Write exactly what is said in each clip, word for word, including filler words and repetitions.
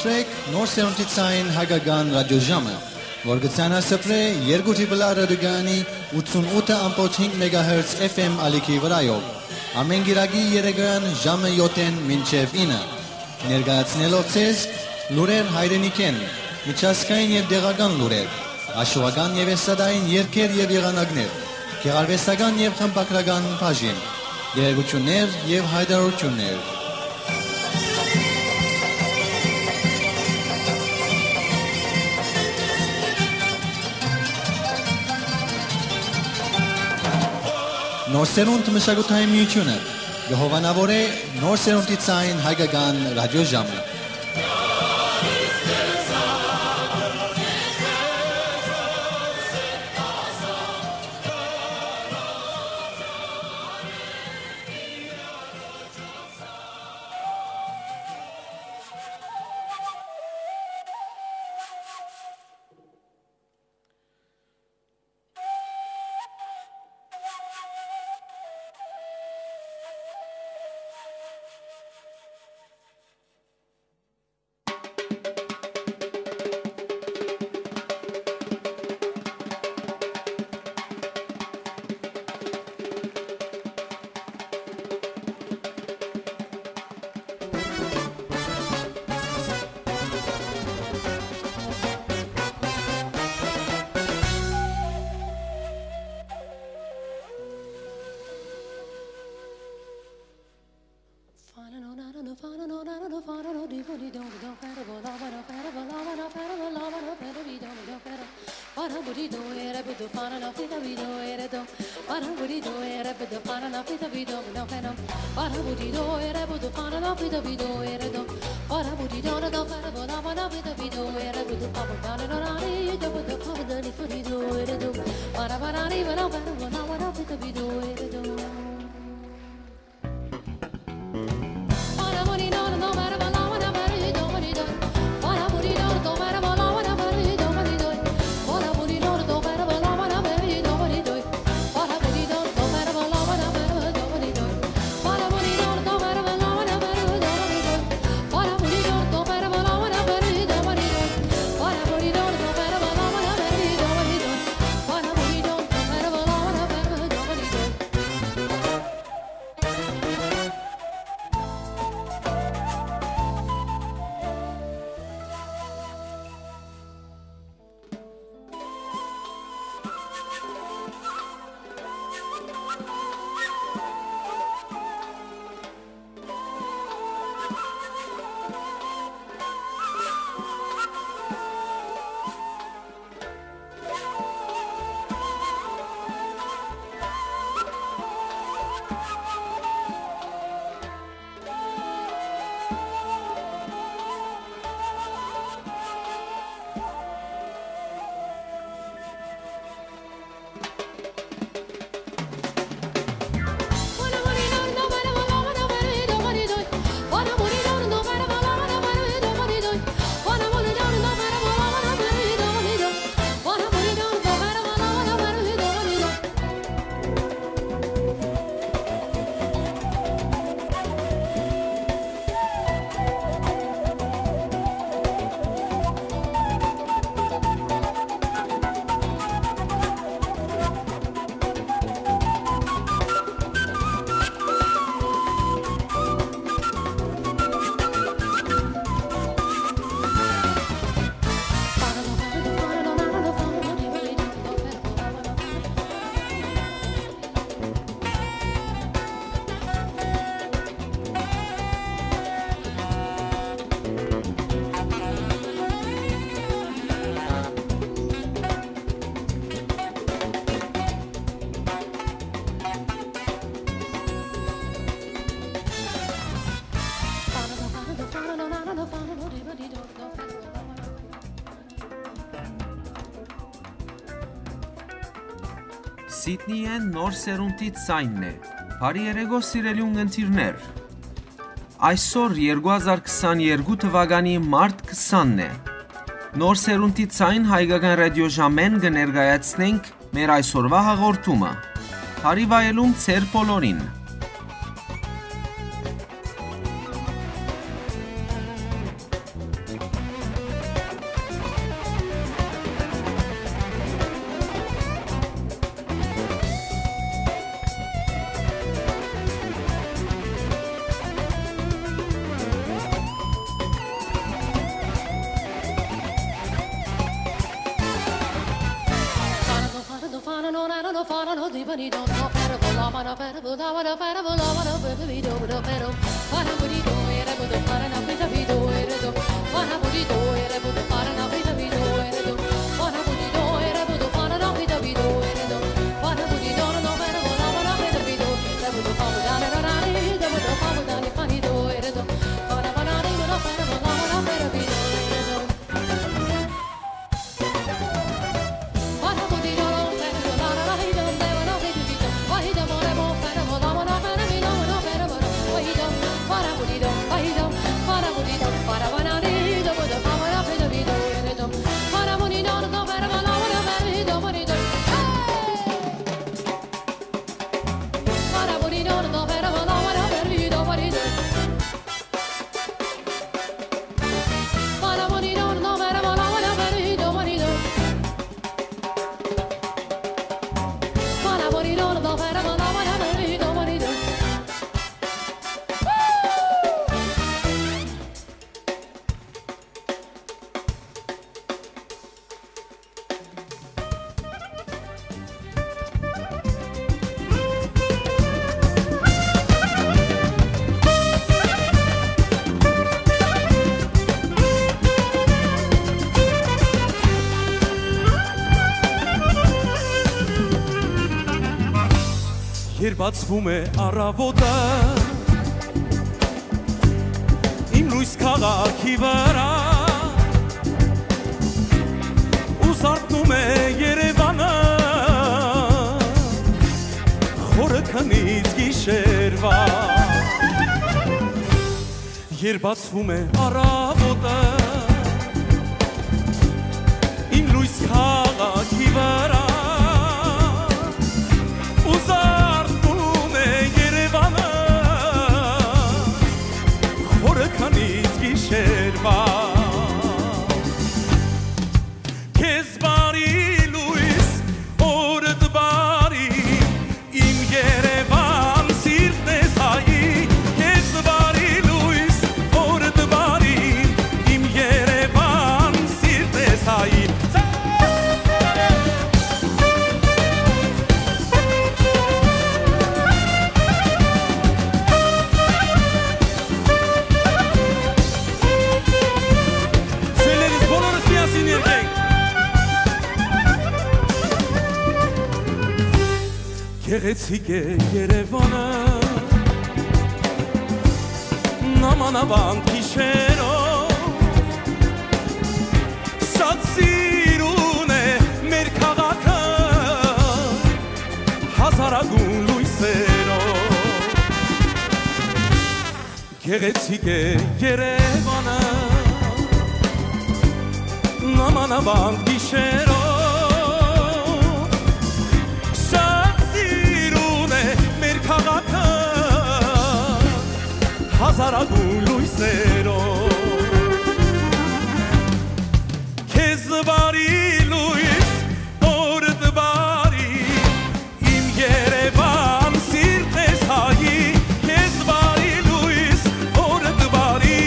Սպրեք նոր սերունդի ցային հայկական ռադիոժամը, որ կը ցանասպրէ երկու դիպլա ռադիոկայանի ութսունութ ըմբոց հինգ մեգահերց F M ալիքի վրայով, ամէն կիրակի երեկոյան ժամը յոթ մինչեւ ինը, ներկայացնելով ձեզ լուրեր հայրենիքէն, միջազգային եւ տեղական լուրեր, աշուական եւ էստրադային երգեր եւ եղանակներ, գեղարուեստական եւ խմբագրական բաժին, տեղեկութիւններ եւ յայտարարութիւններ։ Նոր սերունդ մշակութային միութիւնը կը հովանաւորէ նոր սերունդի ցային հայկական ռադիոժամը։ Սիդնիէն նոր սերունդի ցայնն է։ Բարի երեկո, սիրելի ունգընտիրներ։ Այսօր երկու հազար քսաներկու թվականի մարտ քսանն է։ Նոր սերունդի ցայն հայկական ռադիոժամէն կը ներկայացնենք մեր այսօրվա հաղորդումը։ Բարի վայելում ձեր բոլորին։ Երբ բացվում է առավոտը իմ լույս քաղաքի վրա, ու զարթնում է Երևանը խորը քնից գիշերվա։ Երբ բացվում է առավոտը իմ լույս քաղաքի վրա, ու զարթնում է Երևանը խորը քնից գիշերվա։ Քեզ բարի լույս, օրդ բարի, իմ Երևան, սիրտն ես հայի, քեզ բարի լույս, օրդ բարի, իմ Երևան, սիրտն ես հայի։ Սիրելիներս, բոլորս միասին երգենք։ Գեղեցիկ է Երևանը, նամանավանդ գիշերով, շատ սիրուն է մեր քաղաքը, հազարագուն լույսերով։ Գեղեցիկ է Երևանը, նամանավանդ գիշերով, շատ սիրուն է մեր քաղաքը, հազարագուն լույսերով։ Քեզ բարի լույս, օրդ բարի, իմ Երևան, սիրտն ես հայի, քեզ բարի լույս, օրդ բարի,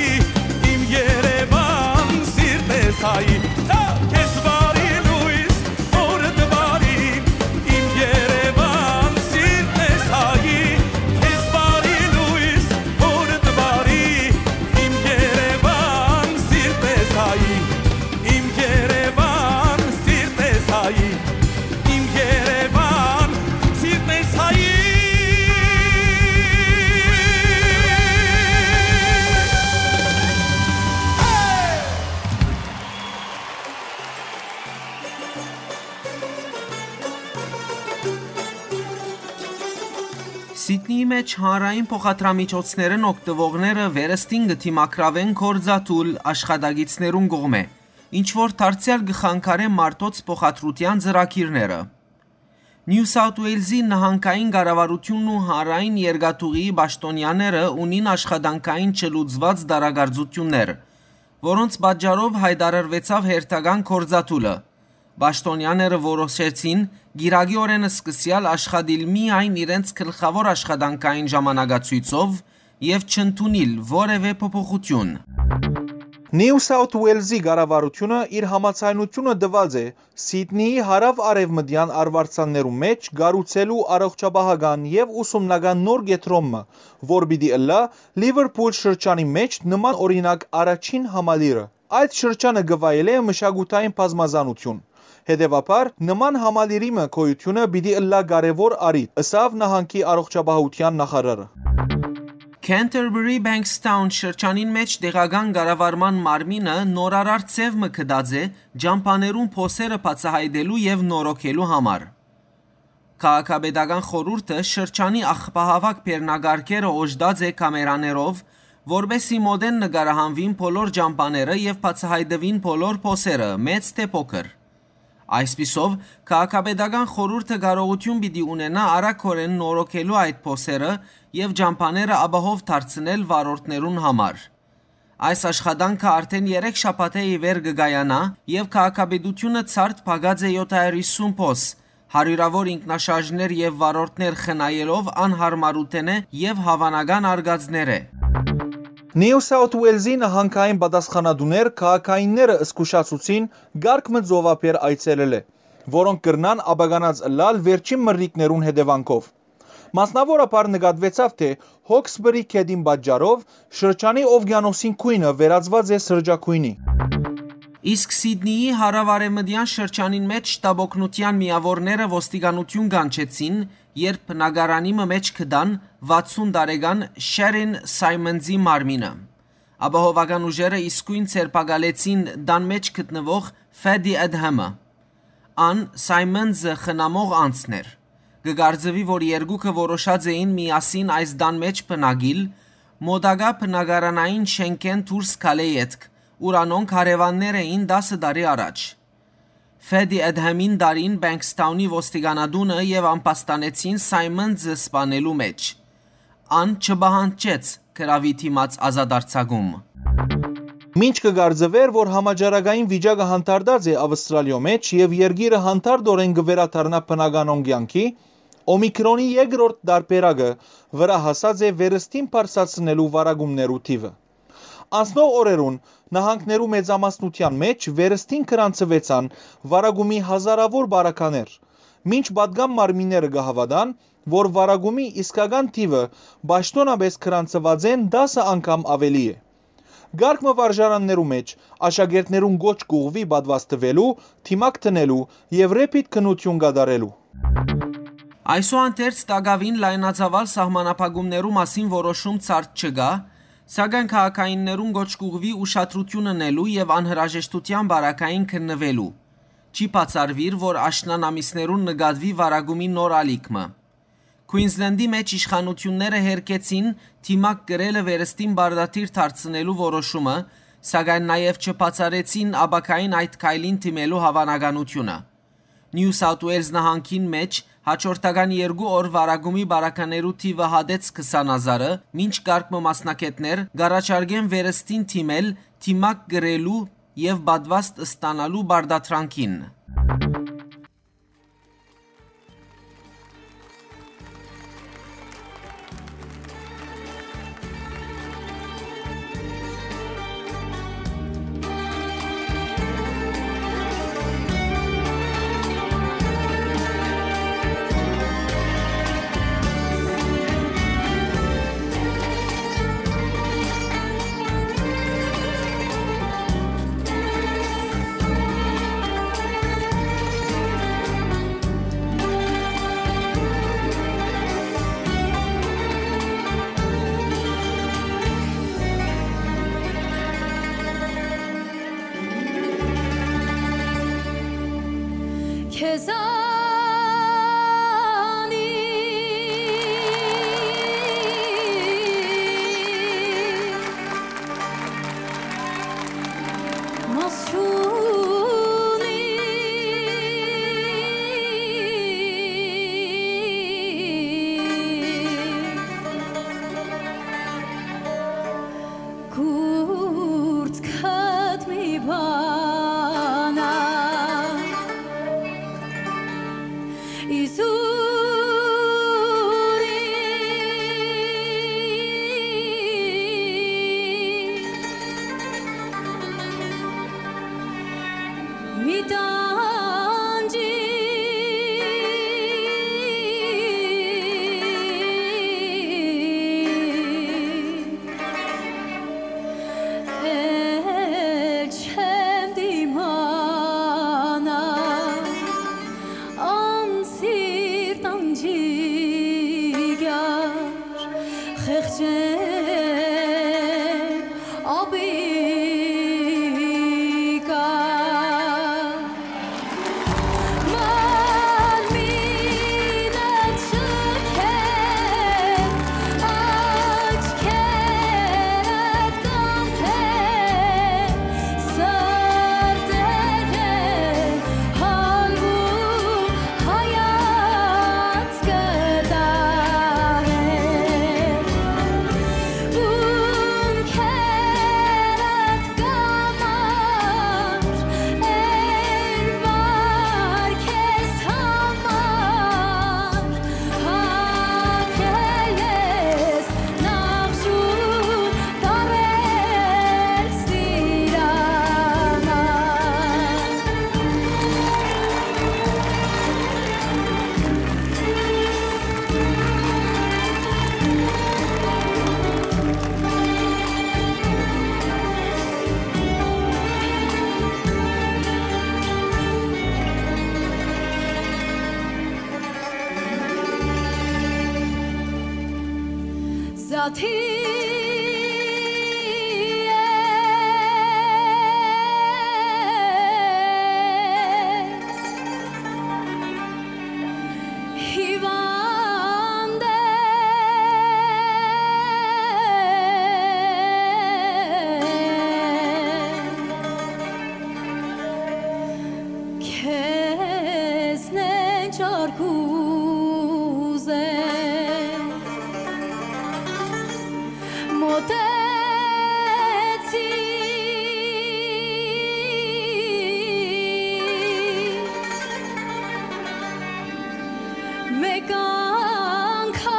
իմ Երևան, սիրտն ես հայի, քեզ բարի լույս, օրդ բարի, իմ Երևան, սիրտն ես հայի, քեզ բարի լույս, օրդ բարի, իմ Երևան, սիրտն ես հայի, իմ Երևան, սիրտն ես հայի, իմ Երևան, սիրտն ես հայի։ Սիդնիի մէջ հանրային փոխադրամիջոցներէն օգտուողները վերստին կը դիմագրաւեն գործադուլ աշխատակիցներուն կողմէ, ինչ որ դարձեալ կը խանգարէ մարդոց փոխադրութեան ծրագիրները։ Նիու Սաութ Ուէյլզի նահանգային կառավարութիւնն ու հանրային երկաթուղիի պաշտօնեաները ունին աշխատանքային չլուծուած տարակարծութիւններ, որոնց պատճառով յայտարարուեցաւ հերթական գործադուլը։ Պաշտօնեաները որոշեցին կիրակի օրէն սկսեալ աշխատիլ միայն իրենց գլխաւոր աշխատանքային ժամանակացոյցով եւ չընդունիլ որեւէ փոփոխութիւն։ Նիու Սաութ Ուելզի կառավարութիւնը իր համաձայնութիւնը տուած է Սիդնիի հարաւ-արեւմտեան արուարձաններու մէջ կառուցելու առողջապահական եւ ուսումնական նոր կեդրոն մը, որ պիտի ըլլայ Լիվերփուլ շրջանի մէջ նման օրինակ առաջին համալիրը։ Այդ շրջանը կը վայելէ մշակութային բազմազանութիւն։ Հետեւաբար, նման համալիրի մը գոյութիւնը պիտի ըլլայ կարեւոր առիթ, ըսաւ նահանգի առողջապահութեան նախարարը։ Canterbury Bankstown շրջանին մէջ տեղական կառավարման մարմինը նորարար ձեւ մը գտած է ճամբաներուն փոսերը բացայայտելու եւ նորոգելու համար։ Քաղաքապետական խորհուրդը շրջանի աղբահաւաք բեռնակարգերը օժտած է կամերաներով, որպէս զի մօտէն նկարահանուին բոլոր ճամբաները եւ բացայայտուին բոլոր փոսերը, մեծ թէ փոքր։ Այսպիսով, քաղաքապետական խորհուրդը կարողութիւն պիտի ունենայ արագօրէն նորոգելու այդ փոսերը եւ ճամբաները ապահով դարձնել վարորդներուն համար։ Այս աշխատանքը արդէն երեք շաբաթէ ի վեր կը կայանայ եւ քաղաքապետութիւնը ցարդ փակած է եօթ հարիւր յիսուն փոս, հարիւրաւոր ինքնաշարժներ եւ վարորդներ խնայելով անյարմարութենէ եւ հաւանական արկածներէ։ Նիու Սաութ Ուելզի նահանգային պատասխանատուներ քաղաքայինները զգուշացուցին կարգ մը ծովափէր այցելելէ, որոնք կրնան ապականած ըլլալ վերջին մրրիկներուն հետեւանքով։ Մասնաւորաբար նկատուեցաւ, թէ Հոքսբըրի գետին պատճառով շրջանի ովկիանոսին գոյնը վերածուած է սրճագոյնի։ Իսկ Սիդնիի հարաւարեւմտեան շրջանին մէջ շտապօգնութեան միաւորները ոստիկանութիւն կանչեցին, երբ բնակարանի մը մէջ գտան վաթսուն տարեկան Շերին Սայմոնզի մարմինը։ Ապահովական ուժերը իսկոյն ձերբակալեցին տան մէջ գտնուող Ֆեդի Էդհեմը։ Ան Սայմոնզը խնամող անձն էր։ Կը կարծուի, որ երկուքը որոշած էին միասին այս տան մէջ բնակիլ, մօտակայ բնակարանային շէնքէն դուրս գալէ ետք, ուր անոնք հարեւաններ էին տասը տարի առաջ։ Ֆեդի Էդհեմին տարին Բենքսթաունի ոստիկանատունը եւ ամբաստանեցին Սայմոնզը սպանելու մէջ։ Ան չպահանջեց գրաւի դիմաց ազատարձակում։ Մինչ կը կարծուէր, որ համաճարակային վիճակը հանդարտած է Աւստրալիոյ մէջ եւ երկիրը հանդարտօրէն կը վերադառնայ բնականոն կեանքի, Օմիկրոնի երկրորդ տարբերակը վրայ հասած է վերստին բարձրացնելու վարակումներու թիւը։ Անցնող օրերուն նահանգներու մեծամասնութեան մէջ վերստին գրանցուեցան վարակումի հազարաւոր բարականեր, մինչ պատկան մարմինները կը հաւատան, որ վարակումի իսկական թիւը պաշտօնապէս գրանցուածէն տասը անգամ աւելի է։ Կարգ մը վարժարաններու մէջ աշակերտներուն կոչ կ'ուղղուի պատուաստուելու, դիմակ դնելու եւ Ռեփիտ քննութիւն կատարելու։ Այսուհանդերձ, տակաւին լայնածաւալ սահմանափակումներու մասին որոշում ցարդ չկայ, սակայն քաղաքայիններուն կոչ կ'ուղղուի ուշադրութիւն ընելու եւ անհրաժեշտութեան պարագային քննուելու։ Չի բացառուիր, որ աշնան ամիսներուն նկատուի վարակումի նոր ալիք մը։ Քուինզլենդի մէջ իշխանութիւնները հերքեցին դիմակ կրելը վերստին պարտադիր դարձնելու որոշումը, սակայն նաեւ չբացառեցին ապագային այդ քայլին դիմելու հաւանականութիւնը։ Նիու Սաութ Ուելզ նահանգին մէջ հաջորդական երկու օր վարակումի բարականերու թիւը հատեց քսան հազարը, մինչ կարգ մը մասնագէտներ կ'առաջարկեն վերստին դիմել, դիմակ կրելու եւ պատուաստ ստանալու պարտադրանքին։ Խեղճեմ ապիկա, մարմինդ չքեմ, աչքերդ կանթեմ, սրտերեն հալմուն հայացքը տահեմ, ունքերդ կամար, էն վար քեզ համար, հագել ես նախշուն տարել սիրամար։ Զաթի ես, հիվանդ ես, քեզնեն չար կ'ուզեմ, մօտեցի, մէկ անգամ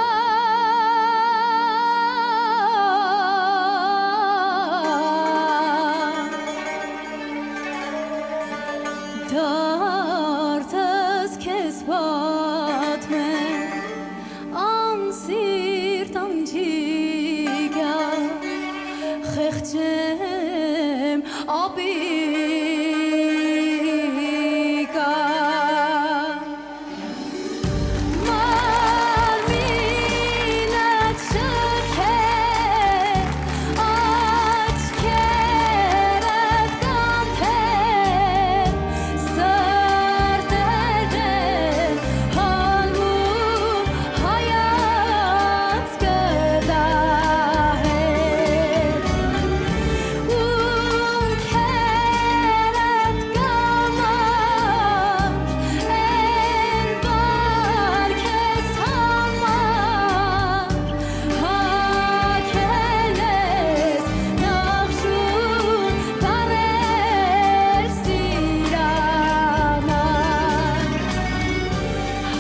դարդս քեզ պատմեմ, անսիրտ անջիկա, խեղճեմ ապիկա։ Մարմինդ չքեմ, աչքերդ կանթեմ, սրտերեն հալմուն հայացքը տահեմ, ունքերդ կամար, էն վար քեզ համար, հագել ես նախշուն տարել սիրամար,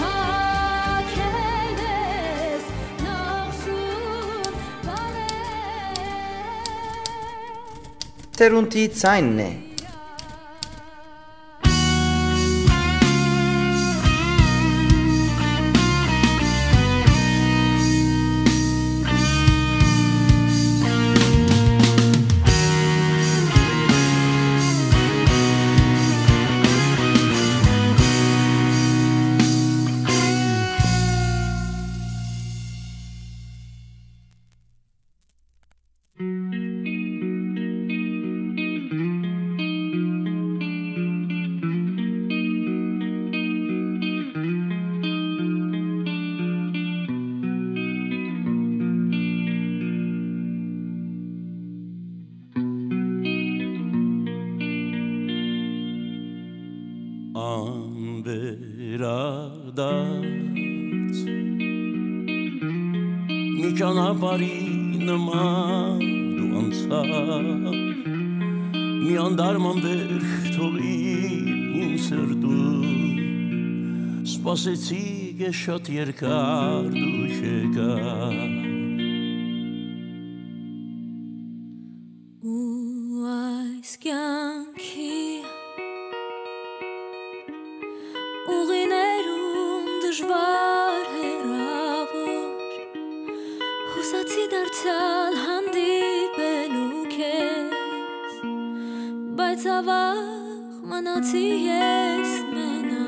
հագել ես նախշուն տարել։ Թերունտի ցայնն է։ Անվերադարձ մի ճանապարհի նման դու անցար, մի անդարման վեր թողիր իմ սրտում, սպասեցի ես շատ երկար դու չեկար։ Ու այս կյանքի ուղիներուն դժուար հեռաւոր, յուսացի դարձեալ հանդիպելու քեզ, բայց աւաղ մնացի ես մենաւոր։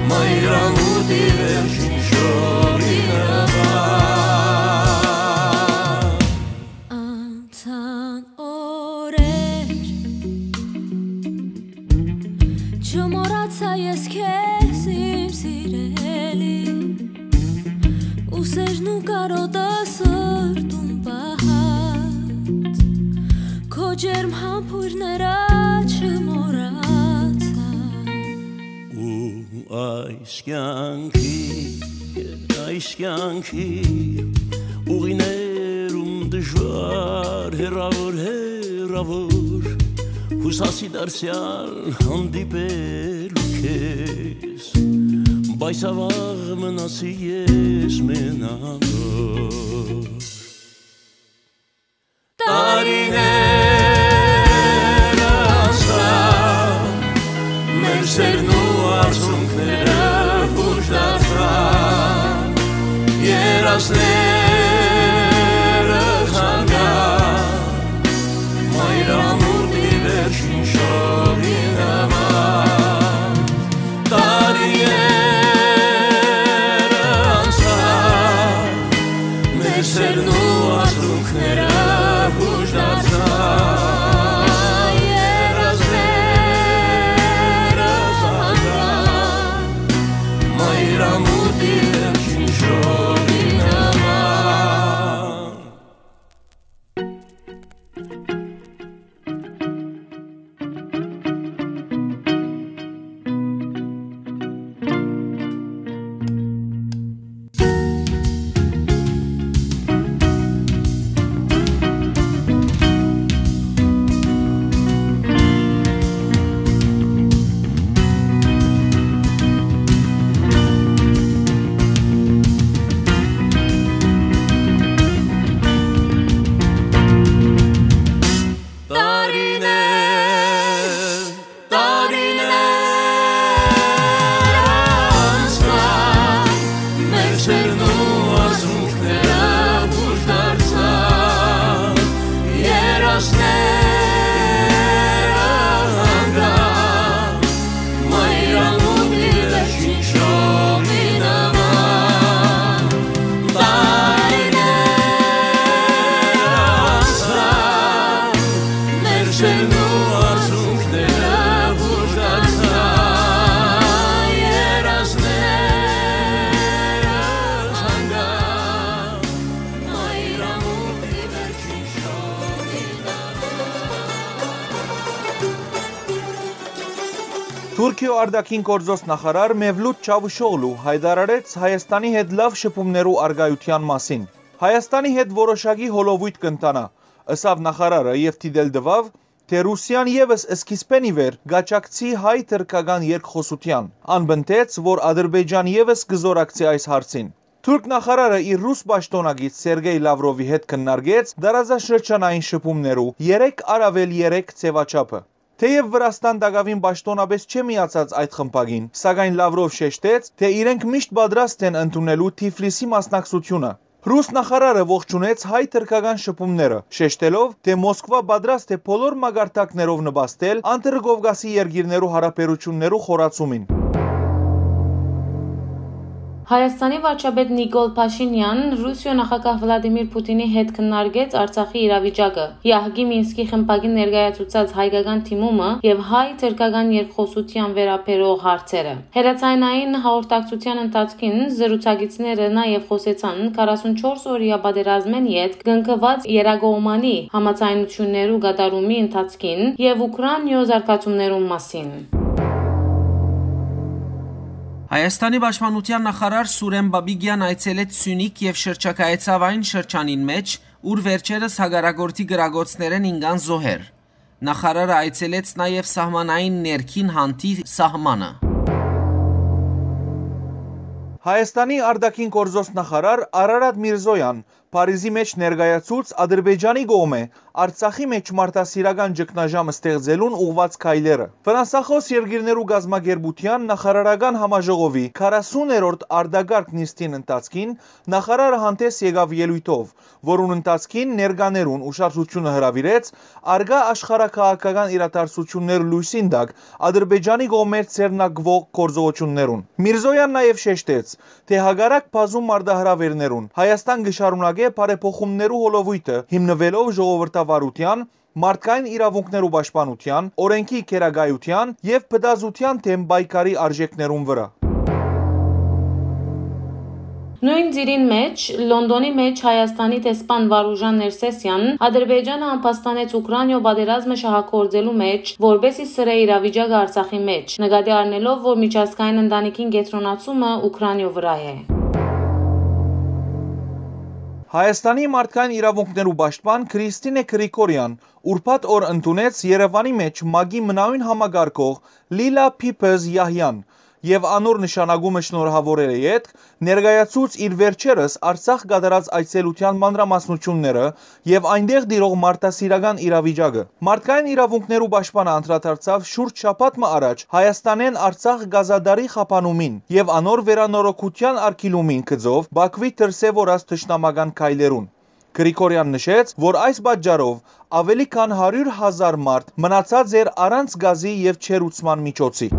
Մայրամուտի վերջին շորի նման։ Անցան օրեր, չմոռացայ ես քեզ, իմ սիրելի, ուսերն ու կարոտը սրտում պահած, քո ջերմ համբոյրները չմոռացայ։ Ու այս կյանքի, այս կյանքի ուղիներում դժուար, հեռաւոր, հեռաւոր, յուսասի դարձեալ հանդիպելու քեզ, բայց յաւաղ մնացի ես մենակ։ Տարիներ անցան, մեր սերն ու արցունքները յուշ դարձան, երազները հանգան, մայրամուտի վերջին շորի նման։ Տարիներ անցան, մեր սերն ու արցունքները յուշ դարձան, երազները հանգան, մայրամուտի վերջին շորի նման։ Տարիներ, տարիներ անցան, մեր սերն ու արցունքները յուշ դարձան, երազները հանգան, մայրամուտի վերջին շորի նման։ Տարիներ անցան, մեր սերն ու արցունքները յուշ դարձան, երազները հանգան, մայրամուտի վերջին շորի նման։ Թուրքիոյ արտաքին գործոց նախարար Մևլութ Չավուշօղլու յայտարարեց Հայաստանի հետ լաւ շփումներու առկայութեան մասին։ Հայաստանի հետ որոշակի հոլովոյթ կ'ընթանայ, ըսաւ նախարարը եւ դիտել տուաւ, թէ Ռուսիան եւս սկիզբէն ի վեր կ'աջակցի հայ-թրքական երկխօսութեան։ Ան պնդեց, որ Ադրբեջան եւս կը զօրակցի այս հարցին։ Թուրք նախարարը իր ռուս պաշտօնակից Սերգեյ Լավրովի հետ քննարկեց տարածաշրջանային շփումներու երեք առաւել երեք ձեւաչափը։ Թէեւ Վրաստան տակաւին պաշտօնապէս չէ միացած այդ խմբակին, սակայն Լավրով շեշտեց, թէ իրենք միշտ պատրաստ են ընդունելու Թիֆլիսի մասնակցությունը։ Ռուս նախարարը ողջունեց հայ-թրքական շփումները, շեշտելով, թէ Մոսկվա պատրաստ է բոլոր մակարդակներով նպաստել Անդրկովկասի երկիրներու յարաբերութիւններու խորացումին։ Հայաստանի վարչապետ Նիկոլ Փաշինեան Ռուսիոյ նախագահ Վլադիմիր Պուտինի հետ քննարկեց Արցախի իրավիճակը, Յահկի Մինսկի խմբակին ներկայացուցած հայկական դիմումը եւ հայ-թրքական երկխօսութեան վերաբերող հարցերը։ Հեռաձայնային հաղորդակցութեան ընթացքին զրուցակիցները նաեւ խօսեցան քառասունչորս օրեայ պատերազմէն ետք կնքուած երկկողմանի համաձայնութիւններու կատարումի ընթացքին եւ Ուքրաինիոյ զարգացումներուն մասին։ Հայաստանի պաշտպանութեան նախարար Սուրեն Պապիկեան այցելեց Սիւնիք եւ շրջագայեցաւ այն շրջանին մէջ, ուր վերջերս հակառակորդի կրակոցներէն ինկան զոհեր։ Նախարարը այցելեց նաեւ սահմանային ներքին հանդի սահմանը։ Հայաստանի արտաքին գործոց նախարար Արարատ Միրզոյան Փարիզի մէջ ներկայացուց Ադրբեջանի կողմէ Արցախի մէջ մարդասիրական ճգնաժամ ստեղծելուն ուղղուած քայլերը։ Ֆրանսախօս երկիրներու կազմակերպութեան նախարարական համաժողովի քառասուներորդ արտակարգ նիստին ընթացքին նախարարը հանդէս եկաւ ելոյթով, որուն ընթացքին ներկաներուն ուշադրութիւնը հրաւիրեց արկայ աշխարհաքաղաքական իրադարձութիւններ լոյսին տակ Ադրբեջանի կողմէ ձեռնարկուող գործողութիւններուն։ Միրզոեան նաեւ շեշտեց, թէ հակառակ բազում մարտահրաւէրներուն, Հայաստան կը շարունակէ բարեփոխումներու հոլովոյթը, հիմնուելով ժողովրդավարութեան, մարդկային իրաւունքներու պաշտպանութեան, օրէնքի գերակայութեան եւ փտազութեան դէմ պայքարի արժեքներուն վրայ։ Նոյն ծիրին մէջ, Լոնդոնի մէջ Հայաստանի դեսպան Վարուժան Ներսէսեան Ադրբեջանը ամբաստանեց Ուքրանիոյ պատերազմը շահագործելու մէջ, որպէս զի սրէ իրավիճակը Արցախի մէջ, նկատի առնելով, որ միջազգային ընտանիքին կեդրոնացումը Ուքրանիոյ վրայ է։ Հայաստանի մարդկային իրաւունքներու պաշտպան Քրիստինե Գրիգորեան ուրբաթ օր ընդունեց Երեւանի մէջ մակի մնայուն համակարգող Լիլա Փիփըզ Յահյան եւ անոր նշանակումը շնորհաւորելէ ետք ներկայացուց իր վերջերս Արցախ կատարած այցելութեան մանրամասնութիւնները եւ այնտեղ տիրող մարդասիրական իրավիճակը։ Մարդկային իրաւունքներու պաշտպանը անդրադարձաւ շուրջ շաբաթ մը առաջ Հայաստանէն Արցախ կազադարի խափանումին եւ անոր վերանորոգութեան արգիլումին գծով Բաքվի դրսեւորած թշնամական քայլերուն։ Գրիգորեան նշեց, որ այս պատճառով աւելի քան հարիւր հազար մարդ մնացած էր առանց գազի եւ ջերուցման միջոցի։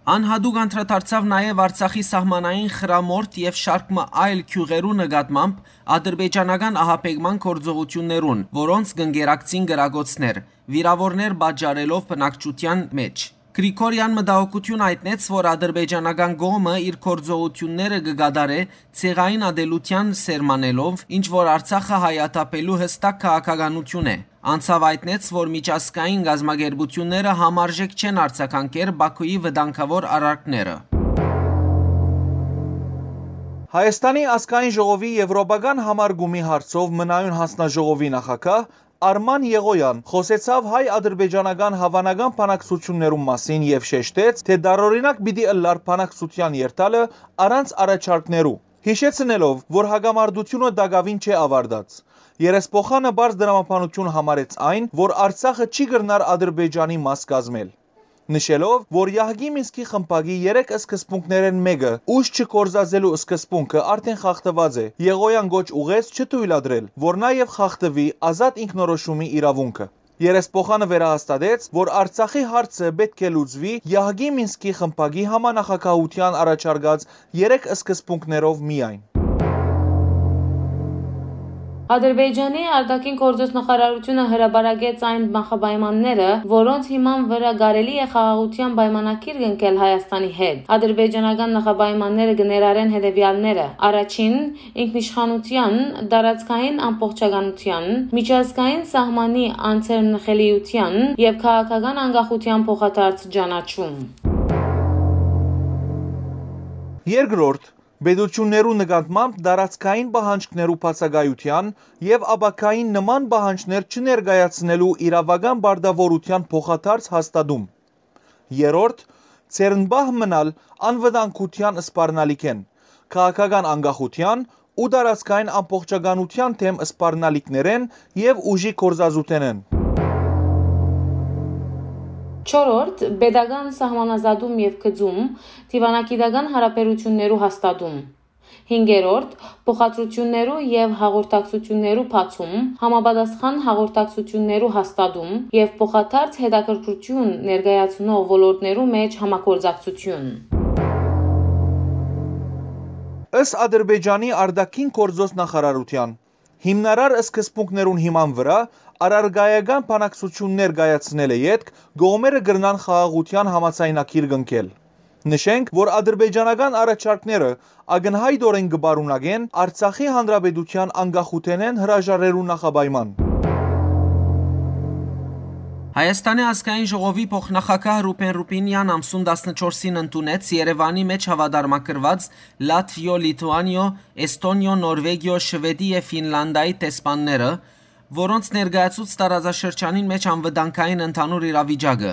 Անհատուկ անդրադարձաւ նաեւ Արցախի սահմանային խրամորդ եւ շարք մը այլ գիւղերու նկատմամբ ադրբեջանական ահաբեկման գործողութիւններուն, որոնց կ'ընկերակցին կրակոցներ, վիրաւորներ պատճառելով բնակչութեան մէջ։ Գրիգորեան մտահոգութիւն յայտնեց, որ ադրբեջանական կողմը իր գործողութիւնները կը կատարէ ցեղային ատելութեան սերմանելով, ինչ որ Արցախը հայաթափելու յստակ քաղաքականութիւն է։ Անցաւ յայտնեց, որ միջազգային կազմակերպութիւնները համարժեք չեն արձագանքեր Բաքուի վտանգաւոր արարքները։ Հայաստանի ազգային ժողովի Եվրոպական համարկումի հարցով մնայուն հանձնաժողովի նախագահ Արման Եղոյան խօսեցաւ հայ-ադրբեջանական հաւանական բանակցութիւններուն մասին եւ շեշտեց, թէ տարօրինակ պիտի ըլլար բանակցութեան երթալը առանց առաջարկներու, յիշեցնելով, որ հակամարտութիւնը տակաւին չէ աւարտած։ Երեսփոխանը պարզ տրամաբանութիւն համարեց այն, որ Արցախը չի կրնար Ադրբեջանի մաս կազմել, նշելով, որ Յահկի Մինսկի խմբակի երեք սկզբունքներէն մէկը՝ ուժ չգործածելու սկզբունքը, արդէն խախտուած է։ Եղոյան կոչ ուղղեց չթոյլատրել, որ նա եւ խախտուի ազատ ինքնորոշումի իրաւունքը։ Երեսփոխանը վերահաստատեց, որ Արցախի հարցը պէտք է լուծուի Յահկի Մինսկի խմբակի համանախագահութեան առաջարկած երեք սկզբունքներով միայն։ Ադրբեջանի արտաքին գործոց նախարարութիւնը հրապարակեց այն նախապայմանները, որոնց հիման վրայ կարելի է խաղաղութեան պայմանագիր կնքել Հայաստանի հետ։ Ադրբեջանական նախապայմանները կը ներառեն հետեւեալները. առաջին, ինքնիշխանութեան, տարածքային ամբողջականութեան, միջազգային սահմանի անձեռնխելիութեան եւ քաղաքական անկախութեան փոխադարձ ճանաչում։ Երկրորդ, պետութիւններու նկատմամբ տարածքային պահանջքներու բացակայութեան եւ ապագային նման պահանջներ չներկայացնելու իրաւական պարտաւորութեան փոխադարձ հաստատում։ Երրորդ, ձեռնպահ մնալ անվտանգութեան սպառնալիքէն, քաղաքական անկախութեան ու տարածքային ամբողջականութեան դէմ սպառնալիքներէն եւ ուժի գործածութենէն։ Չորրորդ, պետական սահմանազատում եւ գծում, դիվանագիտական յարաբերութիւններու հաստատում։ Հինգերորդ, փոխադրութիւններու եւ հաղորդակցութիւններու բացում, համապատասխան հաղորդակցութիւններու հաստատում եւ փոխադարձ հետաքրքրութիւն ներկայացնող ոլորտներու մէջ համագործակցութիւն։ Ըստ Ադրբեջանի արտաքին գործոց նախարարութեան, հիմնարար սկզբունքներուն հիման վրայ առարկայական բանակցութիւններ կայացնելէ ետք կողմերը կրնան խաղաղութեան համաձայնագիր կնքել։ Նշենք, որ ադրբեջանական առաջարկները ակնյայտօրէն կը պարունակեն Արցախի հանրապետութեան անկախութենէն հրաժարելու նախապայման։ Հայաստանի ազգային ժողովի փոխնախագահ Ռուբեն Ռուբինեան ամսուն տասնչորսին ընդունեց Երեւանի մէջ հաւատարմագրուած Լաթվիո, Լիթուանիո, Էսթոնիո, Նորվեգիո, Շուեդի եւ Ֆինլանդիայի դեսպանները, որոնց ներկայացուց տարածաշրջանին մէջ անվտանգային ընդհանուր իրավիճակը։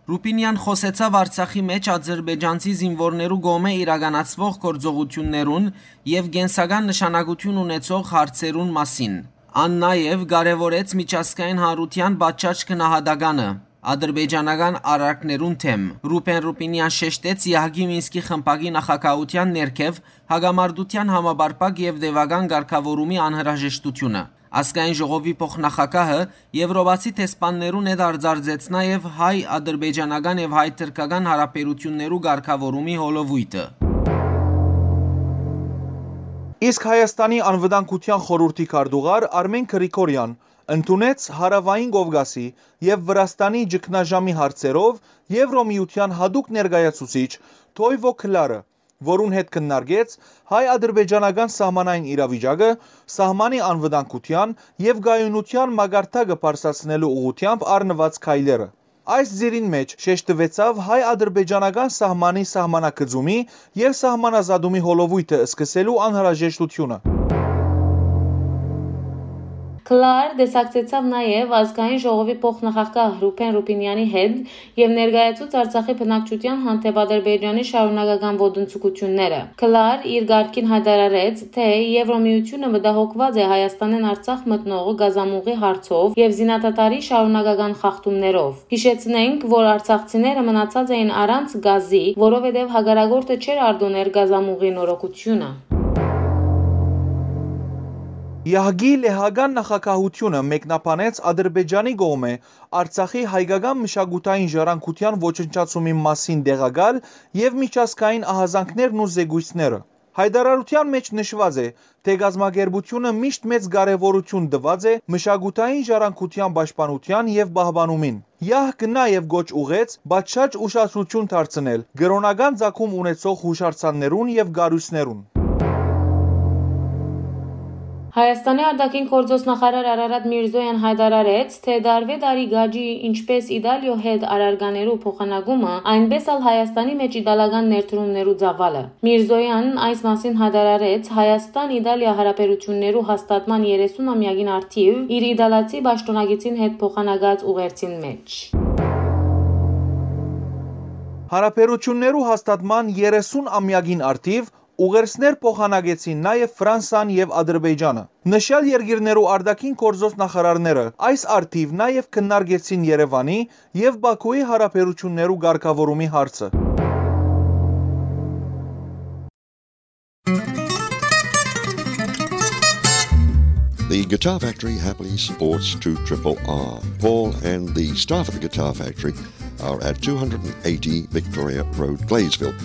Ռուպինեան խօսեցաւ Արցախի մէջ ադրբեջանցի զինուորներու կողմէ իրականացուող գործողութիւններուն եւ կենսական նշանակութիւն ունեցող հարցերուն մասին։ Ան նաեւ կարեւորեց միջազգային հանրութեան պատշաճ գնահատականը ադրբեջանական արարքներուն դէմ։ Ռուբեն Ռուպինեան շեշտեց Եահկի Մինսկի խմբակի նախագահութեան ներքեւ հակամարտութեան համապարփակ եւ տեւական կարգաւորումի անհրաժեշտութիւնը։ Ազգային ժողովի փոխնախագահը Եվրոպացի դեսպաններուն հետ արձանագրեց նաեւ հայ-ադրբեջանական եւ հայ-թրքական հարաբերութիւններու կարգաւորումի հոլովոյթը։ Իսկ Հայաստանի անվտանգութեան խորհուրդի քարտուղար Արմեն Գրիգորեան ընդունեց Հարաւային Կովկասի եւ Վրաստանի ճգնաժամի հարցերով Եվրոմիութեան յատուկ ներկայացուցիչ Թոյվո Քլարը, որուն հետ քննարկեց հայ-ադրբեջանական սահմանային իրավիճակը, սահմանի անվտանգութեան եւ կայունութեան մակարդակը բարձրացնելու ուղղութեամբ առնուած քայլերը։ Այս ծիրին մէջ շեշտուեցաւ հայ-ադրբեջանական սահմանի սահմանագծումի եւ սահմանազատումի հոլովոյթը սկսելու անհրաժեշտութիւնը։ Քլար տեսակցեցաւ նաեւ ազգային ժողովի փոխնախագահ Ռուբեն Ռուբինեանի հետ եւ ներկայացուց Արցախի բնակչութեան հանդէպ Ադրբեջանի շարունակական ոտնձգութիւնները։ Քլար իր կարգին յայտարարեց, թէ Եվրոմիութիւնը մտահոգուած է Հայաստանէն Արցախ մտնող գազամուղի հարցով եւ զինադադարի շարունակական խախտումներով։ Յիշեցնենք, որ արցախցիները մնացած էին առանց գազի, որովհետեւ հակառակորդը չէր արտոներ գազամուղի նորոգութիւնը։ Եահկի լեհական նախագահութիւնը մեկնաբանեց Ադրբեջանի կողմէ Արցախի հայկական մշակութային ժառանգութեան ոչնչացումի մասին տեղակալ եւ միջազգային ահազանգներն ու զեկոյցները։ Յայտարարութեան մէջ նշուած է, թէ կազմակերպութիւնը միշտ մեծ կարեւորութիւն տուած է մշակութային ժառանգութեան պաշտպանութեան եւ պահպանումին։ Եահկը նաեւ կոչ ուղղեց պատշաճ ուշադրութիւն դարձնել կրօնական ծագում ունեցող յուշարձաններուն եւ կառոյցներուն։ Հայաստանի արտաքին գործոց նախարար Արարատ Միրզոյան յայտարարեց, թէ տարվէ տարի կաճի ինչպէս Իտալիոյ հետ առարկաներու փոխանակումը, այնպէս ալ Հայաստանի մէջ իտալական ներդրումներու ծաւալը։ Միրզոյան այս մասին յայտարարեց Հայաստան-Իտալիա հարաբերութիւններու հաստատման երեսուն ամեակին առթիւ իր իտալացի պաշտօնակիցին հետ փոխանակած ուղերձին մէջ։ Հարաբերութիւններու հաստատման երեսուն ամեակին առթիւ ուղերձներ փոխանակեցին նաեւ Ֆրանսան եւ Ադրբեջանը։ Նշյալ երկիրներու արտաքին գործոց նախարարները այս առթիւ նաեւ քննարկեցին Երեւանի եւ Բաքուի հարաբերութիւններու կարգաւորումի հարցը։ The Guitar Factory happily supports two triple R. Paul and the staff at the Guitar Factory are at two hundred and eighty Victoria Road, Gladesville.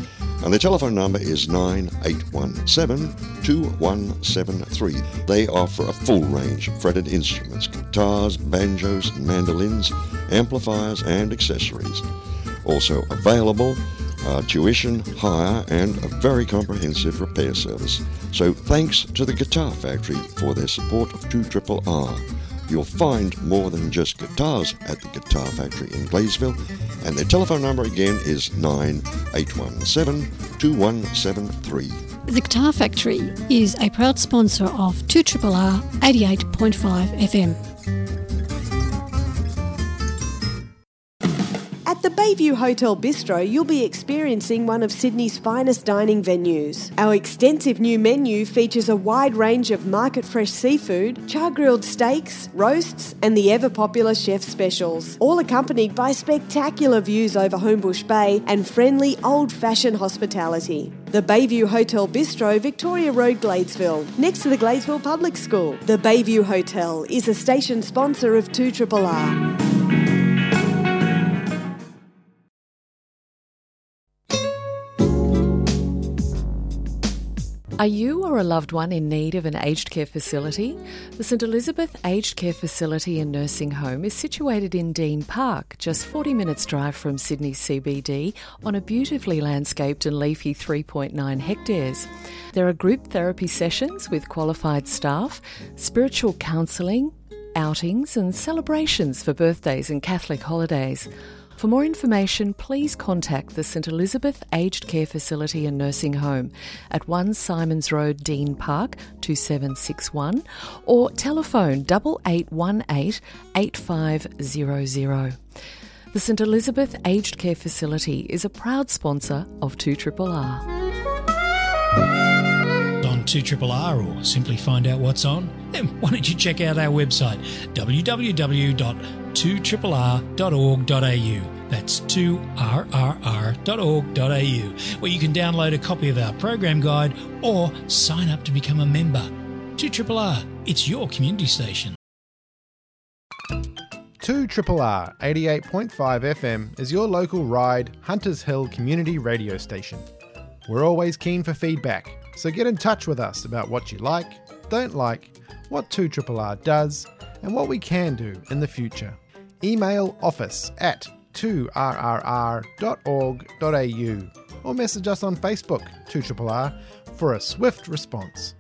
And the telephone number is nine eight one seven, two one seven three. They offer a full range of fretted instruments, guitars, banjos, mandolins, amplifiers, and accessories. Also available are tuition, hire, and a very comprehensive repair service. So thanks to the Guitar Factory for their support of two triple R. You'll find more than just guitars at the Guitar Factory in Gladesville, and their telephone number again is nine eight one seven, two one seven three. The Guitar Factory is a proud sponsor of two triple R eighty-eight point five F M. At the Bayview Hotel Bistro, you'll be experiencing one of Sydney's finest dining venues. Our extensive new menu features a wide range of market fresh seafood, char grilled steaks, roasts, and the ever popular chef specials, all accompanied by spectacular views over Homebush Bay and friendly old fashioned hospitality. The Bayview Hotel Bistro, Victoria Road, Gladesville, next to the Gladesville Public School. The Bayview Hotel is a station sponsor of two triple R. Are you or a loved one in need of an aged care facility? The St Elizabeth Aged Care Facility and Nursing Home is situated in Dean Park, just forty minutes' drive from Sydney C B D, on a beautifully landscaped and leafy three point nine hectares. There are group therapy sessions with qualified staff, spiritual counselling, outings and celebrations for birthdays and Catholic holidays. For more information, please contact the St Elizabeth Aged Care Facility and Nursing Home at one Symonds Road, Dean Park, two seven six one, or telephone double eight one eight eight five zero zero. The St Elizabeth Aged Care Facility is a proud sponsor of two R R R. On two R R R, or simply find out what's on, then why don't you check out our website, w w w dot two r r r dot org dot a u. That's two r r r dot org dot a u, where you can download a copy of our program guide or sign up to become a member. Two R R R, it's your community station. Two R R R, eighty-eight point five F M, is your local Ryde, Hunters Hill community radio station. We're always keen for feedback, so get in touch with us about what you like, don't like, what two R R R does, and what we can do in the future. Email office at two r r r dot org dot a u or message us on Facebook, two R R R, for a swift response.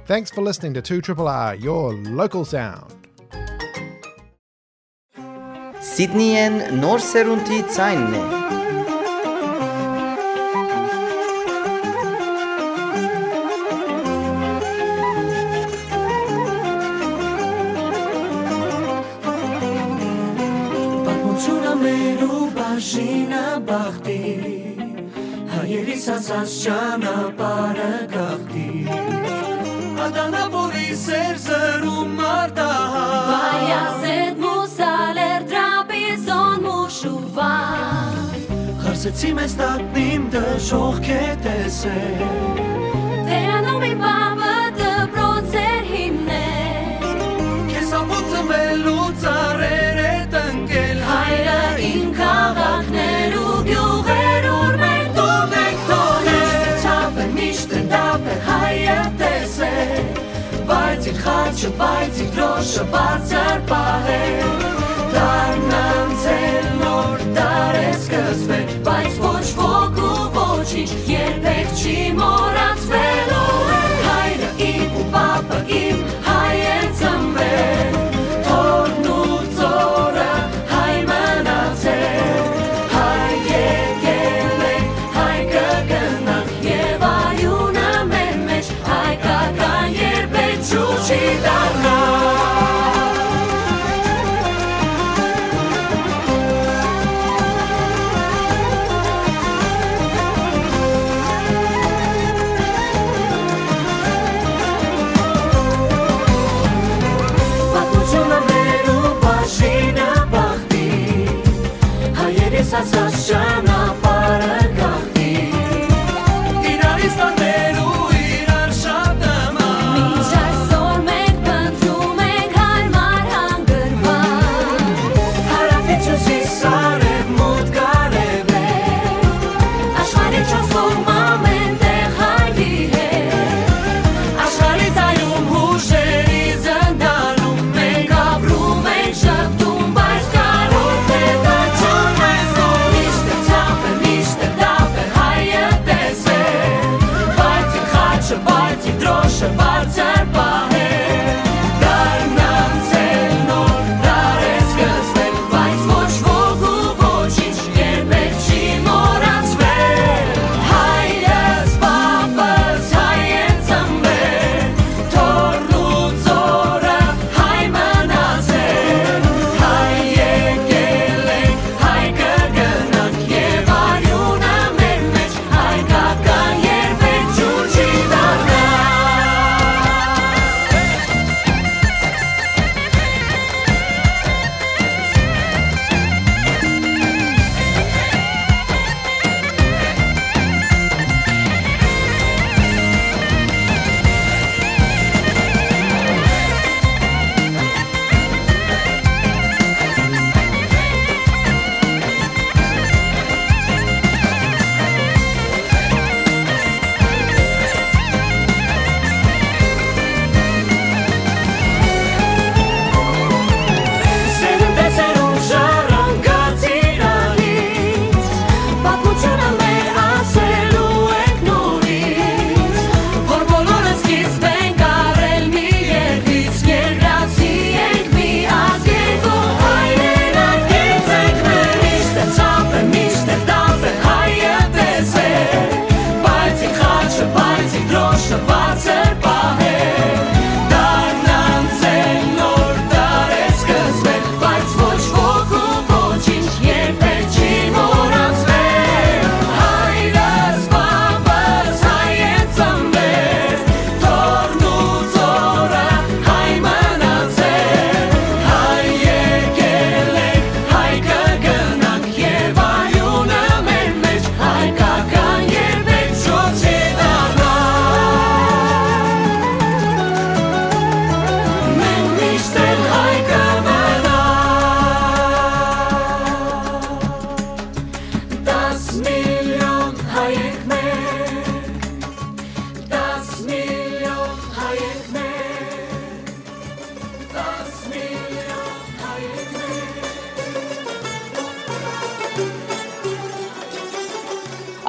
Thanks for listening to two R R R, your local sound. Սիդնիեն նոր սերունդի ձայնն է։ Պատմությունը մեր ու բաժինը բախտի, հայերիս ասած ճանապարհը գաղթի։ Ադանապոլի սեր զրում արտահայ, Բայազետ մուսալեր տրապիզոն մուշուվա։ Խարսեցի մեզ տակնիմ դժոխք է տեսել, Տերանոմի պապը դպրոց էր հիմնել։ Քեզ ապուծվելու ծառեր է տնկել, հայրը իմ քաղաքներ ու գյուղեր, ուր մենք դուռ ենք թողել։ Միշտ ցավ է, միշտ դապ է, հայը տեսել, բայց իր խաչը, բայց իր դրոշը բարձր պահել։ Դարն անցել, նոր դար է սկսվել, բայց ոչ ոք ու ոչինչ երբեք չի մոռացվելու։ Հայրը իմ ու պապը իմ, հայ են ծնվել, թորն ու ծորը հայ մնացել, հայ եկել ենք, հայ կգնանք, եւ արիունը մեր մեջ հայկական երբեք ջուր չի դառնա։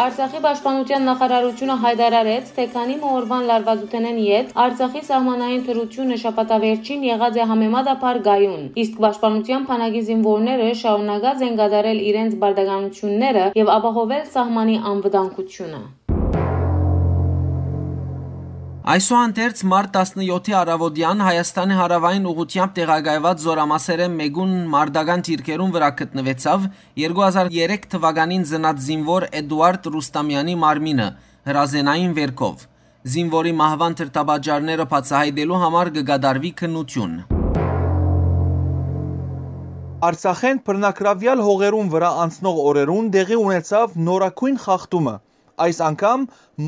Արցախի պաշտպանութեան նախարարութիւնը յայտարարեց, թէ քանի մը օրուան լարուածութենէն յետ Արցախի սահմանային դրութիւնը շաբաթավերջին եղած է համեմատաբար կայուն, իսկ պաշտպանութեան բանակի զինուորները շարունակած են կատարել իրենց պարտականութիւնները եւ ապահովել սահմանի անվտանգութիւնը։ Այսուհանդերձ, մարտ տասնեօթի առաւօտեան Հայաստանի հարաւային ուղղութեամբ տեղակայուած զօրամասերէն մէկուն մարտական դիրքերուն վրայ գտնուեցաւ երկու հազար երեք թուականին ծնած զինուոր Էդուարդ Ռուստամեանի մարմինը՝ հրազենային վերքով։ Զինուորի մահուան դրդապատճառները բացայայտելու համար կը կատարուի քննութիւն։ Արցախէն բռնակրաւեալ հողերուն վրայ անցնող օրերուն տեղի ունեցաւ նորագոյն խախտումը, այս անգամ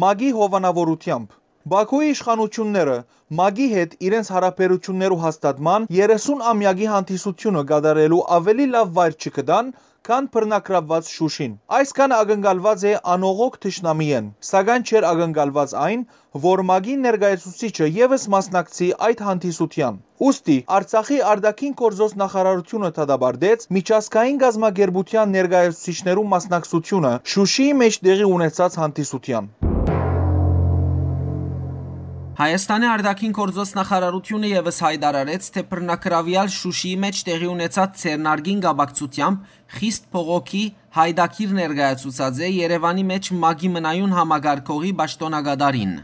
ՄԱԿ-ի հովանաւորութեամբ։ Բաքուի իշխանութիւնները ՄԱԿ-ի հետ իրենց յարաբերութիւններու հաստատման երեսուն ամեակի հանդիսութիւնը կատարելու աւելի լաւ վայր չգտան, քան բռնակրաւուած Շուշին։ Այսքանը ակնկալուած է անողոք թշնամիէն, սակայն չէր ակնկալուած այն, որ ՄԱԿ-ի ներկայացուցիչը եւս մասնակցի այդ հանդիսութեան։ Ուստի Արցախի արտաքին գործոց նախարարութիւնը դատապարտեց միջազգային կազմակերպութեան ներկայացուցիչներու մասնակցությունը Շուշիի մէջ տեղի ունեցած հանդիսութեան։ Հայաստանի արտաքին գործոց նախարարութիւնը եւս յայտարարեց, թէ բռնակրաւեալ Շուշիի մէջ տեղի ունեցած ձեռնարկին կապակցութեամբ խիստ բողոքի յայտագիր ներկայացուցած է Երեւանի մէջ ՄԱԿ-ի մնայուն համակարգողի պաշտօնակատարին։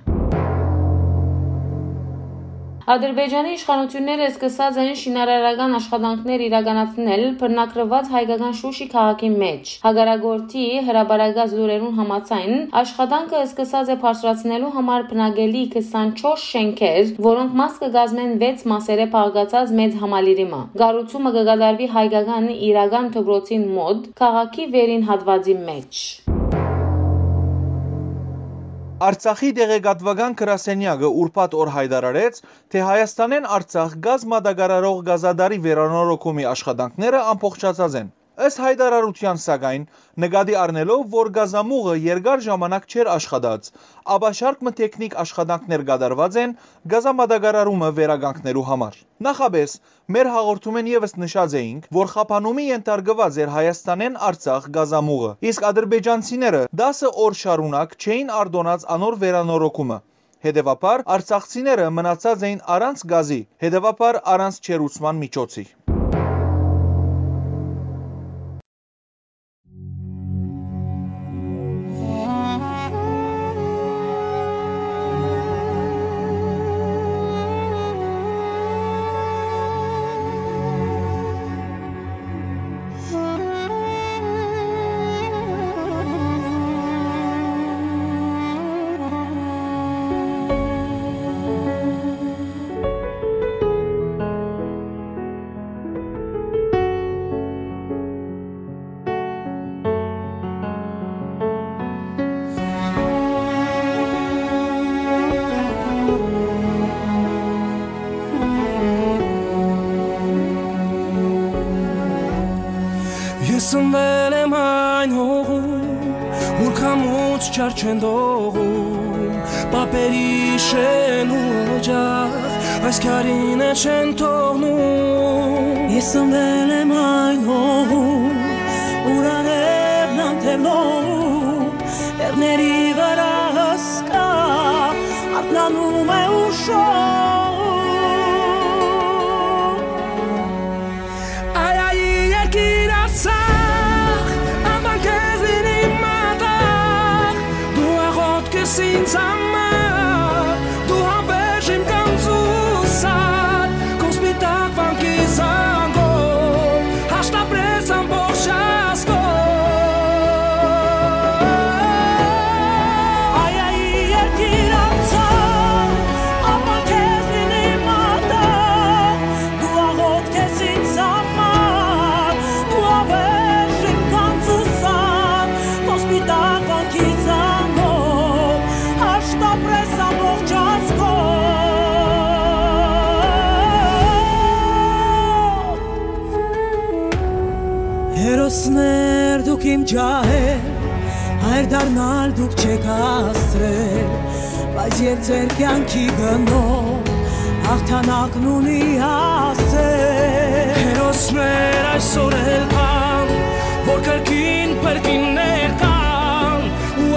Ադրբեջանի իշխանութիւնները սկսած են շինարարական աշխատանքներ իրականացնել բռնակրուած հայկական Շուշի քաղաքի մէջ։ Հակառակորդի հրապարակած լուրերուն համաձայն, աշխատանքը սկսած է բարձրացնելու համար բնակելի քսանչորս շէնքեր, որոնք մաս կը կազմեն վեց մասերէ բաղկացած մեծ համալիրի մը։ Կառուցումը կը կատարուի հայկական իրական դպրոցին մօտ, քաղաքի վերին հատուածի մէջ։ Արցախի տեղեկատուական գրասենեակը ուրբաթ օր յայտարարեց, թէ Հայաստանէն Արցախ գազ մատակարարող գազատարի վերանորոգումի աշխատանքները ամբողջացած են։ Ըստ յայտարարութեան, սակայն, նկատի առնելով, որ գազամուղը երկար ժամանակ չէր աշխատած, ապա շարք մը թեքնիք աշխատանքներ կատարուած են գազամատակարարումը վերականգնելու համար։ Նախապէս, մեր հաղորդումէն եւս նշած էինք, որ խափանումի ենթարկուած էր Հայաստանէն Արցախ գազամուղը, իսկ ադրբեջանցիները դասը օր շարունակ չէին արտոնած անոր վերանորոգումը։ Հետեւաբար, արցախցիները մնացած էին առանց գազի, հետեւաբար՝ առանց ջերուցման միջոցի։ Ես ծնվել եմ այն հողում, ուր քամուց չար չեն դողում, պապերի շեն ու օջախ այս քարին է չեն թողնում։ Ես ծնվել եմ այն հողում, ուր անևն անթև լողում, տեղների վրա հսկա արթնանում է ու շողում։ Այ, այ, երկիր Արցախ, աման քեզին իմ մատաղ, դու աղոթք ես ինձ համար, դու հավերժ իմ կանզուսար, քո սպիտակ վանքի զանգով, հաշտ ապրես ամբողջ ազգով։ Այ, այ, երկիր Արցախ, աման քեզին իմ մատաղ, դու աղոթք ես ինձ համար, դու հավերժ իմ կանզուսան, քո սպիտակ վանքի զանգով, հաշտ ապրես ամբողջ ազգով։ Հերոսներ դուք իմ ջահեր, հայր դառնալ դուք չեք հասցրել, բայց եւ ձեր կյանքի գնով հաղթանակն ունի հասել։ Հերոսներ այսօր էլ կան, որ կրկին փրկիններ տան, ու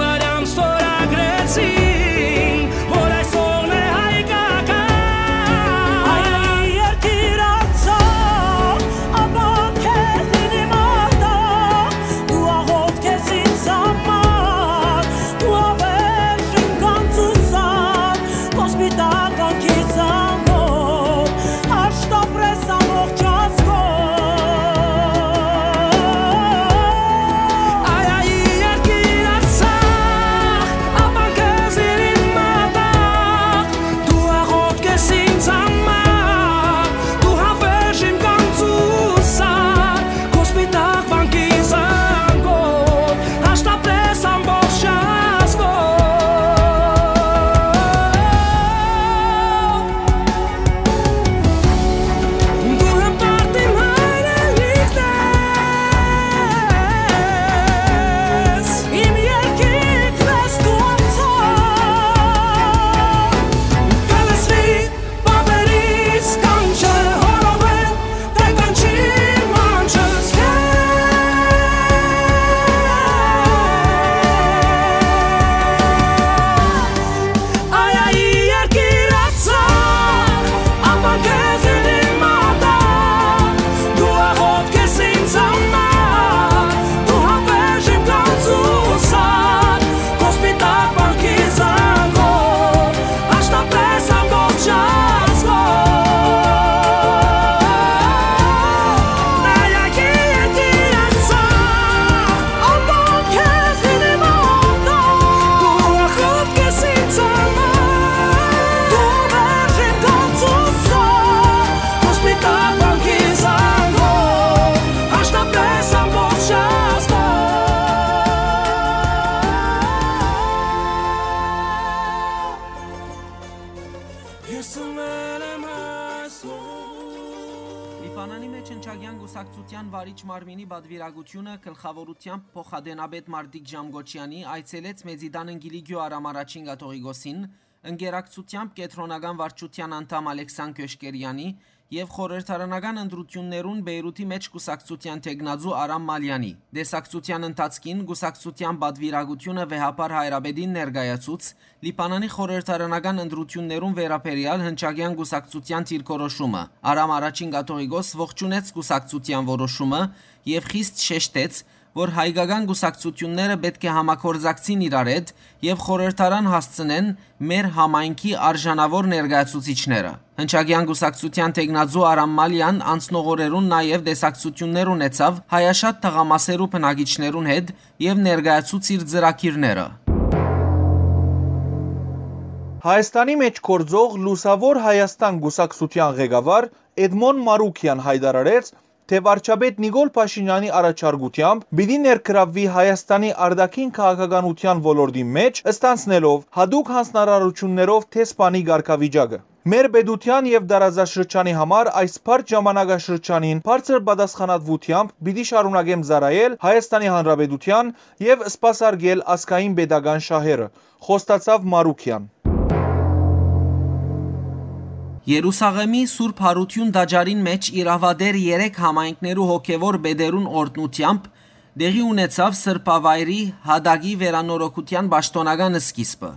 Կուսակցութեան վարիչ մարմինի պատուիրակութիւնը գլխաւորութեամբ փոխադենապետ Մարտիկ Ժամկոչեանի այցելեց Մեծի Տանն Կիլիկիոյ Արամ Առաջին Կաթողիկոսին, ընկերակցութեամբ կեդրոնական վարչութեան անդամ Ալեքսան Քյոշկերեանի եւ խորհրդարանական ընտրութիւններուն Բեյրութի մէջ կուսակցութեան թեկնածու Արամ Մալեանի։ Տեսակցութեան ընթացքին կուսակցութեան պատուիրակութիւնը վեհափառ հայրապետին ներկայացուց Լիբանանի խորհրդարանական ընտրութիւններուն վերաբերեալ հնչակեան կուսակցութեան դիրքորոշումը։ Արամ Առաջին Կաթողիկոս ողջունեց կուսակցութեան որոշումը եւ խիստ շեշտեց, որ հայկական կուսակցութիւնները պէտք է համագործակցին իրար հետ եւ խորհրդարան հասցնեն մեր համայնքի արժանաւոր ներկայացուցիչները։ Հնչակեան կուսակցութեան թեկնածու Արամ Մալեան անցնող օրերուն նաեւ տեսակցութիւններ ունեցաւ հայաշատ թաղամասերու բնակիչներուն հետ եւ ներկայացուց իր ծրագիրները։ Հայաստանի մէջ գործող Լուսաւոր Հայաստան կուսակցութեան ղեկավար Էդմոն Մարուկեան յայտարարեց, թէ վարչապետ Նիկոլ Փաշինեանի առաջարկութեամբ պիտի ներգրավուի Հայաստանի արտաքին քաղաքականութեան ոլորտին մէջ, ստանձնելով յատուկ յանձնարարութիւններով դեսպանի կարգավիճակը։ Մեր պետութեան եւ տարածաշրջանի համար այս բարդ ժամանակաշրջանին բարձր պատասխանատուութեամբ պիտի շարունակեմ ծառայել Հայաստանի Հանրապետութեան եւ սպասարկել ազգային պետական շահերը, խոստացաւ Մարուկեան։ Երուսաղեմի Սուրբ Յարութիւն տաճարին մէջ իրաւատեր երեք համայնքներու հոգեւոր պետերուն օրհնութեամբ տեղի ունեցաւ սրբավայրի յատակի վերանորոգութեան պաշտօնական սկիզբը։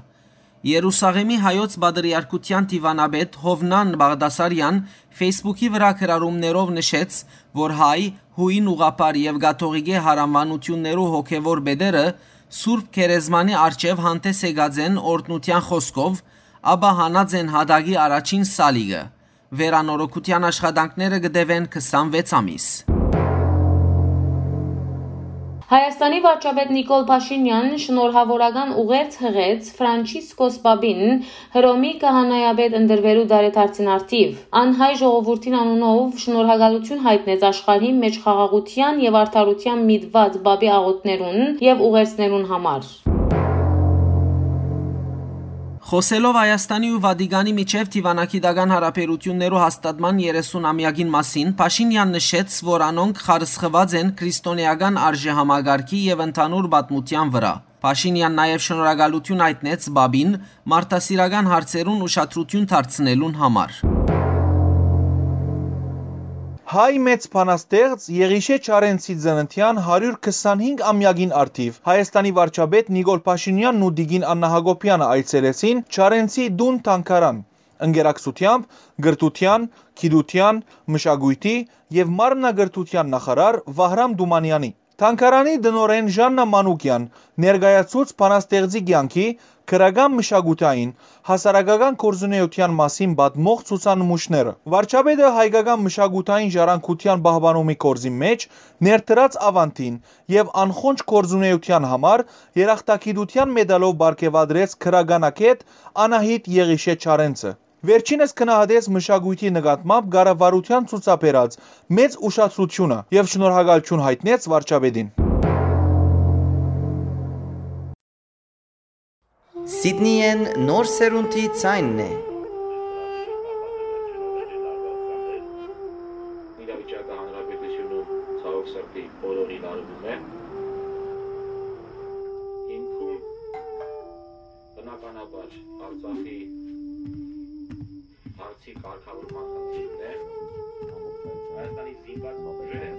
Երուսաղեմի հայոց պատրիարքութեան դիվանապետ Յովնան Բաղդասարեան Facebook-ի վրայ գրառումներով նշեց, որ հայ, յոյն ուղղափառ եւ կաթողիկէ յարաւանութիւններու հոգեւոր պետերը Սուրբ Գերեզմանի առջեւ հանդես եկած են օրհնութեան խօսքով, ապա հանած են յատակի առաջին սալիկը։ Վերանորոգութեան աշխատանքները կը տեւեն քսանվեց ամիս։ Հայաստանի վարչապետ Նիկոլ Փաշինեան շնորհաւորական ուղերձ յղեց Ֆրանչիսկոս Պապին Հռոմի քահանայապետ ընտրուելու տարեդարձին առթիւ։ Ան հայ ժողովուրդին անունով շնորհակալութիւն յայտնեց աշխարհի մէջ խաղաղութեան եւ արդարութեան միտված Պապի աղօթքներուն եւ ուղերձներուն համար։ Խօսելով Հայաստանի ու Վատիկանի միջեւ դիվանագիտական յարաբերութիւններու հաստատման երեսուն ամեակին մասին, Փաշինեան նշեց, որ անոնք խարսխուած են քրիստոնէական արժեհամակարգի եւ ընդհանուր պատմութեան վրայ։ Փաշինեան նաեւ շնորհակալութիւն յայտնեց Պապին մարդասիրական հարցերուն ուշադրութիւն դարձնելուն համար։ Հայ մեծ բանաստեղծ Եղիշէ Չարենցի ծննդեան հարիւր քսանհինգ ամեակին առթիւ Հայաստանի վարչապետ Նիկոլ Փաշինեանն ու տիկին Աննա Յակոբեանը այցելեցին Չարենցի տուն Թանգարան, ընկերակցութեամբ կրթութեան, գիտութեան, մշակոյթի եւ մարմնակրթութեան նախարար Վահրամ Թումանեանի։ Թանգարանի տնօրէն Ժաննա Մանուկեան ներկայացուց բանաստեղծի կեանքի, գրական, մշակութային, հասարակական գործունեութեան մասին պատմող ցուցանմուշները։ Վարչապետը հայկական մշակութային ժառանգութեան պահպանումի գործին մէջ ներդրած աւանդին եւ անխոնջ գործունեութեան համար երախտագիտութեան մեդալով պարգեւատրեց գրականագէտ Անահիտ Եղիշէ Չարենցը։ Վերջինս գնահատեց մշակոյթի նկատմամբ կառավարութեան ցուցաբերած մեծ ուշադրութիւնը եւ շնորհակալութիւն յայտնեց վարչապետին։ Սիդնիեն նոր սերունդի ձայնն է։ Իրավիճակը հանրապետությունում ցավոք սրտի բոլորին արվում է։ Հիմքում, բնականաբար, Արցախի հարցի կարգավորման խնդիրն է։ Հայաստանի զինված ուժերը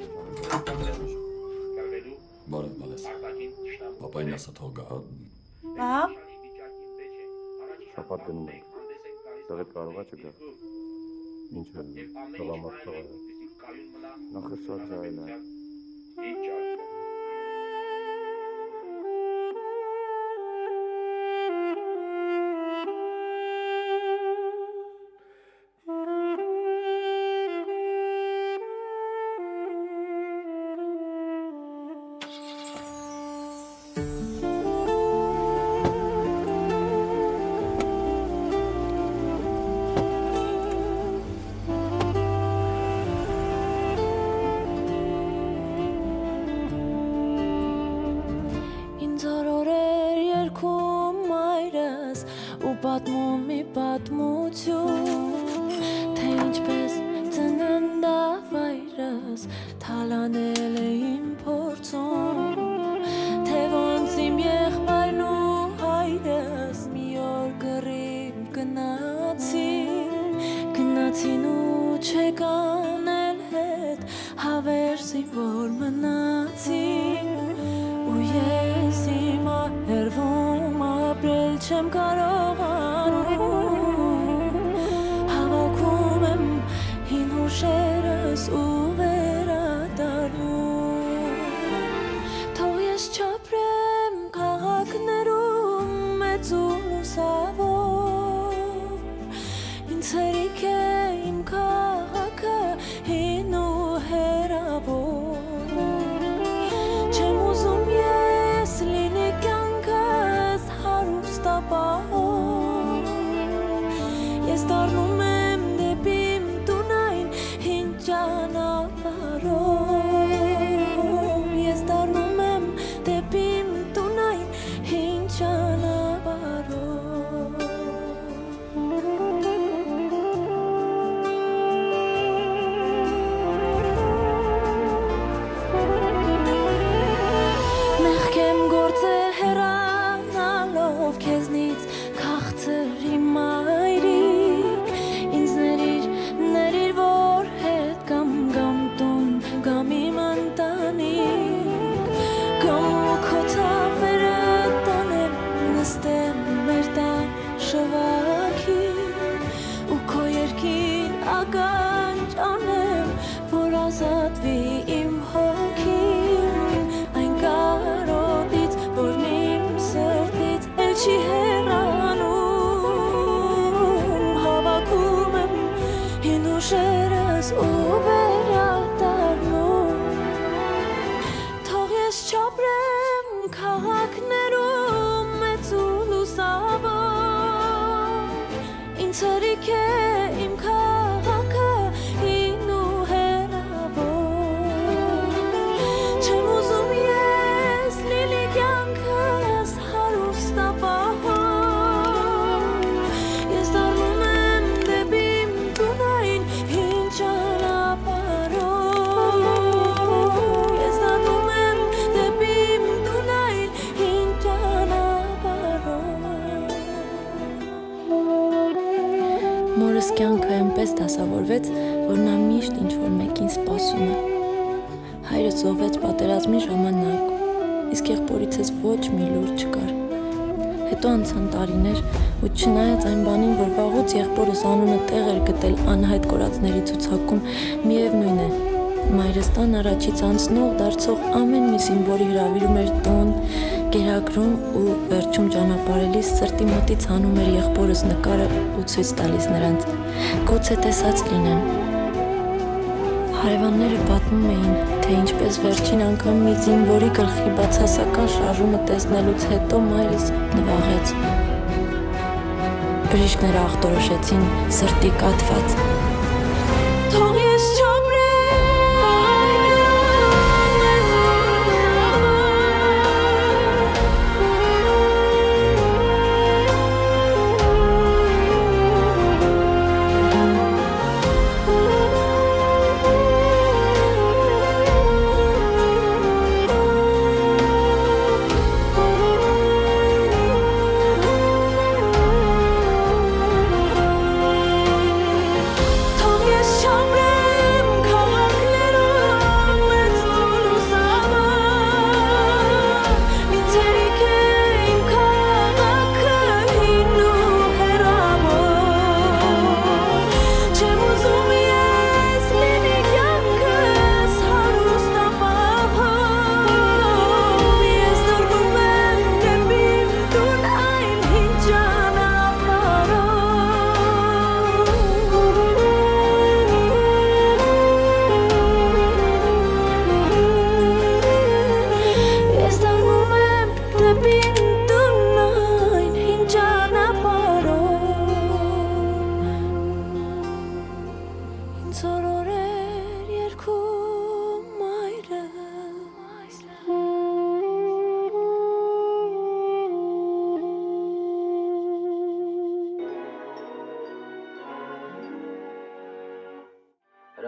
կռվելու Բարև, Մալես։ արտաքին թշնամու Պապային ասա թող գա, հա։ Ահա։ Շաբաթ գնում ենք։ Տեղեդ կարող ա չգա։ Ինչ է, թողամարդ թողա։ Նախշված է այն է։ Ինձ օրորեր երկում մայրս ու պատմում մի պատմություն, թե ինչպես ծնան Դավայրս թալանել է իմ փորձում, թեւոնց իմ եղբայրն ու հայրս մի օր կռիվ գնացին, գնացին ու չեկան էլ հետ, հավերժ զինվոր մնացին, ու ես հիմա հեռվում ապրել չեմ կարողանում, հավաքում եմ հին հուշերս ու վերադառնում։ Թող ես չապրեմ քաղաքներում մեծ ու լուսաւոր, ինձ հերիք է իմ քաղաքը հին ու հեռաւոր։ Չեմ ուզում ես լինի կյանքս հարուստ ապահով, ես դառնում եմ դէպի իմ տուն այն հին ճանապարհով, ես դառնում եմ դէպի իմ տուն այն հին ճանապարհով։ Մեղքեմ գործեր հեռանալով քեզնից, քաղցր իմ մայրիկ, ինձ ներիր, ներիր, որ հետ կամ, կամ տուն, կամ իմ ընտանիք, կամ ու քո թավերը տանեմ, նստեմ մեր տան շվակին, ու քո երկին ականջ անեմ, որ ազատուի իմ հոգին այն կարոտից, որն իմ սրտից էլ չի հեռանում, հավաքում եմ հին հուշերս ու վերադառնում։ Թող ես չապրեմ քաղաքներում մեծ ու լուսաւոր, ինձ հերիք է իմ քաղաքը հին ու հեռաւոր։ Չեմ ուզում ես լինի կյանքս հարուստ ապահով, ես դառնում եմ դէպի իմ տուն այն հին ճանապարհով, ես դառնում եմ դէպի իմ տուն այն հին ճանապարհով։ Մորս կյանքը այնպէս դասաւորուեց, որ նա միշտ ինչ-որ մէկին սպասում է։ Հայրս զոհվեց պատերազմի ժամանակ, իսկ եղբորիցս ոչ մի լուր չկար։ Հետո անցան տարիներ, ու չնայած այն բանին, որ վաղուց եղբորս անունը տեղ էր գտել անհայտ կորածների ցուցակում, միեւնոյն է, մայրս տան առաջից անցնող դարձող ամեն մի զինվորի հրաւիրում էր տուն, կերակրում ու վերջում ճանապարհելիս սրտի մտից հանում էր եղբորս նկարը ու ցոյց տալիս նրանց։ Գուցե տեսած լինեն։ Հարեւանները պատմում էին, թե ինչպես վերջին անգամ մի զինվորի գլխի բացասական շարժումը տեսնելուց հետո մայրս նուաղեց։ Բժիշկները ախտորոշեցին սրտի կաթված։ Թող ես չապրեմ Թող ես չապրեմ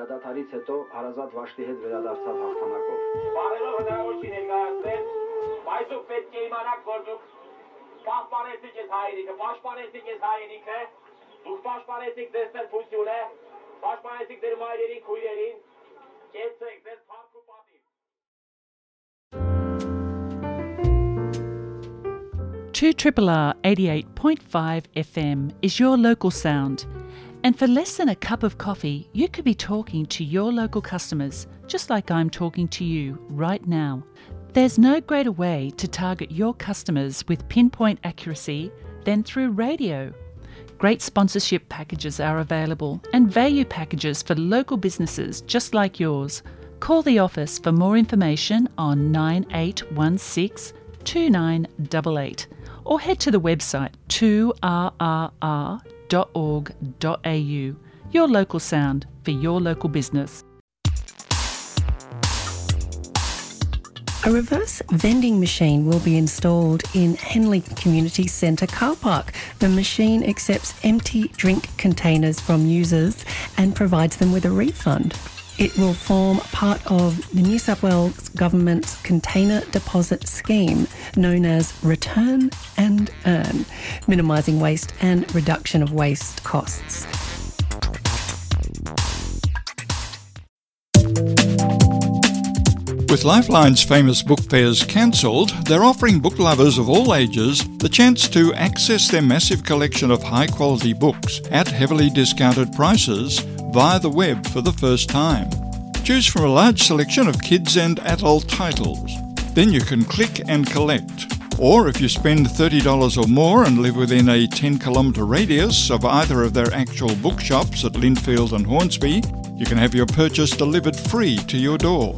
Դադարից հետո հարազատ Վաշտի հետ վերադարձաւ հաղթանակով։ Բարելով հնարավոր չի ներկայացնել, բայց դուք պետք է իմանաք, որ դուք պահպանեցիք այս հայրենիքը, պաշտպանեցիք այս հայրենիքը, դուք պաշտպանեցիք ձեր սրբությունը, պաշտպանեցիք ձեր մայրերին, քույրերին, կեցեք ձեր փառք ու պատիվ։ Two triple R eighty-eight point five F M is your local sound. And for less than a cup of coffee, you could be talking to your local customers, just like I'm talking to you right now. There's no greater way to target your customers with pinpoint accuracy than through radio. Great sponsorship packages are available and value packages for local businesses just like yours. Call the office for more information on nine eight one six two nine eight eight or head to the website two R R R dot org dot A U. Your local sound for your local business. A reverse vending machine will be installed in Henley Community Centre car park. The machine accepts empty drink containers from users and provides them with a refund. It will form part of the New South Wales Government's container deposit scheme, known as Return and Earn, minimising waste and reduction of waste costs. With Lifeline's famous book fairs cancelled, they're offering book lovers of all ages the chance to access their massive collection of high quality books at heavily discounted prices via the web for the first time. Choose from a large selection of kids and adult titles. Then you can click and collect. Or if you spend thirty dollars or more and live within a ten kilometre radius of either of their actual bookshops at Lindfield and Hornsby, you can have your purchase delivered free to your door.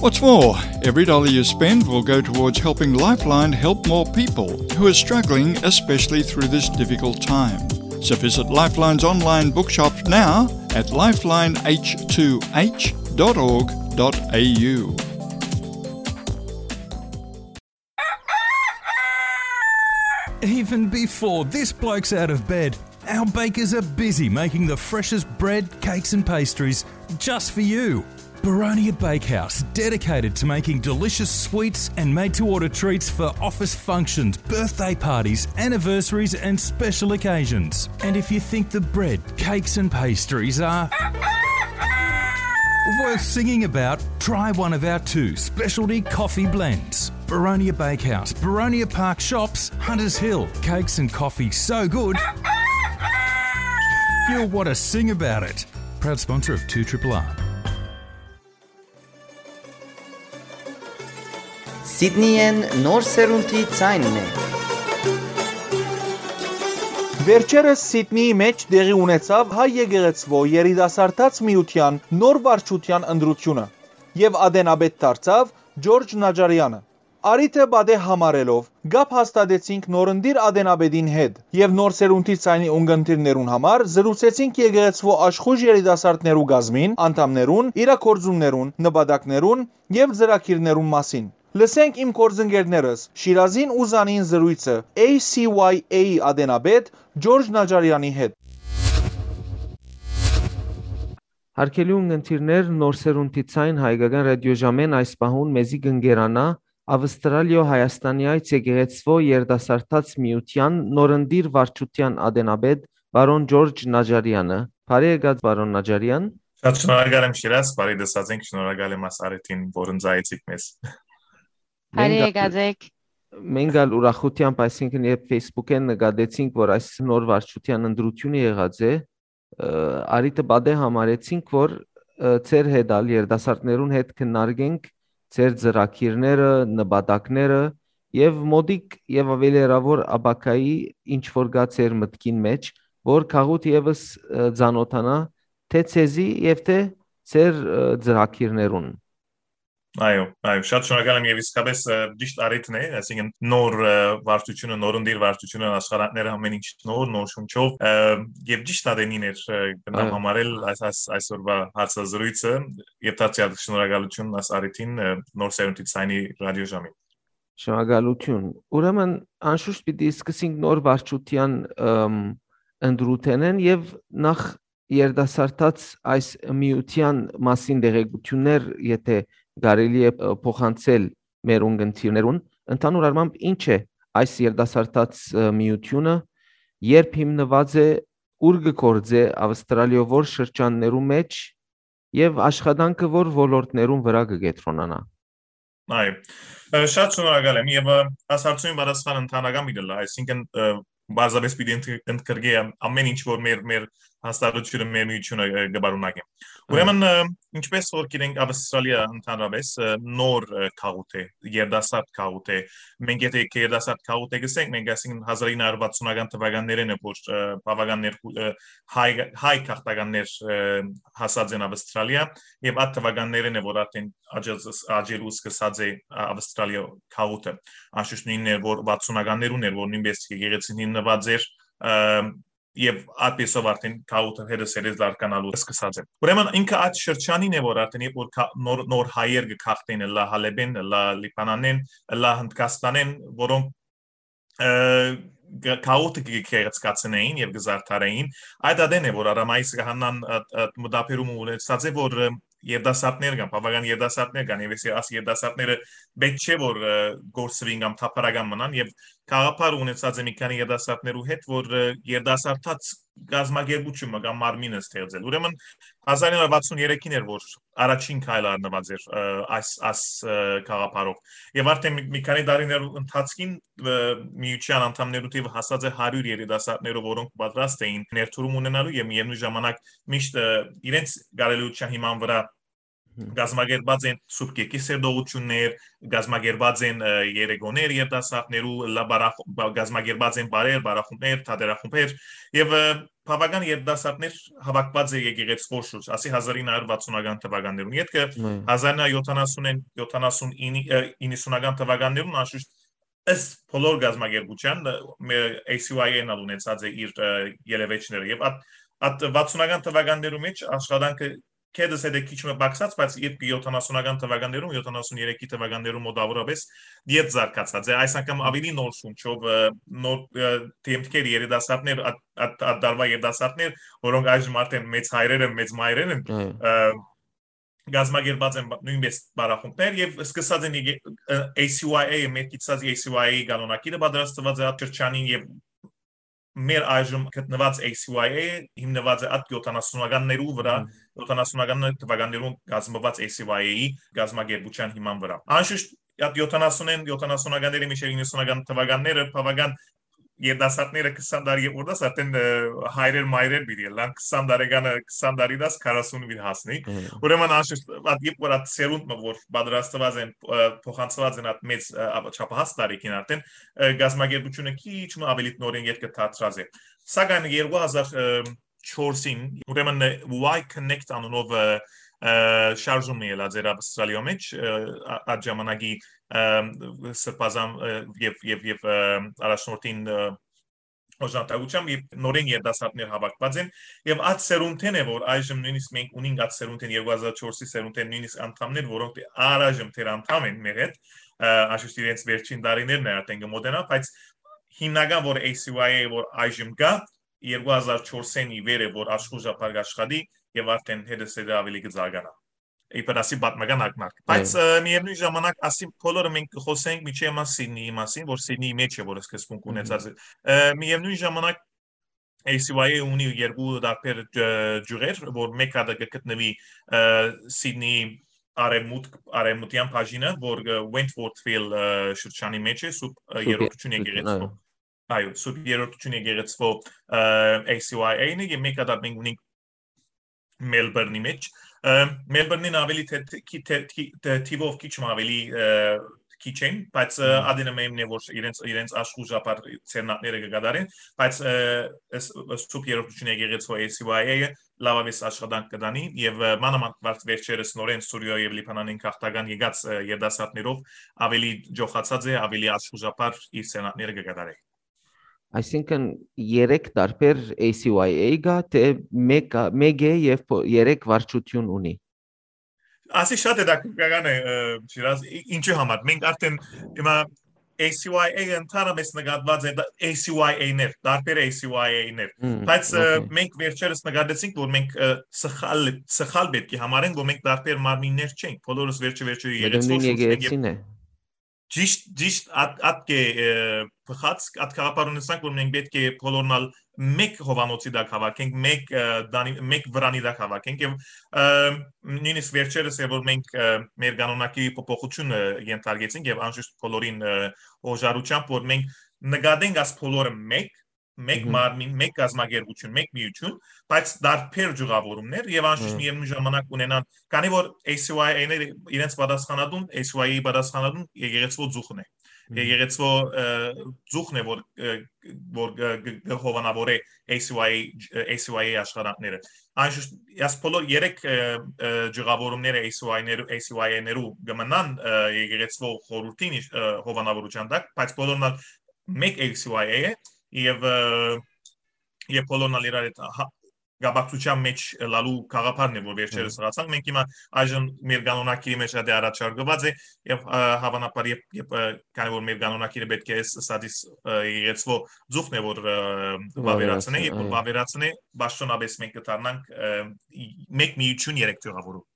What's more, every dollar you spend will go towards helping Lifeline help more people who are struggling, especially through this difficult time. So visit Lifeline's online bookshop now at lifeline h two h dot org dot a u. Even before this bloke's out of bed, our bakers are busy making the freshest bread, cakes, and pastries just for you. Baronia Bakehouse, dedicated to making delicious sweets and made to order treats for office functions, birthday parties, anniversaries, and special occasions. And if you think the bread, cakes, and pastries are worth singing about, try one of our two specialty coffee blends. Baronia Bakehouse, Baronia Park Shops, Hunters Hill. Cakes and coffee so good, you'll want to sing about it. Proud sponsor of two triple R. Սիդնիեն նոր սերունդի ձայնն է։ Վերջերս Սիդնիի մէջ տեղի ունեցաւ հայ եկեղեցւոյ երիտասարդաց միութեան նոր վարչութեան ընտրութիւնը եւ ատենապետ դարձաւ Ջորջ Նաճարեանը։ Առիթը պատեհ համարելով, կապ հաստատեցինք նորընտիր ատենապետին հետ եւ նոր սերունդի ձայնի ունգընտիրներուն համար զրուցեցինք եկեղեցւոյ աշխոյժ երիտասարդներու կազմին անդամներուն, իրագործումներուն, նպատակներուն եւ ծրագիրներուն մասին։ Լսենք իմ գործընկերներս Շիրազին ու Զանին զրոյցը A C Y A-ի ատենապետ Ջորջ Նաճարեանի հետ։ Հարգելի ունգընտիրներ, Նոր սերունդի ձայն հայկական ռադիոժամէն այս պահուն մեզի կ'ընկերանայ Ավստրալիոյ Հայաստանեայց եկեղեցւոյ երիտասարդաց միութեան նորընտիր վարչութեան ատենապետ պարոն Ջորջ Նաճարեանը։ Բարի եկած, պարոն Նաճարեան։ Շատ շնորհակալ եմ, Շիրազ, բարի դասած ենք, շնորհակալ եմ այս առիթին, որ ընծայեցիք մեզ։ Բարի Մենք եկած եք։ Մենք ալ ուրախութեամբ, այսինքն, երբ Facebook-ին նկատեցինք, որ այս նոր վարչութեան ընտրութիւնը եղած է, ը, առիթը պատեհ համարեցինք, որ, ը, ձեր հետ ալ, երիտասարդներուն հետ քննարկենք ձեր ծրագիրները, նպատակները եւ մօտիկ եւ աւելի հեռաւոր ապագայի ինչ որ կա ձեր մտքին մէջ, որ գաղութ եւս, ը, ծանօթանայ թէ ձեզի եւ թէ ձեր, ը, ծրագիրներուն։ Այո, այո, շատ շնորհակալ եմ եւ իսկապես, ը, ճիշտ առիթն է, այսինքն նոր, ը, վարչությունը, նորընտիր վարչությունը, աշխարհանները ամեն ինչ նոր, նոր շունչով, ը, եւ ճիշտ ատենին էր, ը, կրնամ Այո։ համարել այս, այս, այսօրվա հարցազրույցը եւ դարձյալ շնորհակալություն այս առիթին, ը, Նոր սերունդի ձայնի ռադիոժամին։ Շնորհակալություն։ Ուրեմն, անշուշտ պիտի սկսենք նոր վարչութեան, ըմ, ընտրութենէն եւ նախ երիտասարդաց այս միութեան մասին տեղեկութիւններ, եթէ կարելի է, ը, փոխանցել մեր ունգընտիրներուն, ընդհանուր առմամբ ի՞նչ է այս երիտասարդաց, ը, միութիւնը, երբ հիմնուած է, ուր կը գործէ Ավստրալիոյ որ շրջաններու մէջ եւ աշխատանքը որ ոլորտներուն վրայ կը կեդրոնանայ։ Այո։ Ը, շատ շնորհակալ եմ եւ, ը, այս հարցումին պատասխան ընդհանրական պիտի ըլլայ, այսինքն, ը, պարզապէս պիտի ընդ-, ընդգրկէ ամ-, ամէն ինչ որ մեր, մեր հաստատությունը, մեր միութիւնը, ը, կը պարունակի։ Այո։ Ուրեմն, ը, ինչպես որ գիտենք, Ավստրալիա ընդհանրապէս, ը, նոր, ը, գաղութ է, երիտասարդ գաղութ է։ Մենք եթէ երիտասարդ գաղութ է գսենք, մենք այսինքն հազար ինը հարյուր վաթսունական թվականներէն է, որ, ը, բաւական ներքու-, ը, հայ, հայ գաղթականներ, ը, հասած են Ավստրալիա, եւ այդ թվականներէն է, որ արդեն աճած-, աճելու սկսած է, ա, Ավստրալիա գաղութը։ Անշուշտ նոյնն էր, որ վաթսունականներուն էր, որ նոյնպես եկեղեցին հիմնուած էր, ը, եւ այդպեսով արդեն գաղութը հետը սերեզ զարգանալու սկսած է։ Ուրեմն ինքը այդ շրջանին է, որ արդեն երբ որ կա-, նոր, նոր հայեր կը գաղթեն, ըլլայ Հալէպէն, ըլլայ Լիբանանէն, ըլլայ Հնդկաստանէն, որոնք, ը, գ-, գաղութը կը գեղեցկացնեին եւ կը զարդարեին, այդ ատեն է, որ Արամայիս Կահանան այդ, այդ մտաբերումը ունեցած է, որ, ը, երիտասարդներ կան, բաւական երիտասարդներ կան, եւ այս երիտասարդները պէտք չէ, որ, ը, կորսուին կամ թափառական մնան, եւ գաղափար ունեցած է մի քանի երիտասարդներու հետ, որ, ը, երիտասարդաց կազմակերպութիւնը կամ մարմինը ստեղծել։ Ուրեմն հազար ինը հարյուր վաթսուն երեքին էր, որ առաջին քայլը առնուած էր, ը, այս, այս, ը, գաղափարով։ Եւ արդեն մի, մի քանի տարիներ ընթացքին, ը, միութեան անդամներու թիվը հասած է հարիւր երիտասարդներով, որոնք պատրաստ էին ներդրում ունենալու եւ միեւնույն ժամանակ միշտ, ը, իրենց կարելիության հիման վրայ Հմ։ կազմակերպած են Սուրբ Գիրքի սերտողություններ, կազմակերպած են, ը, երեկոներ երիտասարդներու, լա բարախ-, բա-, կազմակերպած են բարեր, բարախումբներ, թատերախումբեր եւ, ը, բաւական երիտասարդներ հաւաքուած է եկեղեցւոյ շուրջ, ասի հազար ինը հարիւր վաթսունական թվականներուն։ Ետքը Մը։ հազար ինը հարիւր յոթանասունին, յոթանասուն ինը, ը, իննսունական թվականներուն անշուշտ ըստ բոլոր կազմակերպութեան, ը, մե-, A C Y A-ն ալ ունեցած է իր, ը, ելեւէջները։ Եւ այդ, այդ վաթսունական թվականներու մէջ աշխատանքը կեդս հետ է քիչ մը պակսած, բայց երբ յոթանասունական թվականներում, յոթանասուն երեքի թվականներում մոտավորապես ետ զարգացած է, այս անգամ ավելի նոր շունչով, ը, նոր, ը, դեմքեր, երիտասարդներ, այդ, այդ, այդ դարվա երիտասարդներ, որոնք այժմ արդեն մեծ հայրեր են, մեծ մայրեր են, Այո։ ը, կազմակերպած են բա-, նոյնպես բարախումբներ եւ սկսած են եկե-, ը, A C Y A, մեր գիտած A C Y A-ի կանոնակիրը պատրաստված է այդ շրջանին եւ մեր այժմ գտնուած A C Y A հիմնուած է այդ յոթանասունականներու վրա, Հմ։ յոթանասունական թվականներուն կազմված A C Y A-ի կազմակերպութեան հիման վրա։ Անշուշտ այդ յոթանասունէն, յոթանասունականների մինչեւ իննսունական թվականները բաւական երիտասարդները քսան տարի ետք արդեն, ը, հայրեր մայրեր պիտի ըլլան, քսան տարեկանը, քսան տարի դաս քառասուն պիտի հասնի։ Հմ։ Ուրեմն անշուշտ այդ երբ որ այդ սերունդ մը որ պատրաստված են, ը, փոխանցված են այդ մեծ, ը, ա-, չափահաս տարիքին արդեն, ը, կազմակերպությունը քիչ մը ավելի նորին ետքը դարձած է։ Սակայն երկու հազար չորսին, ուրեմն, ը, Y Connect անունով, ը, ը, շարժում ելած էր Ավստրալիոյ մեջ, ը, ա-, այդ ժամանակի, ը, սրբազան, ը, եւ, եւ, եւ, ը, առաջնորդին, ը, օժանդակությամբ, երբ նորեն երիտասարդներ հաւաքուած են, եւ այդ սերունդէն է, որ այժմ նոյնիսկ մենք ունենք այդ սերունդէն, երկու հազար չորսի սերունդէն նոյնիսկ անդամներ, որոնք դե առայժմ դեռ անդամ են մեր հետ, ը, անշուշտ իրենց վերջին տարիներն է արդեն կը մոտենայ, բայց հիմնական, որ A C Y A, որ այժմ կա, երկու հազար չորսին ի վեր է, որ աշխուժաբար կաշխատի եւ արդեն հետզհետե ավելի կը զարգանայ։ Իբր ասի պատմական ակնարկ։ Բայց, Այո։ ը, միևնույն ժամանակ, ասի բոլորը մենք կխոսենք միջի մա Սիդնիի մասին, որ Սիդնիի մեջ է, որ սկզբունք Մհմ։ ունեցած է։ Ը, միևնույն ժամանակ A C Y A ունի երկու տարբեր, ը, ջուղեր, որ մեկ հատը կը գտնուի, ը, Սիդնիի արևմուտք, արևմտյան բաժինը, որ, ը, Wentworthville, ը, շրջանի մեջ է, սուրբ, ը, Սուրբ երրորդություն Երրորդություն, եկեղեցւոյ։ այո։ Այո, սուրբ երրորդություն եկեղեցւոյ, ը, A C Y A-ն է, եւ մեկ հատը մենք ունենք Մելբուրնի մեջ։ Ը, Մելբուրնին ավելի թե, թե, թե, թե, թե, թիվով քիչ մը ավելի, ը, քիչ են, բայց, ը, Մհմ։ ադենը մեմն է, որ իրենց, իրենց աշխուժաբար ցերնակները կը կատարեն, բայց, ը, ս-, ս-, սուրբ երրորդություն եկեղեցւոյ A C Y A-ը լավավես աշխատանք կը տանի եւ, ը, մանավանդ վարձ վերջերս նորեն Սուրիոյ եւ Լիբանանին քաղաքական եկած, ը, երիտասարդներով ավելի ջոխացած է, ավելի աշխուժաբար իր ցերնակները կը կատարե։ Այսինքն երեք տարբեր A C Y A կա, թե մեկը, մեկ է եւ փո-, երեք վարչություն ունի։ Ասի շատ հետաքրքրական է, ը, Շիրազ, ի-, ինչու համար։ Մենք արդեն հիմա A C Y A ընդհանրապես նկատուած է, դա- A C Y A-ներ, տարբեր A C Y A-ներ։ Հմ, Բայց ը, օքեյ։ մենք վերջերս նկատեցինք, որ մենք ը, սխալ, սխալ պետք է համարենք, որ մենք տարբեր մարմիններ չենք, բոլորս վերջը վերջը Մտնում երեցվոր շունչ ենք, եւ եկեղեցին է։ Ճիշտ, ճիշտ, ատ, ատ կե, ը, փխած, ատ գաղափար ունեցանք, որ մենք պետք է բոլորնալ մեկ հովանոցի տակ հավաքենք, մեկ, ը, դանի, մեկ վրանի տակ հավաքենք, եւ, ը, նույնիսկ վերջերս է, որ մենք, ը, մեր կանոնակի փոփոխությունը ենթարկեցինք, եւ անշուշտ բոլորին, ը, օժարությամբ, որ մենք նկատենք աս բոլորը մեկ, մեկ Մհմ։ մարմին, մեկ կազմակերպություն, մեկ միություն, բայց տարբեր ջուղավորումներ, եւ անշուշտ Հմ։ միևնույն ժամանակ ունենան, քանի որ A C Y A-ները իրենց պատասխանատուն, A C Y A-ի պատասխանատուն եկեղեցվո ծուխն է։ Մհմ։ Եկեղեցվո, ը, ծուխն է, որ, ը, որ, ը, գ-, գ-, հովանավորե A C Y A, ը, A C Y A աշխատանքները։ Անշուշտ, ես բոլոր երեք, ը, ը, ջուղավորումները A C Y-ներ, A C Y A-ներու կմնան, ը, եկեղեցվո խորհրդին իշ-, ը, հովանավորության տակ, բայց բոլորն ալ մեկ A C Y A է, եւ, ը, եւ բոլորն ալ իրար հետ հա-, կապակցության մեջ լալու գաղափարն է, որ վերջերս Հմ։ ըրացանք։ Մենք հիմա այժմ մեր կանոնակիրի մեջ ատե առաջարկված է, եւ, ը, հավանաբար, երբ, երբ, ը, քանի որ մեր կանոնակիրը պետք է այս սադիս, ը, եկեղեցվո ծուխն է, որ, ը, վավերացնե, Վավերացնե, երբ որ այո։ վավերացնե, պաշտոնապես մենք կդառնանք, ը, մեկ միություն երեք ջուղավորում։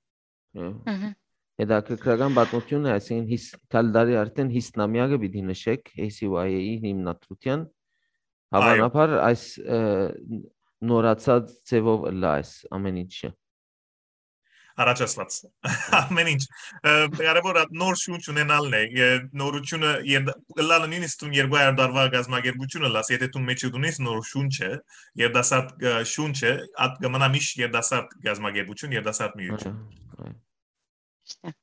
Հը։ Մհմ։ Հետաքրքրական պատմություն է, այսինքն՝ հիս-, քալդարի արդեն հիսնամյակը պիտի նշեք A C Y A-ի հիմնադրության։ Այո։ Հավանաբար այս, ը, նորացած ձևով ըլլայ այս ամեն ինչը։ Առաջացված։ Ամեն ինչ։ Ը, կարևոր ա նոր շունչ ունենալն է։ Ե-, նորությունը, եր-, ըլլալը նույնիսկ դուն երկու հազար տարվա կազմակերպությունը լաս, եթե դու մեջը դունես նոր շունչը, երդասարդ, ը, շունչը, ատ կմնա միշտ երդասարդ կազմակերպություն, երդասարդ միություն։ Այո, այո։ Ճիշտ է։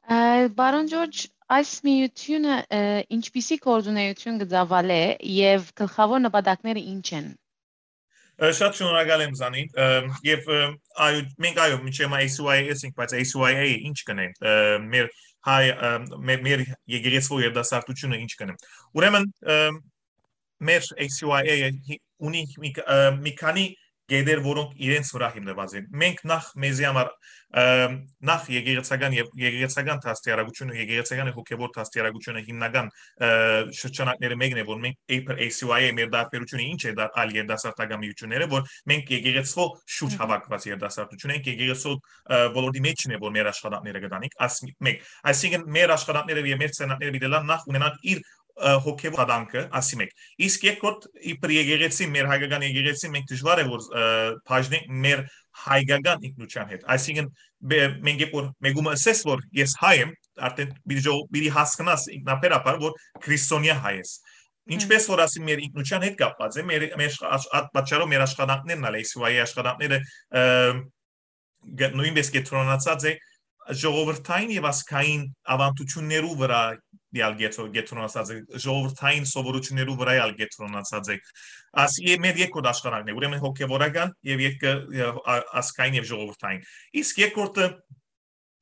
Ը, պարոն Ջորջ, այս միությունը, ը, ինչպիսի գործունեություն կը ծավալէ եւ գլխաւոր նպատակները ինչ են։ Ը, շատ շնորհակալ եմ զանին, ը, եւ, ը, այո, մենք, այո, մինչեւ հիմա A C Y A ենք, բայց A C Y A ինչ կնե, ը, մեր հայ, ը, մեր, մեր եկեղեցվո երդասարտությունը ինչ կնե։ Ուրեմն, ը, մեր A C Y A-ը հի-, ունի մի ք-, ը, մի քանի գեդեր, որոնք իրենց վրա հիմնված են։ Մենք նախ մեզի համար, ը, նախ եկեղեցական եւ եկեղեցական դաստիարակությունը, եկեղեցական եւ հոգեվոր դաստիարակությունը հիմնական, ը, շրջանակները մեկն է, որ մենք իբր A C Y A մեր տարբերությունը ինչ է դա այլ երդասարտական միությունները, որ մենք եկեղեցվո շուտ Մհմ։ հավաքված երդասարտություն ենք, եկեղեցվո, ը, ոլորտի մեջ չն է, որ մեր աշխատանքները կտանենք, աս մի-, մեկ։ Այսինքն մեր աշխատանքները եւ մեր ցերնակները պիտի լան նախ ունենան իր, ը, հոգեվոր աշխատանքը, ասի մեկ։ Իսկ երկրորդ, իբր եկեղեցի, մեր հայկական եկեղեցի, մենք դժվար է, որ, ը, բաժնենք մեր հայկական ինքնության հետ։ Այսինքն, բե-, մենք երբ որ մեկումը ասես, որ ես հայ եմ, արդեն պիտի ժողով-, պիտի հասկնաս ինքնաբերաբար, որ քրիստոնեա հայ ես։ Ինչպես որ ասի մեր ինքնության հետ կապված է, մեր, մեր աշ-, աշ-, այդ պատճառով մեր աշխատանքներն ալ, A C Y A աշխատանքները, ը, գ-, նույնպես կեդրոնացած է ժողովրդային եւ ազգային ավանդություններու վրա ալ կեդրո-, կեդրոնացած է, ժողովրդային սովորություններու վրա ալ կեդրոնացած է։ Աս-, ե-, մեր երկրորդ աշխատանքն է, ուրեմն հոգեվորական եւ երկը, ը, ա-, ազգային եւ ժողովրդային։ Իսկ երկրորդը,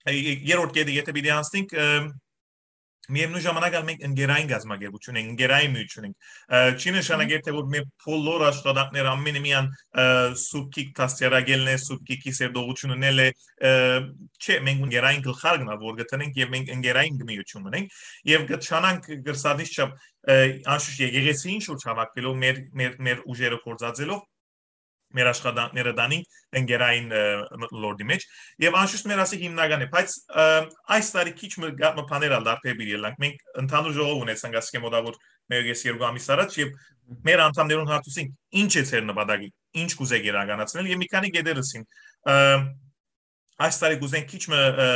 ը, երրորդ կետը, եթե պիտի անցնենք, ը, միևնույն ժամանակ ալ մենք ընկերային կազմակերպություն ենք, ընկերային միություն ենք։ Ը, չի նշանակեր, թե որ մեր բոլոր աշխատանքները ամենը միան, ը, Սուրբ Գիրք դաստիարակելն է, Սուրբ Գիրքի սերտողությունն էլ է, ը, չէ, մենք ընկերային գլխարկն ալ որ գտնենք եւ մենք ընկերային միություն ունենք եւ կչանանք գրսանից չափ, ը, անշուշտ եկեղեցին շուրջ հավաքվելով մեր, մեր, մեր ուժերը գործածելով մեր աշխատանքները տանենք ընկերային, ը, մթնոլորտի մեջ, եւ անշուշտ մեր ասի հիմնական է, բայց, ը, այս տարի քիչ մը գա-, մը բաներ ալ դարբեր պիտի ելանք։ Մենք ընդհանուր ժողով ունեցանք ասկե մոտավոր մեկուկես երկու ամիս առաջ, եւ մեր անդամներուն հարցուցենք, ինչ է ձեր նպատակը, ինչ կուզեք իրականացնել, եւ մի քանի գետեր ըսին, ը, այս տարի կուզենք քիչ մը, ը,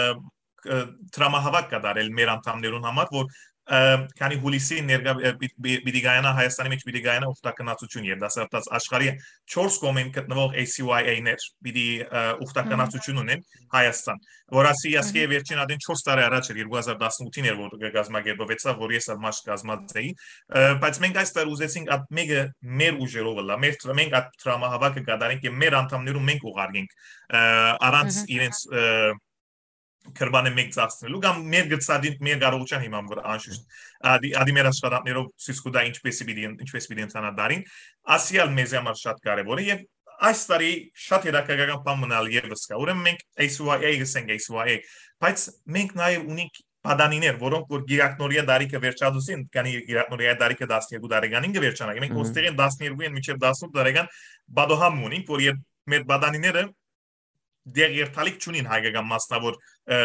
ը, դրամահավաք կատարել մեր անդամներուն համար, որ, ը, քանի հուլիսի ներկա, ը, պի-, պի-, պիտի գայանա Հայաստանի մեջ, պիտի գայանա ուխտագնացություն երդասարտաց աշխարհի չորս կողմեն գտնվող A C Y A-ներ պիտի, ը, ուխտագնացություն ունեն Հայաստան, որ ասի, ասկե Մհմ։ վերջին ադեն չորս տարի առաջ էր, երկու հազար տասնութին էր, որ կազմակերպվեցավ, որ ես ալ մաշ կազմած էի, ը, բայց մենք այս տարի ուզեցինք այդ մեկը մեր ուժերով ըլլա, մեր դր-, մենք այդ դրամահավաքը կատարենք եւ մեր անդամներուն մենք ուղարկենք, ը, առանց Մհմ։ իրենց, ը, քրբանը մեկ ծախսնելու կամ մեր գծադին, մեր կարողության հիման վրա անշուշտ։ Ադի, ադի մեր աշխատանքներով ցույց կու տա ինչպես պիտի, ինչպես պիտի ընթանա դարին։ Ասի ալ մեզի համար շատ կարևոր է եւ այս տարի շատ հետաքրքրական բան մնալ եւս կա։ Ուրեմն մենք A C Y A գսենք, A C Y A, բայց մենք նաեւ ունենք պատանիներ, որոնք որ գիրակնորիա դարիքը վերջացուցին, քանի գիրակնորիա դարիքը տասներկու տարեկանին կը վերջանայ։ Մենք Մհմ։ Ոստերեն տասներկուին մինչեւ տասնութ տարեկան պատոհամ ունենք, որ երբ մեր պատանիները դեռ երթալիք չունին հայկական մասնաւոր, ը,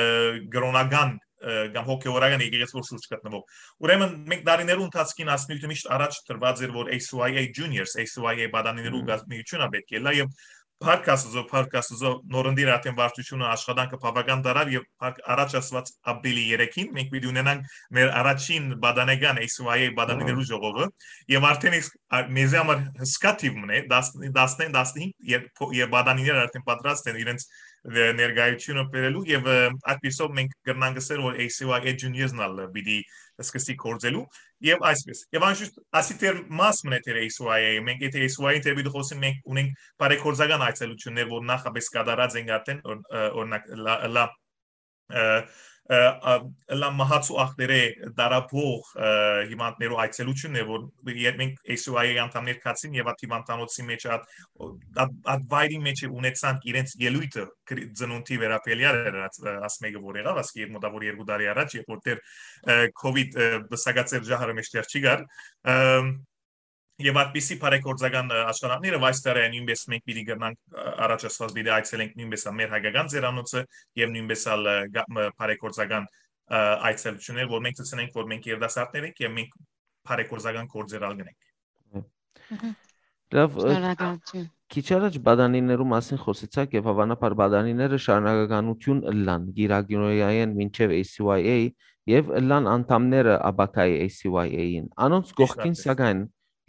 կրօնական, ը, կամ հոգեորական եկեղեցի որ շուրջ գտնվող։ Ուրեմն մենք դարիներու ընթացքին այս նիւթը միշտ առաջ դրուած էր, որ A C Y A Juniors, A C Y A պատանիներու Մհմ։ գազմիությունը պէտք է լա եւ Փառք Աստուծո, փառք Աստուծո, նորընտիր արդեն վարչությունը աշխատանքը բաւական դարաւ եւ փառք առաջ ասված ապրիլի երեքին մենք պիտի ունենանք մեր առաջին պատանեկան A C Y A պատանիներու Ահա։ ժողովը եւ արդեն իսկ ա-, մեզի համար հսկա թիվ մնե, տասնհինգ, տասնհինգ, երբ փո-, երբ պատանիները արդեն պատրաստ են իրենց, ը, ներկայությունը բերելու եւ, ը, այդպիսով մենք կրնանք ասել, որ A C Y A Juniors-ն ալ պիտի սկսի գործելու եւ այսպես։ Եւ անշուշտ ասի դեռ մաս մնե դեռ A C Y A, մենք եթե A C Y A-ին դեռ պիտի խոսենք, մենք ունենք բարեգործական այցելություններ, որ նախապես կատարած ենք արդեն, օր-, ը, օրինակ, լա, լա, ը, ը, ա, լա մահացու ախտերէ դարապող, ը, հիվանդներու այցելությունն է, որ երբ մենք A C Y A անդամներ գացին եւ այդ հիվանդանոցի մեջ, այդ, այդ, այդ վայրի մեջ ունեցանք իրենց ելույթը կրի-, ծնունդի վերաբերյալ էր, աս, ը, աս մեկը որ եղավ, ասկի երբ մոտավոր երկու տարի առաջ, երբ որ դեռ, ը, COVID, ը, բսակաց էր ժահրը մեջտեղ չի գար, ը, եւ այդպիսի բարեգործական, ը, աշխատանքները այս տարի նույնպես մենք պիտի կրնանք, ը, առաջ ասված պիտի այցելենք նույնպես ալ մեր հայկական ձերանոցը եւ նույնպես ալ, ը, գա-, մը, բարեգործական, ը, այցելություններ, որ մենք ցցնենք, որ մենք երիտասարդներ ենք եւ մենք բարեգործական գործեր ալ գնենք։ Մհմ։ Լավ, ը, Շնորհակալություն։ քիչ առաջ պատանիներու մասին խոսեցաք եւ հավանաբար պատանիները շարունակականություն ըլլան գիրագնորիայեն մինչեւ A C Y A եւ ըլլան անդամները ապագայի A C Y A-ին։ Անոնց Ճիշդ կողքին, արդեն։ սակայն,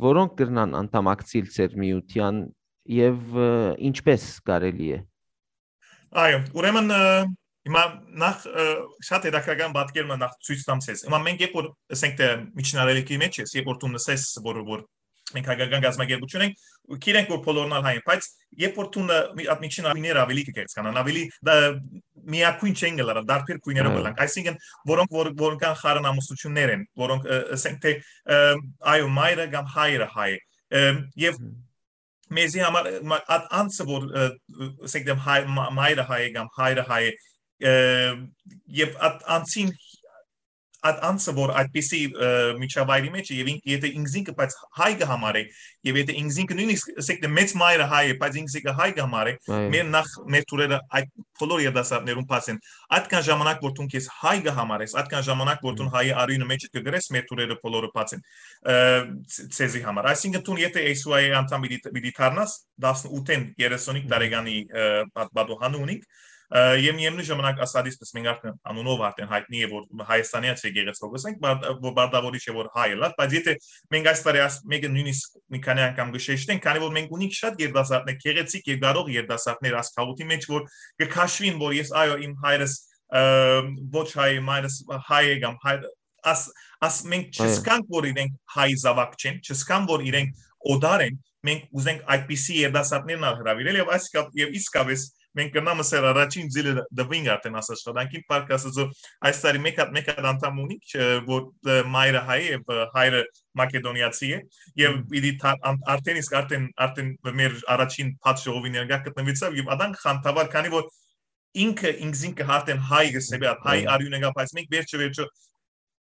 որոնք կրնան անդամակցիլ ձեր միութեան եւ, ը, ինչպես կարելի է։ Այո, ուրեմն, ը, հիմա նախ, ը, շատ հետաքրքրական պատկեր մը նախ ցոյց տամ ցեզ։ Հիմա մենք երբ որ, ասենք, թե միջնարելիքի մեջ ես, երբ որ դու նսես, որ, որ մենք հայկական գազམ་ակերպություն ենք, գիտենք, որ բոլորն ալ հայ են, բայց երբ որ դու ն-, մի-, այդ միջին գույները ավելի կկեղծկանան, ավելի դա միակույն չեն գլարան, դարբեր գույներով Այո։ կլանք, այսինքն որոնք որ, որ կան խառն ամուսնություններ են, որոնք, ը, ասենք, թե, ը, այո, մայրը կամ հայրը հայ է, ը, եւ Մհմ։ մեզի համար, մա-, այդ անձը, որ, ը, ասենք, դեմ հայ, մա-, մայրը հայ է կամ հայրը հայ է, ը, եւ այդ անձին, այդ անձը, որ այդպիսի, ը, միջավայրի մեջ է, եւ ինք, եթե ինքզինքը, բայց հայ կը համարե, եւ եթե ինքզինքը նույնիսկ, ասենք, դե մեծ մայրը հայ է, բայց ինքզինքը հայ կը համարե, Այո։ մեր նախ, մեր թուրերը այդ բոլոր երիտասարդներուն բաց են։ Այդքան ժամանակ, որ դուն քեզ հայ կը համարես, այդքան ժամանակ, որ դուն Մհմ։ հայի արիունը մեջ կը գրես, մեր թուրերը բոլորը բաց են, ը, ց-, ցեզի համար։ Այսինքն, դուն եթե A C Y A անդամ պիտի, պիտի դառնաս, տասնութ երեսունհինգ Մհմ։ տարեկանի, ը, պատ-, պատուհանը ունինք, ը, եւ միևնույն ժամանակ ասածս, մենք արդեն անունով արդեն հայտնի է, որ Հայաստանեաց եկեղեցի կը ասենք, բար-, որ Բարդավորիչ է, որ հայ ըլլար, բայց եթե մենք այս տարի աս-, մեկը նույնիսկ մի քանի անգամ կը շեշտենք, քանի որ մենք ունենք շատ երիտասարդներ, գեղեցիկ եւ կարող երիտասարդներ այս քաղուտի մեջ, որ կը քաշվին, որ ես, այո, իմ հայրս, ը, ոչ հայ, մայրս հայ է կամ հայ, աս-, աս-, մենք Այո։ չսկանք, որ իրենք հայ զավակ չեն, չսկան, որ իրենք օտար են, մենք ուզենք այդպիսի երիտասարդներն ալ հրավիրել եւ այս կապ-, եւ իսկապես մենք կնամ ասել առաջին ձիլը դվինք արդեն աս աշխատանքին, փառք Աստծո, այս տարի մեկ հատ, մեկ հատ անդամ ունենք, ը, որ, ը, մայրը հայ է եւ, ը, հայրը մակեդոնիացի է, եւ Մհմ։ պիտի թա-, ան-, արդեն իսկ արդեն, արդեն մեր առաջին բաց ժողովի ներկայ գտնվեցաւ եւ ադան խանդավառ, քանի որ ինքը ինքզինքը արդեն հայ գսեբի, այդ հայ Այո։ արիունը կա, բայց մենք վերջը վերջը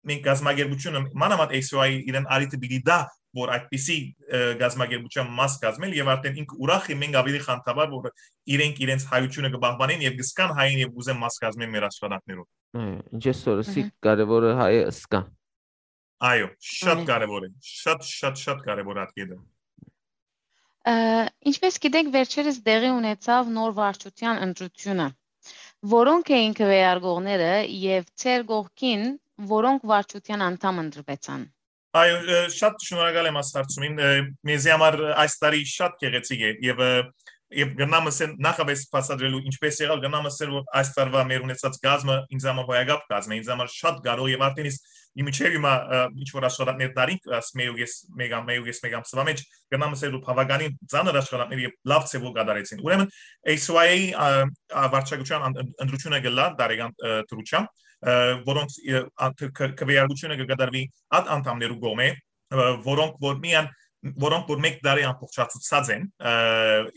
մենք գազམ་ակերպությունը, մանավանդ A C Y A իրեն արիթը պիտի դա, որ այդպիսի, ը, գազམ་ակերպության մաս կազմել եւ արդեն ինքը ուրախ է, մենք ավելի խանդավառ, որ իրենք իրենց հայությունը կպահպանեն եւ կսկան հային եւ կուզեն մաս կազմեն մեր աշխատանքներով։ Այո, ինչ ես որ Մհմ։ սիկ կարևորը հայը սկա։ Այո, շատ Այո։ կարևոր է, շատ, շատ, շատ կարևոր է այդ կետը։ Ը, ինչպես գիտեք, վերջերս տեղի ունեցավ նոր վարչության ընտրությունը։ Որոնք էին քվեարկողները եւ ձեր կողքին որոնք վարչության անդամ ընտրվեցան։ Այո, ը, շատ շնորհակալ եմ այս հարցումին։ Ը, մեզի համար, ը, այս տարի շատ գեղեցիկ է եւ, ը, եւ կրնամ ասել, նախապես բացատրելու ինչպես եղավ, կրնամ ասել, որ այս տարվա մեր ունեցած կազմը ինձ համար հոյակապ կազմ է, ինձ համար շատ կարող եւ արդեն իսկ ի միջև հիմա, ը, ինչ որ աշխատանքներ տարինք, աս մեկ ու կես, մեկ ամ-, մեկ ու կես, մեկ ամսվա մեջ, կրնամ ասել, որ բավականին ծանր աշխատանքներ եւ լավ ձեւով կատարեցին։ Ուրեմն A C Y A-ի, ա, ա, վարչակցության ան-, ըն-, ընտրությունը կլա տարեկան, ը, դրությամբ, ը, որոնց, ը, ա, ք-, ք-, քվեարկությունը կկատարվի այդ անդամներու կողմէ, ը, որոնք որ միան, որոնք որ մեկ տարի ամբողջացուցած են, ը,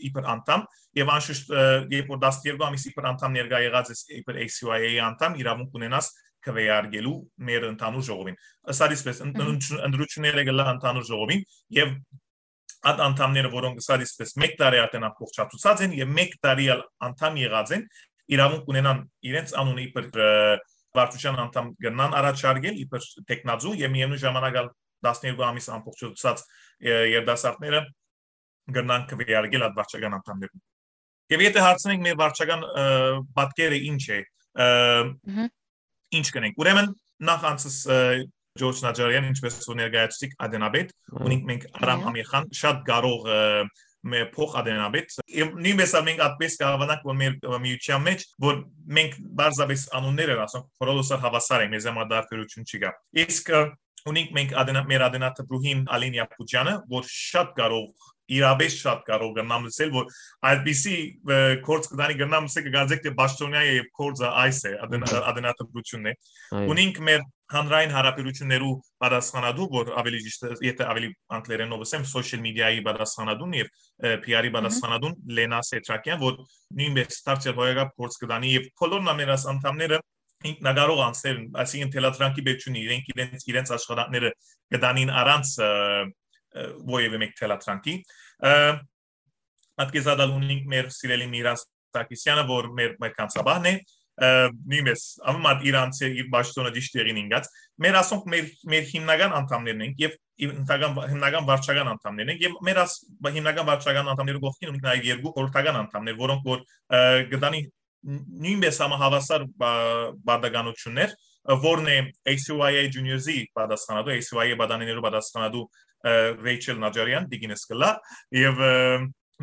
իբր անդամ, եւ անշուշտ, ը, երբ որ տասներկու ամիս իբր անդամ ներկայ եղած ես, իբր A C Y A-ի անդամ, իրավունք ունենաս քվեարկելու մեր ընդհանուր ժողովին։ Ըսած այսպես, ըն-, Մհմ։ ըն-, ընտրությունները կ'ըլլան ընդհանուր ժողովին եւ այդ անդամները, որոնք ըսած այսպես մեկ տարի արդեն ամբողջացուցած են եւ մեկ տարի ալ անդամ եղած են, իրաւունք ունենան իրենց անունը իբր, ը, վարչության անդամ կրնան առաջարկել իբր տեխնաձու եւ միեւնույն ժամանակ ալ տասներկու ամիս ամբողջացուցած, ը, երիտասարդները կրնան քվեարկել այդ վարչական անդամներուն։ Եւ եթե հարցնենք մեր վարչական, ը, պատկերը ինչ է, ը, Մհմ։ ինչ կնենք։ Ուրեմն նախ անցս, ը, Ջորջ Նաջարեան, ինչպես որ ներկայացուցիք ադենաբեդ, Այո։ ունենք մենք Արամ Այո։ Ամիրխան, շատ կարող, ը, մե-, փոխ ադենաբեդ։ Եւ նույնպես ալ մենք այդպես կհավանանք, որ մեր միության մեջ, որ մենք պարզապես անուններ են ասենք, բոլորս ալ հավասար ենք, մեզ համար տարբերություն չի գա։ Իսկ, ը, ունենք մենք ադենա-, մեր ադենատպրուհին Ալին Յապուջյանը, որ շատ կարող, իրապես շատ կարող կրնամ լսել, որ այդպիսի, ը, գործ կտանի կրնամ լսել, կգարձեք, թե պաշտոնյա է եւ գործը այս է, ադենա-, Մհմ։ ադենատպրությունն է։ Այո։ Ունենք մեր հանրային հարաբերություններու պատասխանատու, որ ավելի ճիշտ է, եթե ավելի անգլերենով ասեմ, social media-ի պատասխանատուն եւ, ը, P R-ի Մհմ։ պատասխանատուն Լենա Սեդրակյան, որ նույնպես դարձյալ հոյակապ գործ կտանի եւ բոլոր նամերաս անդամները ինքնակարող անձներ են, այսինքն թելադրանքի պետք չունի, իրենք իրենց, իրենց աշխատանքները կտանին առանց, ը, ը, որևէ մեկ թելադրանքի։ Ը, Ատկեզադալ ունենք մեր սիրելի Միրան Սարգսյանը, որ մեր, մեր կանցաբահն է, ը, նույնպես, ամեն մարդ իր անձը, իր պաշտոնը ճիշտ տեղին ինգած։ Մեր, ասոնք, մեր, մեր հիմնական անդամներն ենք եւ հիմնական, հիմնական վարչական անդամներն ենք եւ մեր աս-, հիմնական վարչական անդամներու կողքին ունենք նաեւ երկու խորհրդական անդամներ, որոնք որ, ը, կտանի նույնպես համահավասար բա-, բարդականություններ, ը, որն է A C Y A Juniors-ի պատասխանատու, A C Y A պատանիներու պատասխանատու, ը, Ռեյչել Նաջարեան, Տիգինս կլա, եւ, ը,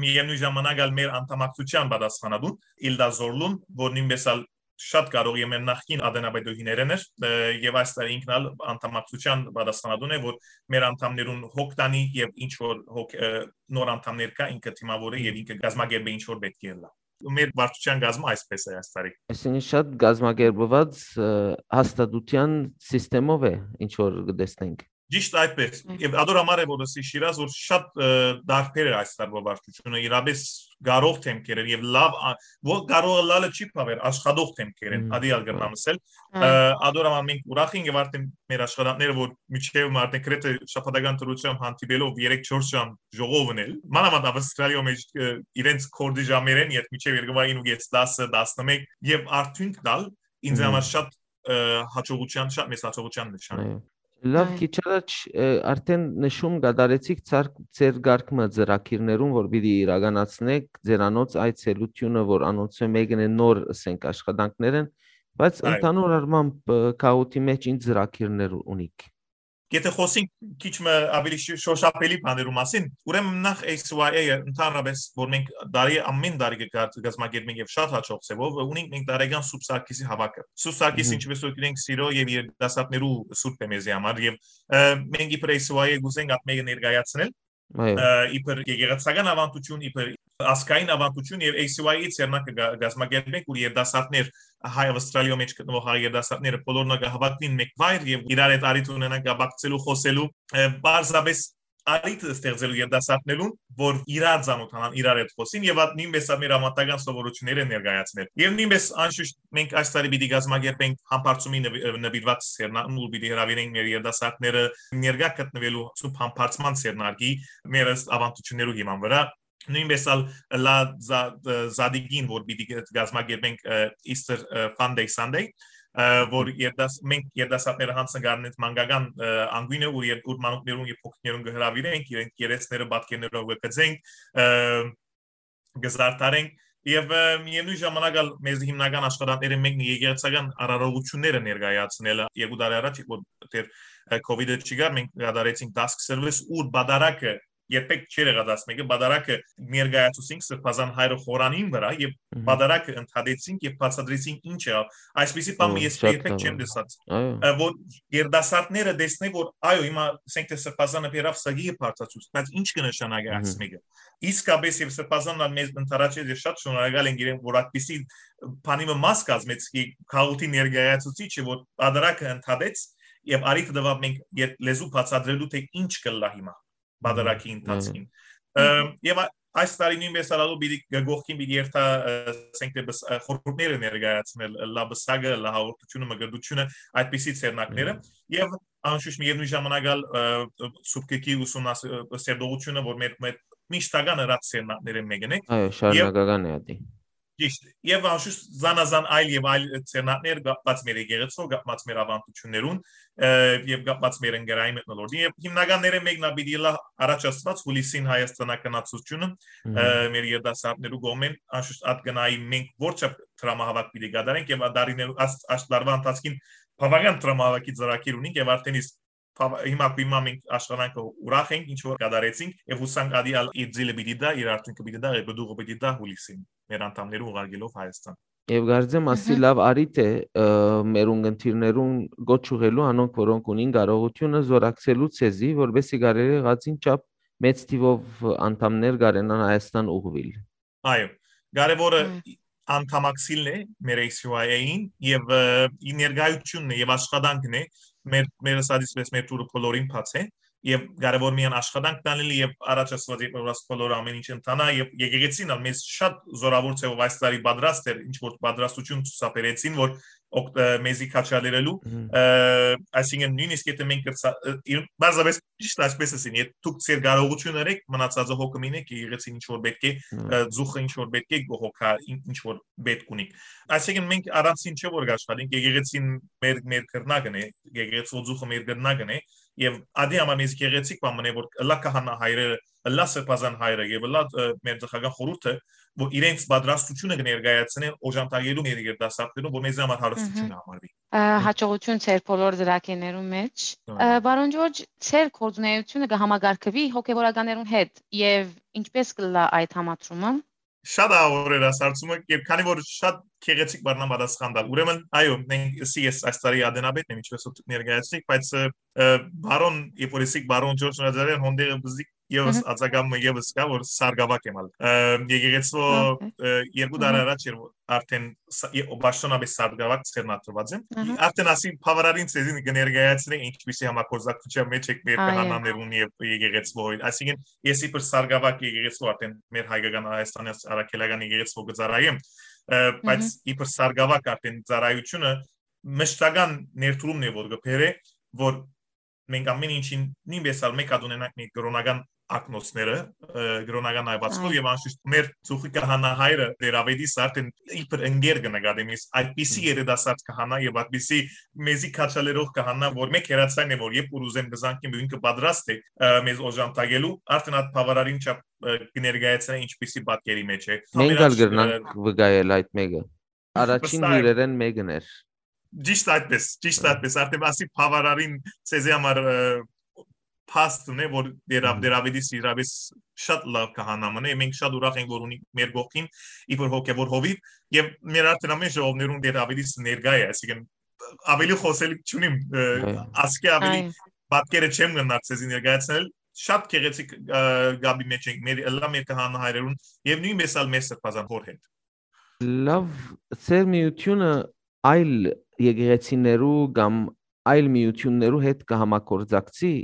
միևնույն ժամանակ ալ մեր անդամակցության պատասխանատուն Իլդա Զորլուն, որ նույնպես ալ շատ կարող է մեր նախկին ադենաբեդուհիներն էր, ը, եւ այս տարի ինքն ալ անդամակցության պատասխանատուն է, որ մեր անդամներուն հոգ տանի եւ ինչ որ հոգ, ը, նոր անդամներ կա, ինքը դիմավորի եւ ինքը կազմակերպի ինչ որ պետք է ըլլա։ Մեր վարչության կազմը այսպես է այս տարի։ Այսինքն շատ կազմակերպված, ը, հաստատության սիստեմով է, ինչ որ կտեսնենք։ Ճիշտ այդպես։ Այո։ Եւ ադոր համար է, որ ասի Շիրազ, որ շատ, ը, դարբեր էր այս տարվա վարչությունը, իրապես կարող դեմքեր էր եւ լավ, ա-, որ կարող ըլլալը չի բաւեր, աշխատող դեմքեր են, Մհմ։ ադի ալ կրնամ ասել։ Այո։ Ը, ադոր համար մենք ուրախ ենք եւ արդեն մեր աշխատանքները, որ միջեւ արդեն գրեթե շաբաթական դրությամբ հանդիպելով երեք չորս ժամ ժողովն էլ, մանավանդ Ավստրալիոյ մեջ, ը, իրենց կորդի ժամերեն երբ միջեւ երկու ու կես, դասը, տասնմեկ, եւ արդյունք տալ ինձ Մհմ։ համար շատ, ը, հաջողության, շատ մեծ հաջողության նշան է։ Այո։ Լավ, Այո։ քիչ առաջ, ը, արդեն նշում կատարեցիք ցար-, ձեր կարգ մը ծրագիրներուն, որ պիտի իրականացնեք, ձերանոց այցելությունը, որ անոնցը մեկն է նոր, ասենք, աշխատանքներ են, բայց Այո։ ընդհանուր առմամբ, ը, գաղութի մեջ ինչ ծրագիրներ ունիք։ Եթե խոսենք քիչ մը ավելի շ-, շոշափելի բաներու մասին, ուրեմն նախ A C Y A-ը ընդհանրապես, որ մենք տարի, ամեն տարի կկա-, կազմակերպենք եւ շատ հաջող ձևով, ունենք մենք տարեկան Սուրբ Սարգիսի հավաքը։ Սուրբ Սարգիսը, Մհմ։ ինչպես որ գիտենք, սիրո եւ երիտասարդներու սուրբ է մեզի համար, եւ, ը, մենք իբր A C Y A կուզենք այդ մեկը ներկայացնել, Այո։ ը, իբր եկեղեցական ավանդություն, իբր ազգային ավանդություն, եւ A C Y A-ի ձեռնարկը կա-, կազմակերպենք, որ երիտասարդներ, հայ Ավստրալիոյ մեջ գտնվող հայ երիտասարդները բոլորն կհավաքվին մեկ վայր եւ իրար հետ առիթ ունենան կապակցելու, խոսելու, ը, պարզապես առիթ ստեղծելու երիտասարդներուն, որ իրար ծանոթանան, իրար հետ խոսին, եւ այդ նույնպես ա մեր ավանդական սովորությունները ներկայացնել։ Եւ նույնպես, անշուշտ, մենք այս տարի պիտի կազմակերպենք համբարձումի նվի-, նվիրված սերնան, ուր պիտի հրավիրենք մեր երիտասարդները ներկայ գտնվելու Սուրբ Համբարձման սերնարկի մեր ըստ ավանդություններու հիման վրա։ Նույնպես ալ Լա Զա-, Զադիգին, որ պիտի կազմակերպենք, ը, Easter, ը, Fun Day Sunday, ը, որ երդաս-, մենք երդասարդները յանձն կ'առնենք մանկական, ը, անգույնը, ուր եր-, ուր մանուկներուն եւ փոքրիկներուն կհրավիրենք, իրենք երեսները պատկերներով կգծենք, ը, կզարդարենք, եւ, ը, միևնույն ժամանակ ալ մեզ հիմնական աշխատանքները մեկն է եկեղեցական արարողությունները ներկայացնելը։ Երկու տարի առաջ, որ դեռ, ը, COVID-ը չկար, մենք կատարեցինք task service, ուր պատարագը երբեք չէր եղած, ասմեկը պատարագը ներկայացուցինք Սրբազան հայրը խորանին վրա եւ Մհմ։ պատարագը ընդհատեցինք եւ բացատրեցինք ինչ եղավ։ Այսպիսի բան Ո, ես շատ երբեք չեմ լավ։ Տեսած, Այո։ ը, որ երդասարտները տեսնեն, որ այո, հիմա ասենք թե Սրբազանը բերավ սագի եւ բարձացուց, բայց ինչ կնշանակի Մհմ։ այս մեկը։ Իսկապես, եւ Սրբազանն ալ մեզ ընդառաջեց եւ շատ շնորհակալ ենք իրեն, որ այդպիսի բանի մը մաս կազմեց, ի քաղաքի ներկայացուցիչը, որ պատարագը ընդհատեց եւ արիթը տվավ մենք երբ լեզու բացատրելու, թե ինչ կլա հիմա պատարագի Մհմ, ընթացքին։ այո։ Ըմ, եւ ա-, այս տարի նոյնպէս ալ ալու պիտի, կողքին պիտի երթայ, ը, ասենք թէ բս-, ը, խորհուրդները ներկայացնել, լա բսակը, լա հաղորդութիւնը, մկրտութիւնը, այդպիսի ձեռնարկները։ Մհմ։ Եւ անշուշտ միեւնոյն ժամանակ ալ, ը, սուբկեքի ուսումնաս-, ը, սերտողութիւնը, որ մեր, մեր միշտական ըրած ձեռնարկները մեկն է։ Այո, Եւ շարունակական է ատի։ Ճիշտ։ Եւ անշուշտ զանազան այլ եւ այլ ձեռնարկներ կապված մեր եկեղեցով, կապված մեր ավանդութիւններուն, ը, եւ կապված մեր ընկերային մթնոլորտին։ Եւ հիմնականները մեկն ալ պիտի ըլլայ առաջ ասված հուլիսին հայաստանականացությունը, ը, Մհմ։ մեր երիտասարդներու կողմէն անշուշտ ատ գնայի մենք որչափ դրամահավաք պիտի կատարենք եւ ադարիներու աս-, աշտարվա ընթացքին բավական դրամահավաքի ծրագիր ունենք եւ արդեն իսկ բավա-, հիմա կու հիմա մենք աշխատանքը ուրախ ենք, ինչ որ կատարեցինք եւ հուսանք ադի ալ իր ձիլը պիտի դա, իր արդյունքը պիտի դա, եւ պտուղը պիտի դա հուլիսին մեր անդամներու ուղարկելով Հայաստան։ Եվ կարծեմ ասի Մհմ։ լավ առիթ է, ը, մեր ունգընտիրներուն գոչ ուղղելու անոնք, որոնք ունին կարողությունը զորակցելու ցեզի, որպեսզի կարելի եղածին չափ մեծ թիվով անդամներ կարենան Հայաստան ուղղուիլ։ Այո, կարևորը Մհմ։ անդամակցիլն է մեր A C Y A-ին եւ, ը, ի ներկայությունն է եւ աշխատանքն է մեր, մեր ասած պես մեր թուրը բոլորին բաց է եւ կարևոր միայն աշխատանք տանել եւ առաջ ասված երբ որ բոլորը ամեն ինչ ընթանայ եւ եկեղեցին ալ մեզ շատ զորավոր ձեւով այս տարի պատրաստ էր, ինչ որ պատրաստություն ցուցաբերեցին, որ օգ-, ը, մեզի քաչալերելու, Մհմ։ ը, այսինքն նույնիսկ եթե մենք կրցա-, ը, իր-, պարզապես ճիշտ այսպես ասին, եթե դուք ձեր կարողությունը ըրեք, մնացածը հոգը մինեք, եկեղեցին ինչ որ պէտք է, Մհմ։ ը, ծուխը ինչ որ պէտք է, հոգա ին-, ինչ որ պէտք ունի։ Այսինքն մենք առանցին չէ որ կաշխատենք, եկեղեցին մեր, մեր կրնակն է, եկեղեցու ծուխը մեր կրնակն է, եւ ադի համար մեզ գեղեցիկ բան մնե, որ ըլլայ քահանա հայրերը, ըլլայ սրբազան հայրը եւ ըլլայ, ը, մեր ծխական խորհուրդը, որ իրենց պատրաստությունը կներկայացնեն օժանդակելու մեր երիտասարդներուն, որ մեզի համար հարստություն Մհմ։ համարվի։ Ը, հաջողություն ձեր բոլոր ծրագիրներուն մեջ։ Ա։ Ը, պարոն Ջորջ, ձեր գործունեությունը կը համակարգվի հոգեվորականներուն հետ եւ ինչպես կ'ըլլայ այդ համադրումը։ Շատ աղաւոր էր այս հարցումը, եւ քանի որ շատ գեղեցիկ բառնան պատասխան տալ։ Ուրեմն, այո, մենք, սի ես այս տարի ադենապետն եմ, ինչպես որ դուք ներկայացնիք, բայց, ը, ը, պարոն, երբ որ եսիք պարոն Ջորջ Նազարեան, հոնդերը բզիկ եւս Մհմ։ ածակամը եւս կա, որ սարգավակ եմ ալ։ Ը, եկեղեցու, Օքեյ։ ը, երկու տարի Մհմ։ առաջ էր, որ արդեն ս-, ե-, պաշտոնապես սարգավակ ձեռնադրված եմ։ Ահա։ Արդեն ասի բավարարին ցեզին կներկայացնենք ինչպիսի համագործակցության մեջ եք մեր Այո։ քահանաներուն եւ եկեղեցու հետ։ Այսինքն, ես իբր սարգավակ եկեղեցու արդեն մեր հայկական Հայաստանի առաքելական եկեղեցու կը ծառայեմ, ը, բայց Մհմ։ իբր սարգավակ արդեն ծառայությունը մշտական ներդրումն է, որ կը բերէ, որ մենք ամեն ինչին նույնպես ալ մեկ հատ ունենանք մեր կրոնական ակնոցները, ը, կրոնական այվածքով Այո։ եւ անշուշտ մեր ծուխի քահանա հայրը Տեր Ավետիս արդեն իբր ընկեր կը նկատեմ ես, այդպիսի Մհմ։ երիտասարդ քահանա եւ այդպիսի մեզի քաչալերող քահանա, որ մեկ հերացան է, որ երբ որ ուզեմ կզանգեմ, ինքը պատրաստ է, ը, մեզ օժանդակելու, արդեն այդ բավարարին չափ, ը, կներկայացնե ինչպիսի պատկերի մեջ է։ Մենք ալ Համերաչ, ը, կրնանք վկայել այդ մեկը։ Առաջին Վստահ եմ։ հյուրերեն մեկն էր։ Ճիշտ այդպես, ճիշտ Ա։ այդպես, արդեն ասի բավարարին ցեզի համար, ը, փաստն է, որ Դեր Ա։ Դեր Ավետիս իրապես շատ լավ քահանա մնե, մենք շատ ուրախ ենք, որ ունի մեր կողքին իբր հոգեվոր հովիվ, եւ մեր արդեն ամեն ժողովներուն Դեր Ավետիս ներկայ է, այսինքն ավելի խոսելիք չունիմ, ը, Այո։ ասկի ավելի Այո։ պատկերը չեմ գնար ցեզի ներկայացնել, շատ գեղեցիկ, ը, գաբի մեջ ենք, մեր, ըլլայ մեր քահանա հայրերուն, եւ նույնպես ալ մեր սրբազան հոր հետ։ Լավ, ձեր միությունը այլ եկեղեցիներու կամ այլ միություններու հետ կը համագործակցի,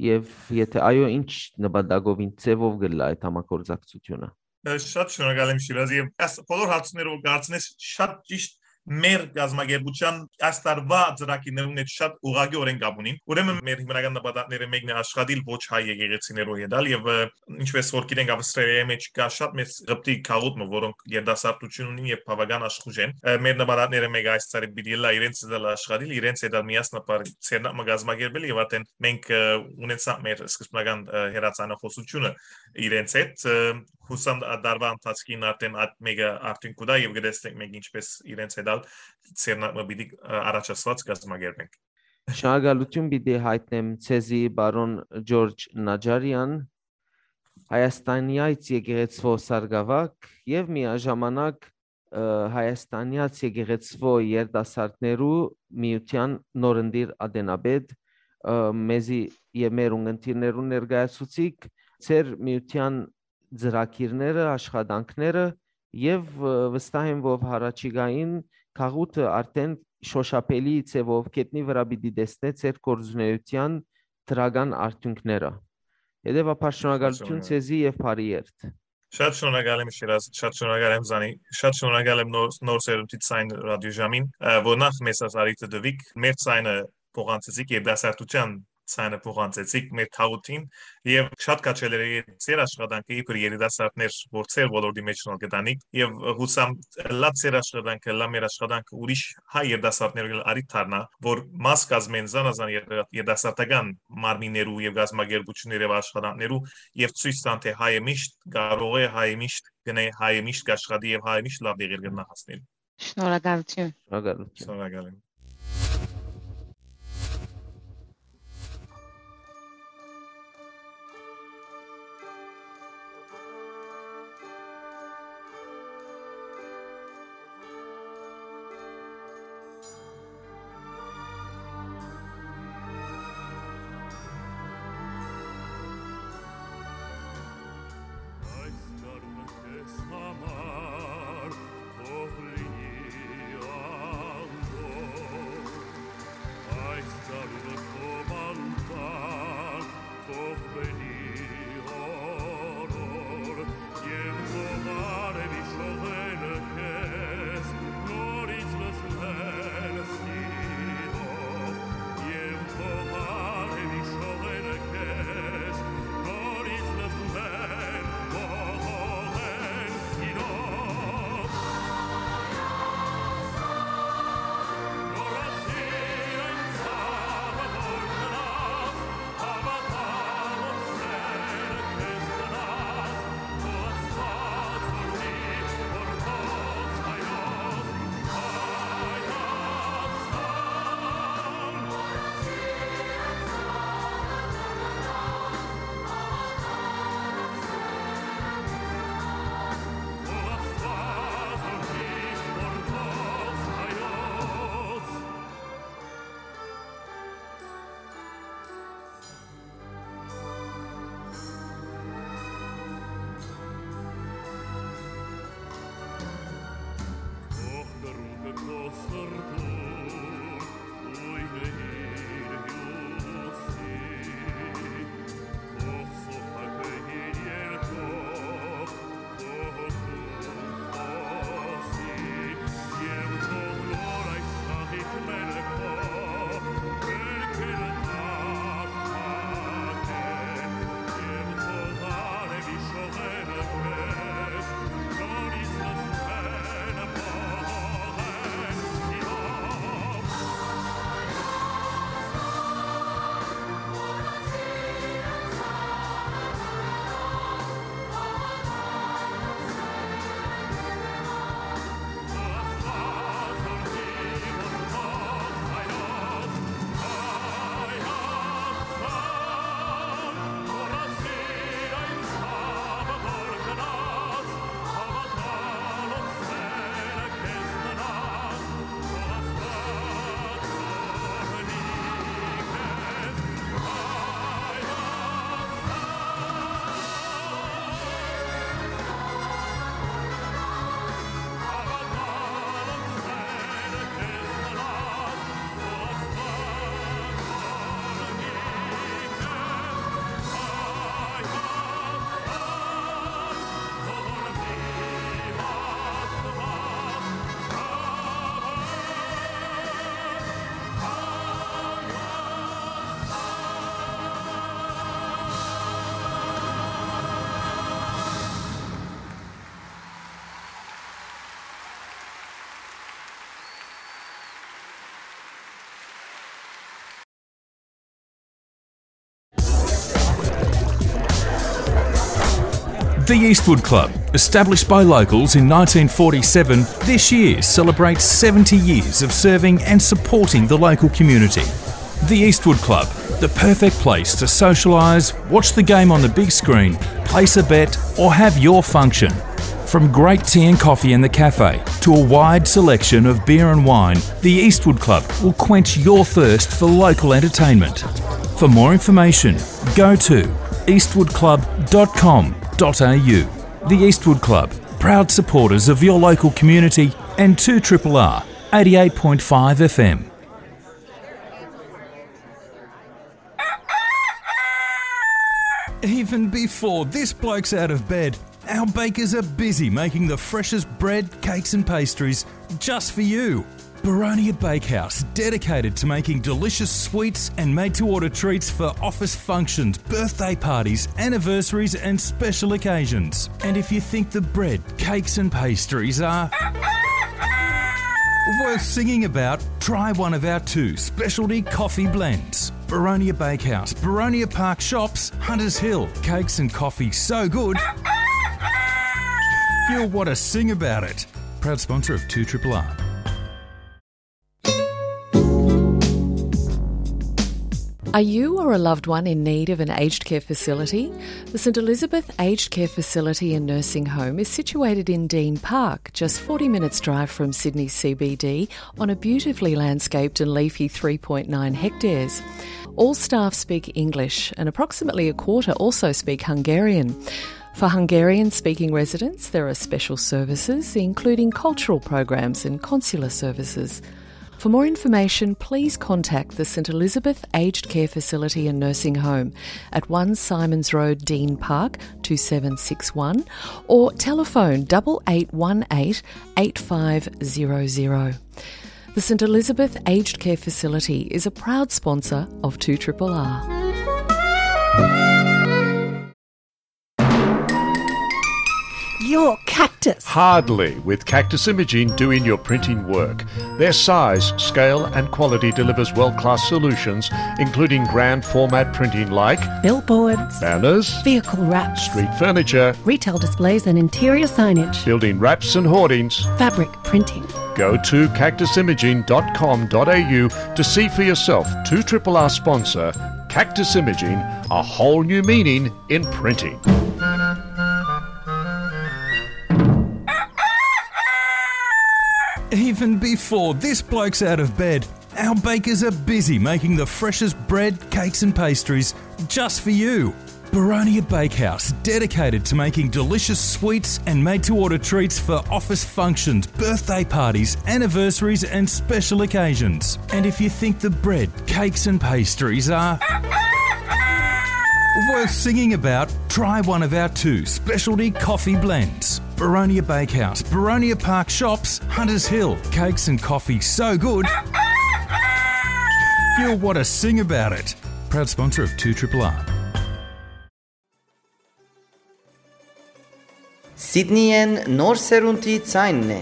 եւ եթե այո, ինչ նպատակով, ինչ ձևով կ'ըլլայ այդ համագործակցությունը։ Ը, շատ շնորհակալ եմ, Շիրազ, եւ այս բոլոր հարցումները, որ կարծես շատ ճիշտ մեր կազմակերպության այս տարվա ծրագիրներուն հետ շատ ուղղակիորեն կապ ունին։ Ուրեմն մեր հիմնական նպատակները մեկն է աշխատիլ ոչ հայ եկեղեցիներու հետ ալ, եւ, ը, ինչպես որ գիտենք, Ավստրալիայի մեջ կա շատ մեծ Ղպտի գաղութ մը, որոնք երիտասարդություն ունին եւ բավական աշխուժ են։ Ը, մեր նպատակները մեկը այս տարի պիտի ըլլայ իրենց հետ ալ աշխատիլ, իրենց հետ ալ միասնաբար ցերնակ մը կազմակերպել, եւ արդեն մենք, ը, ունեցանք մեր սկզբնական, ը, հեռացանախոսությունը իրենց հետ, ը, հուսամ ա-, դարվա ընթացքին արդեն այդ մեկը արդյունք կու տայ, եւ կտեսնենք մենք ինչպես իրենց հետ ալ ցերնակ մը պիտի, ը, առաջ ասված կազմակերպենք։ Շնորհակալություն պիտի հայտնեմ ցեզի, պարոն Ջորջ Նաջարեան, Հայաստանեայց եկեղեցվո սարգավակ եւ միաժամանակ, ը, Հայաստանեայց եկեղեցվո երիտասարդներու միության նորընտիր ատենապետ, ը, մեզի եւ մեր ունգընտիրներուն ներկայացուցիք, ձեր միության ծրագիրները, աշխատանքները, եւ, ը, վստահ եմ, որ հառաջիկային գաղութը արդեն շոշափելի ձևով գետնի վրայ պիտի տեսնէ ձեր գործունեության դրական արդյունքները։ Հետեւաբար շնորհակալություն Շնորհակալ։ Ձեզի եւ բարի երթ։ Շատ շնորհակալ եմ, Շիրազ, շատ շնորհակալ եմ, Զանի, շատ շնորհակալ եմ նոր, նոր սերունդի Ձայն ռադիոժամին, ը, որ նախ մեզ այս առիթը տուիք, մեր ձայնը փոխանցեցիք, երիտասարդության ձայնը փոխանցեցիք մեր թաղութին, եւ շատ քաջալեր է ձեր աշխատանքը իբր երիտասարդներ, որ ձեր ոլորտի մեջ նոր կտանիք, եւ հուսամ լա ձեր աշխատանքը, լա մեր աշխատանքը ուրիշ հայ երիտասարդներու առիթ դառնայ, որ մաս կազմեն զանազան երիտասարդական մարմիններու եւ գազམ-ակերպութիւններու եւ աշխատանքներու, եւ ցոյց տան, թէ հայը միշտ կարող է, հայը միշտ կնե, հայը միշտ կաշխատի եւ հայը միշտ լաւ տեղեր կրնայ հասնել։ Շնորհակալութիւն։ Շնորհակալութիւն։ Շնորհակալ եմ։ Այս գարունը քեզ համար թող լինի անդորր, այս գարունը քո բանտան թող բերի օրոր, եւ թող արեւի շողերը քեզ նորից լցնեն սիրով, եւ թող արեւի շողերը քեզ նորից լցնեն մողողեն սիրով։ Մոռացիր այն ցաւը, որ գնաց, հավատալով սերը քեզ տնաց, թող Աստուած օրհնի, որ քո հայոց Հայաստան։ The Eastwood Club, established by locals in nineteen forty-seven, this year celebrates seventy years of serving and supporting the local community. The Eastwood Club, the perfect place to socialise, watch the game on the big screen, place a bet, or have your function. From great tea and coffee in the cafe to a wide selection of beer and wine, the Eastwood Club will quench your thirst for local entertainment. For more information, go to eastwood club dot com dot a u. The Eastwood Club, proud supporters of your local community and two triple R, eighty-eight point five F M. Even before this bloke's out of bed, Our bakers are busy making the freshest bread, cakes, and pastries just for you. Baronia Bakehouse, dedicated to making delicious sweets and made to order treats for office functions, birthday parties, anniversaries, and special occasions. And if you think the bread, cakes, and pastries are worth singing about, try one of our two specialty coffee blends. Baronia Bakehouse, Baronia Park Shops, Hunters Hill. Cakes and coffee so good, you'll want to sing about it. Proud sponsor of two triple R. Are you or a loved one in need of an aged care facility? The St Elizabeth Aged Care Facility and Nursing Home is situated in Dean Park, just forty minutes' drive from Sydney C B D, on a beautifully landscaped and leafy three point nine hectares. All staff speak English, and approximately a quarter also speak Hungarian. For Hungarian speaking residents, there are special services, including cultural programs and consular services. For more information, please contact the St Elizabeth Aged Care Facility and Nursing Home at one Simons Road, Dean Park, two seven six one, or telephone double eight one eight eight five zero zero. The St Elizabeth Aged Care Facility is a proud sponsor of two triple R. Your cactus. Hardly, with Cactus Imaging doing your printing work. Their size, scale, and quality delivers world-class solutions, including grand format printing like billboards, banners, vehicle wraps, street furniture, retail displays and interior signage, building wraps and hoardings, fabric printing. Go to cactus imaging dot com dot a u to see for yourself two triple R sponsor Cactus Imaging, a whole new meaning in printing. Even before this bloke's out of bed, our bakers are busy making the freshest bread, cakes, and pastries just for you. Baronia Bakehouse, dedicated to making delicious sweets and made to order treats for office functions, birthday parties, anniversaries, and special occasions. And if you think the bread, cakes, and pastries are worth singing about, try one of our two specialty coffee blends. Baronia Bakehouse, Baronia Park Shops, Hunters Hill. Cakes and coffee so good, you'll want to sing about it. Proud sponsor of two triple R. Սիդնիեն նոր սերունդի ձայնն է։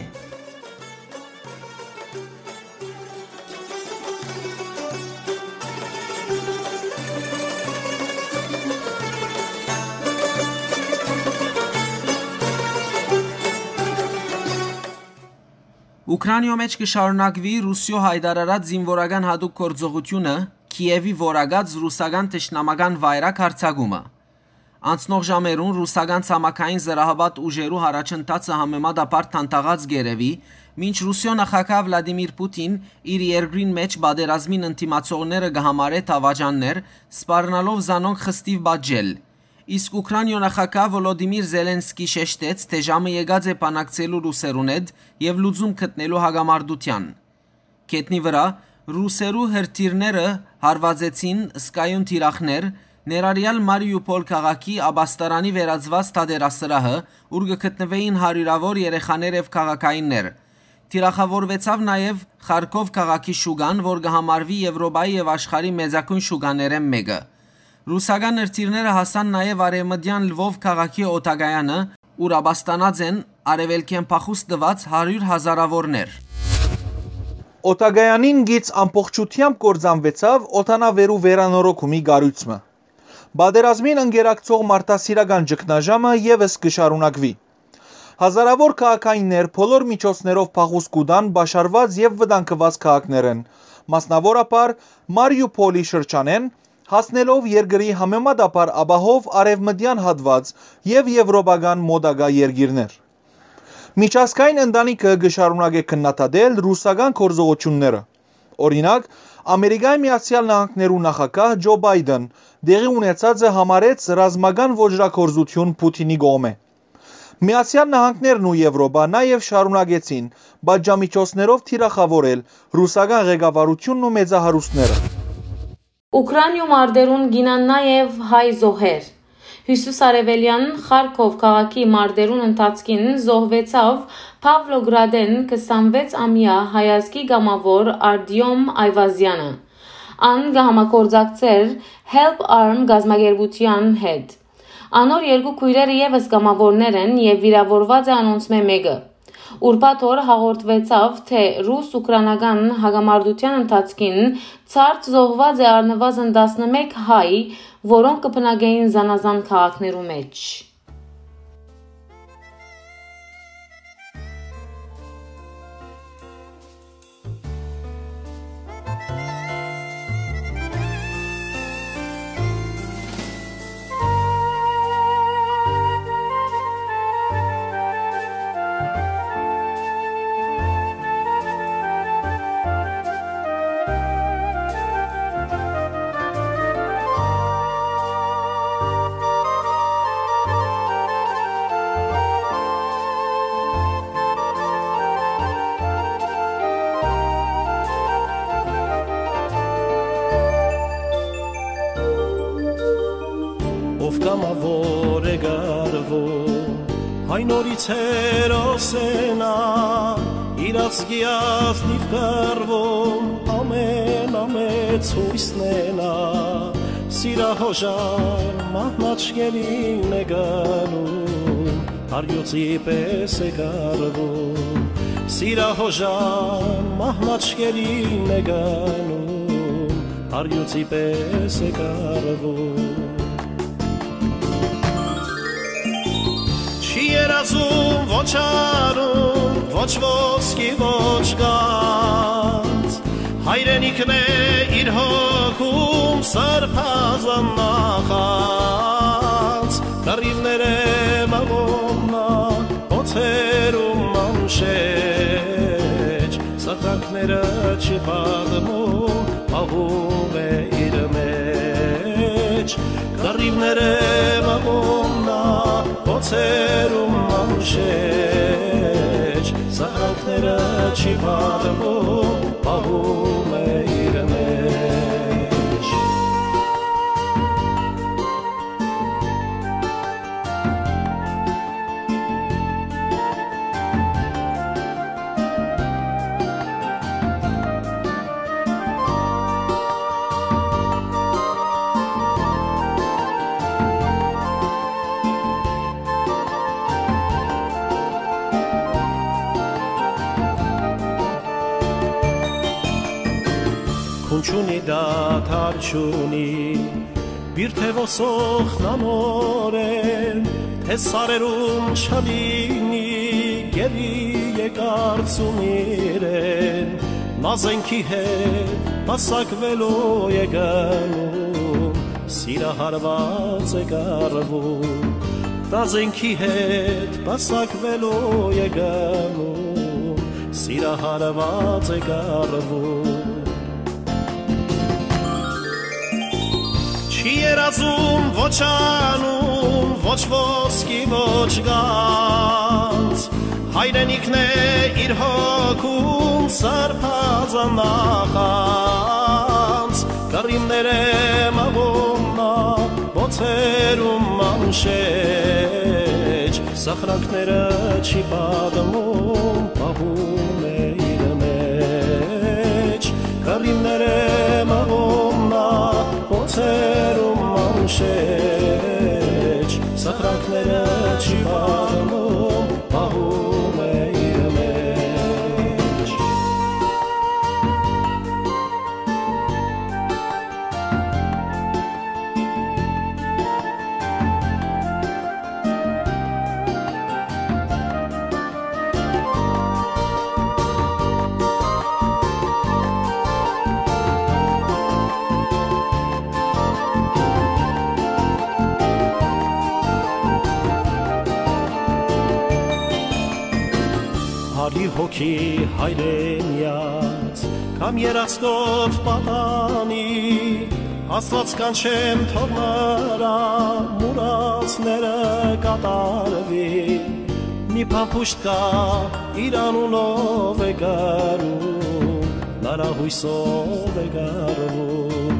Ուքրանիոյ մէջ կը շարունակուի Ռուսիոյ յայտարարած զինուորական յատուկ գործողութիւնը, Քիեւի որակած ռուսական թշնամական վայրագ յարձակումը։ Անցնող ժամերուն ռուսական ցամաքային զրահապատ ուժերու յառաջընթացը համեմատաբար դանդաղած կ'երեւի, մինչ Ռուսիոյ նախագահ Վլադիմիր Պուտին իր երկրին մէջ պատերազմին ընդդիմացողները կը համարէ դաւաճաններ, սպառնալով զանոնք խստիւ պատժել։ Իսկ Ուքրանիոյ նախագահ Վոլոդիմիր Զելենսկի շեշտեց, թէ ժամը եկած է բանակցելու ռուսերուն հետ եւ լուծում գտնելու հակամարտութեան։ Գետնի վրայ ռուսերու հրթիռները հարուածեցին զգայուն թիրախներ, ներառյալ Մարիուփոլ քաղաքի ապաստարանի վերածուած թատերասրահը, ուր կը գտնուէին հարիւրաւոր երեխաներ եւ քաղաքայիններ։ Թիրախաւորուեցաւ նաեւ Խարքով քաղաքի շուկան, որ կը համարուի Եվրոպայի եւ աշխարհի մեծագոյն շուկաներէն մէկը։ Ռուսական հրթիռները հասան նաեւ արեւմտեան Լվով քաղաքի օդակայանը, ուր ապաստանած են արեւելքէն փախուստ տուած հարիւր հազարաւորներ։ Օդակայանին գիծ ամբողջութեամբ կործանուեցաւ օդանաւերու վերանորոգումի կառոյցը։ Պատերազմին ընկերակցող մարդասիրական ճգնաժամը եւս կը շարունակուի։ Հազարաւոր քաղաքայիններ բոլոր միջոցներով փախուստ կու տան պաշարուած եւ վտանգուած քաղաքներէն, մասնաւորաբար Մարիուփոլի շրջանէն, հասնելով երկրի համեմատաբար ապահով արեւմտեան հատուած եւ եվրոպական մօտակայ երկիրներ։ Միջազգային ընտանիքը կը շարունակէ քննադատել ռուսական գործողութիւնները։ Օրինակ, Ամերիկայի Միացեալ Նահանգներու նախագահ Ջո Բայդեն տեղի ունեցածը համարեց ռազմական ոճրագործութիւն Պուտինի կողմէ։ Միացեալ Նահանգներն ու Եվրոպա նաեւ շարունակեցին պատժամիջոցներով թիրախաւորել ռուսական ղեկավարութիւնն ու մեծահարուստները։ Ուքրանիոյ մարտերուն կ'իյնան նաեւ հայ զոհեր։ Յիսուս Արեւելեան Խարքով քաղաքի մարտերուն ընթացքին զոհուեցաւ Պավլոգրադէն քսանվեց ամեայ հայազգի կամաւոր Արտիոմ Այվազեանը։ Ան կը համագործակցէր Help Arm կազմակերպութեան հետ։ Անոր երկու քոյրերը եւս կամաւորներ են եւ վիրաւորուած է անոնցմէ մէկը։ Ուրբաթ օր հաղորդուեցաւ, թէ ռուս-ուկրանական հակամարտութեան ընթացքին ցարդ զոհուած է առնուազն տասնմէկ հայ, որոնք կը բնակէին զանազան քաղաքներու մէջ։ Ով կամաւոր է կառվում, այն նորից հերոս է նա, իր ազգի ազնիւ կռվում, ամեն ամեծ յուսն է նա, սիրահոժար մահնաճկերին է գնում, առյուծի պէս է կառվում, սիրահոժար մահնաճկերին է գնում, առյուծի պէս է կառվում։ Չի երազում ոչ արուն, ոչ ոսկի, ոչ գանձ, հայրենիքն է իր հոգում սրբազան նախանձ, կռիւներ է մղում նա, օձերում անշեջ, սխրակները չի պատմում, պահում է իր մեջ, կռիւներ է մղում նա, օձերում անշեջ, սխրակները չի պատմում, պահում է իր մեջ։ Քուն չունի, դադար չունի, բիրդը ոսոխ նանորեն, թէ սարերուն չլինի, գերի եկարծում իրեն, նա զենքի հետ պասակվելու է գնում, սիրահարված է կառվում, նա զենքի հետ պասակվելու է գնում, սիրահարված է կառվում։ Չի երազում ոչ անուն, ոչ ոսկի, ոչ գանձ, հայրենիքն է իր հոգում սրբազան նախանձ, կռիւներ է մղում նա, օձերում անշեջ, սխրակները չի պատմում, պահում է իր մեջ, կռիւներ է մղում նա, օձերում անշեջ, սխրակները չի պատմում, պահում է իր մեջ։ Արի հոգի հայրենյաց, կամ երազքով պատանի, Աստուած կանչեմ, թող նրա մուրացները կատարուի, մի փամփուշտ կայ, իր անունով է կառում, նրա յուսով է կառվում,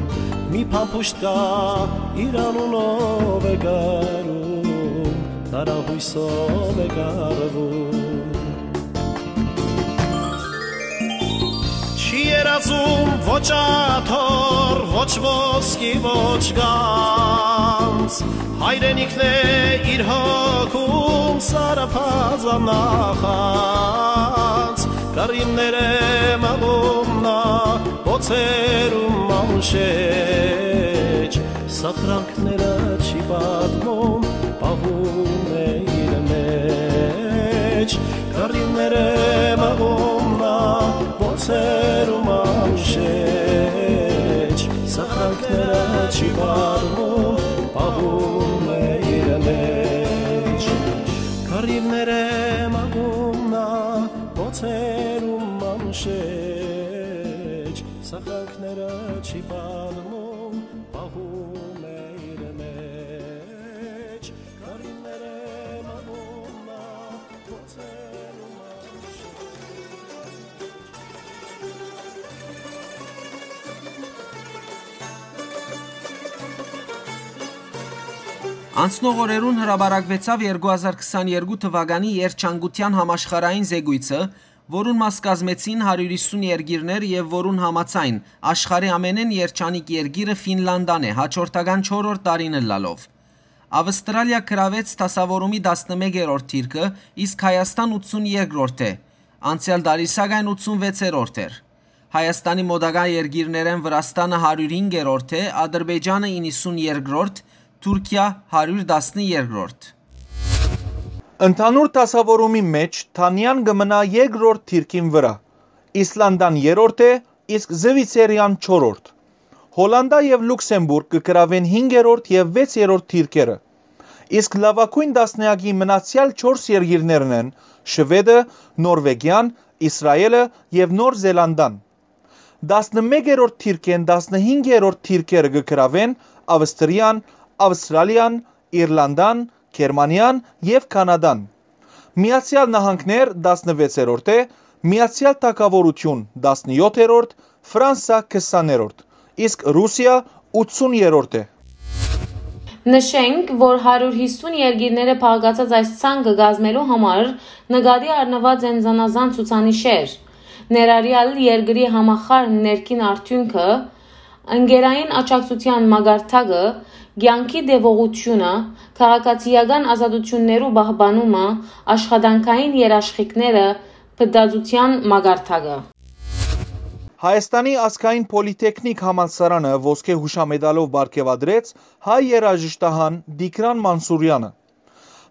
Մի փամփուշտ կայ, իր անունով է կառում, տարահոյսով է կառվում։ Չի երազում ոչ աթոռ, ոչ ոսկի, ոչ գանձ, հայրենիքն է իր հոգում սարապազան նախանձ, կառիւներէ մաղում նա, բոցերում անշեջ, սախրանքները չի պատմում, պահում է իր մեջ, կառիւներէ մաղում նա, բոցերում անշեջ, սախրանքները չի պատմում, պահում է իր մեջ։ Կառիւներէ մաղում նա, բոցերում անշեջ, սախրանքները չի պատմում, պահում է իր մեջ, կառիւներէ մաղում նա, բոցերում անշեջ։ Անցնող օրերուն հրապարակուեցաւ երկու հազար քսաներկու թուականի երջանկութեան համաշխարհային զեկոյցը, որուն մաս կազմեցին հարիւր յիսուն երկիրներ եւ որուն համաձայն, աշխարհի ամենէն երջանիկ երկիրը Ֆինլանդան է, հաջորդական չորրորդ տարին ըլլալով։ Ավստրալիա գրաւեց դասաւորումի տասնմեկերորդ դիրքը, իսկ Հայաստան ութսուն երկրորդ է։ Անցեալ տարի, սակայն, ութսուն վեցերորդ էր։ Հայաստանի մօտակայ երկիրներէն Վրաստանը հարիւր հինգերորդ է, Ադրբեջանը իննսուն երկրորդ, Թուրքիա հարիւր տասներկրորդ։ Ընդհանուր դասաւորումի մէջ Դանիան կը մնայ երկրորդ դիրքին վրայ, Իսլանդան երրորդ է, իսկ Զուիցերիան չորրորդ։ Հոլանտա եւ Լուքսեմբուրգ կը գրաւեն հինգերորդ եւ վեցերորդ դիրքերը, իսկ լաւագոյն տասնեակի մնացեալ չորս երկիրներն են Շուէդը, Նորվեգիան, Իսրայէլը եւ Նոր Զելանդան։ Տասնմեկերորդ դիրքէն տասնհինգերորդ դիրքերը կը գրաւեն Ավստրիան, Ավստրալիան, Իրլանդան, Գերմանիան եւ Կանադան։ Միացեալ Նահանգներ տասնվեցերորդ է, Միացեալ Թագաւորութիւն տասնեօթերորդ, Ֆրանսա քսաներորդ, իսկ Ռուսիա ութսուներորդ է։ Նշենք, որ հարիւր յիսուն երկիրները բաղկացած այս ցանկը կազմելու համար նկատի առնուած են զանազան ցուցանիշեր, ներառեալ երկրի համախառն ներքին արդիւնքը, ընկերային աջակցութեան մակարդակը, կեանքի տեւողութիւնը, քաղաքացիական ազատութիւններու պահպանումը, աշխատանքային երաշխիքները, փտածութեան մակարդակը։ Հայաստանի ազգային պոլիտեխնիկ համալսարանը ոսկէ յուշամետալով պարգեւատրեց հայ երաժշտահան Տիգրան Մանսուրեանը։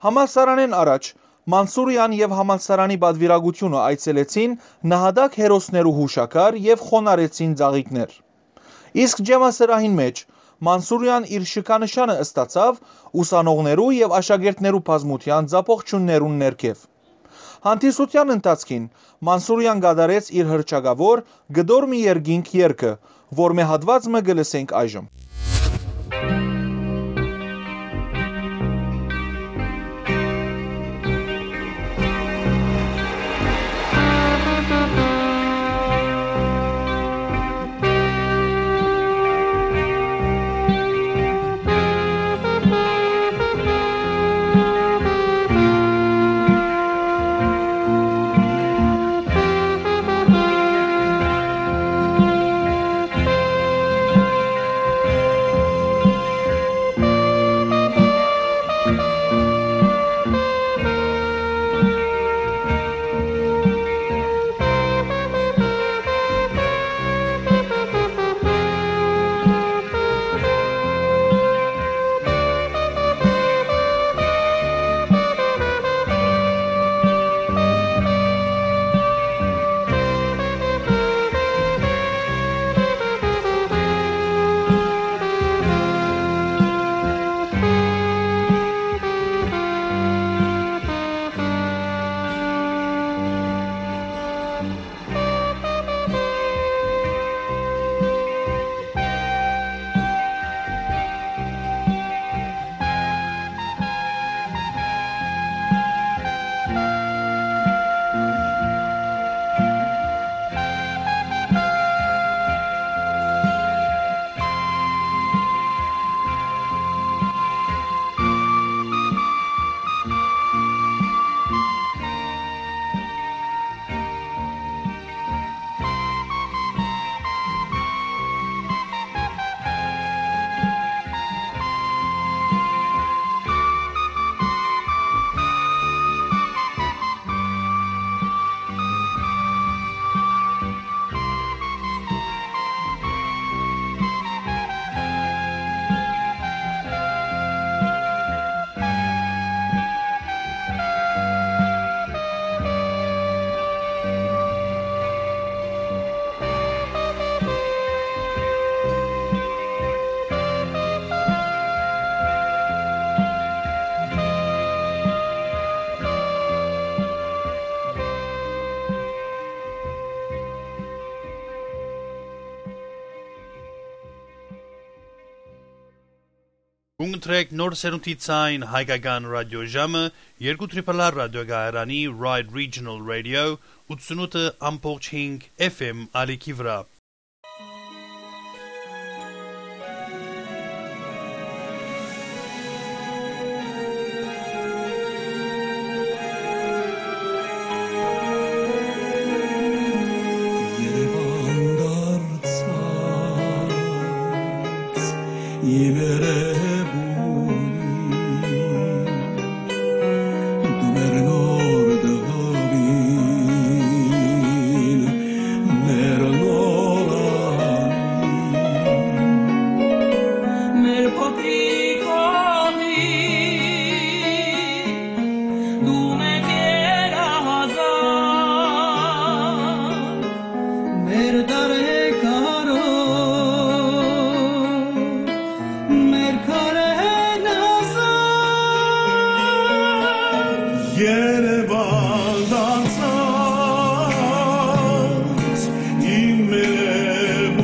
Համալսարանէն առաջ Մանսուրեան եւ համալսարանի պատուիրակութիւնը այցելեցին նահատակ հերոսներու յուշաքար եւ խոնարհեցին ծաղիկներ։ Իսկ ջեմասրահին մէջ Մանսուրեան իր շքանշանը ստացաւ ուսանողներու եւ աշակերտներու բազմութեան ծափողջիւններուն ներքեւ։ Հանդիսութեան ընթացքին Մանսուրեան կատարեց իր հռչակաւոր «Կտոր մի երկինք» երգը, որմէ հատուած մը կը լսենք այժմ։ Կուն կտրեք նոր սերունդի ցայն հայկական ռադիոժամը երկու Triple R ռադիոկայարանի Ride Regional Radio ութսունութ ամբողջ հինգ F M ալիքի վրայ։ Երևան դարձած իմ երևույթ, դու մեր նոր տղին, մեր նոր անին, մեր փոքրիկ հողին, դու մեր գերազան, մեր տարեգարով, մեր քարերն ազատ։ Երևան դարձած իմ մերեմունին,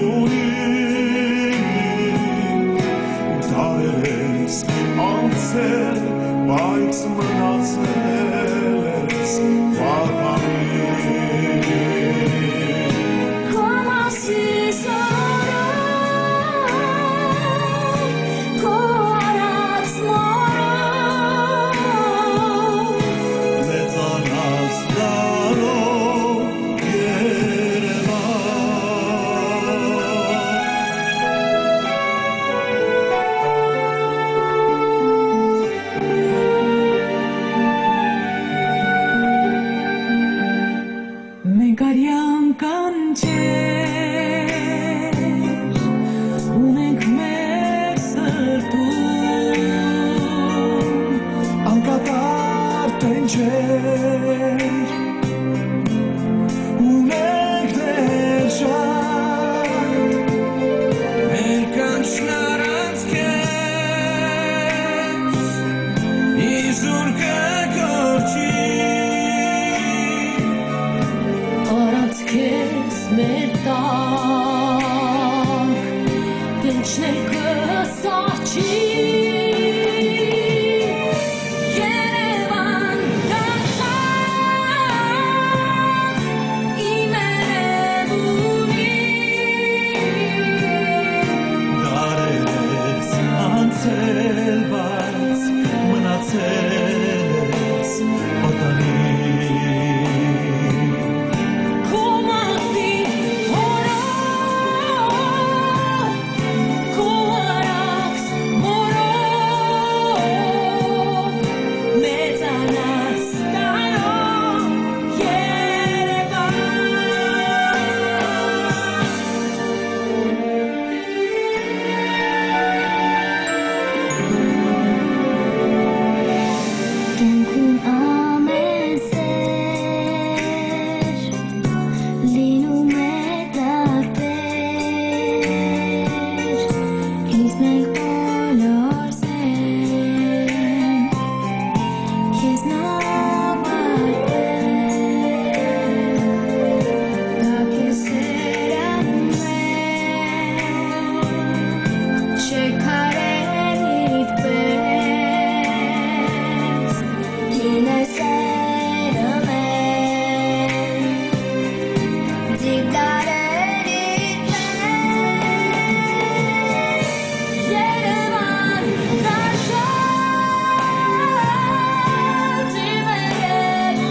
դարեր ես անցել, բայց մնացել ես պատանին։ Քո մասիս օրով, քո արած մորով, մեծանաս դարով, Երևան։ Մենք արեան կանչեր ունենք մեր սրտում, անկատար տենչեր ունենք դեռ շատ։ Մեր կանչն առանց քեզ իզուր կը կորչի։ Առանց քեզ մեր տակ տենչն էլ կը սառչի։ Երևան դարձած իմ երևույթ, դարեր ես անցել, բայց մնացել ես պատանին։ Քո մահվի օրով, քո արած մորով, մեծանաս դարով, Երևան։ Կեանքուն ամէն սէր լինում է տարբեր, իսկ մենք բոլոր սեր քեզնով պարբեր, կա քեզ սերը մեր, չեք արել իբրես, գինե սերը մեր, դիպ դարեր իբրես, Երևան դարձած իմ երևույթ,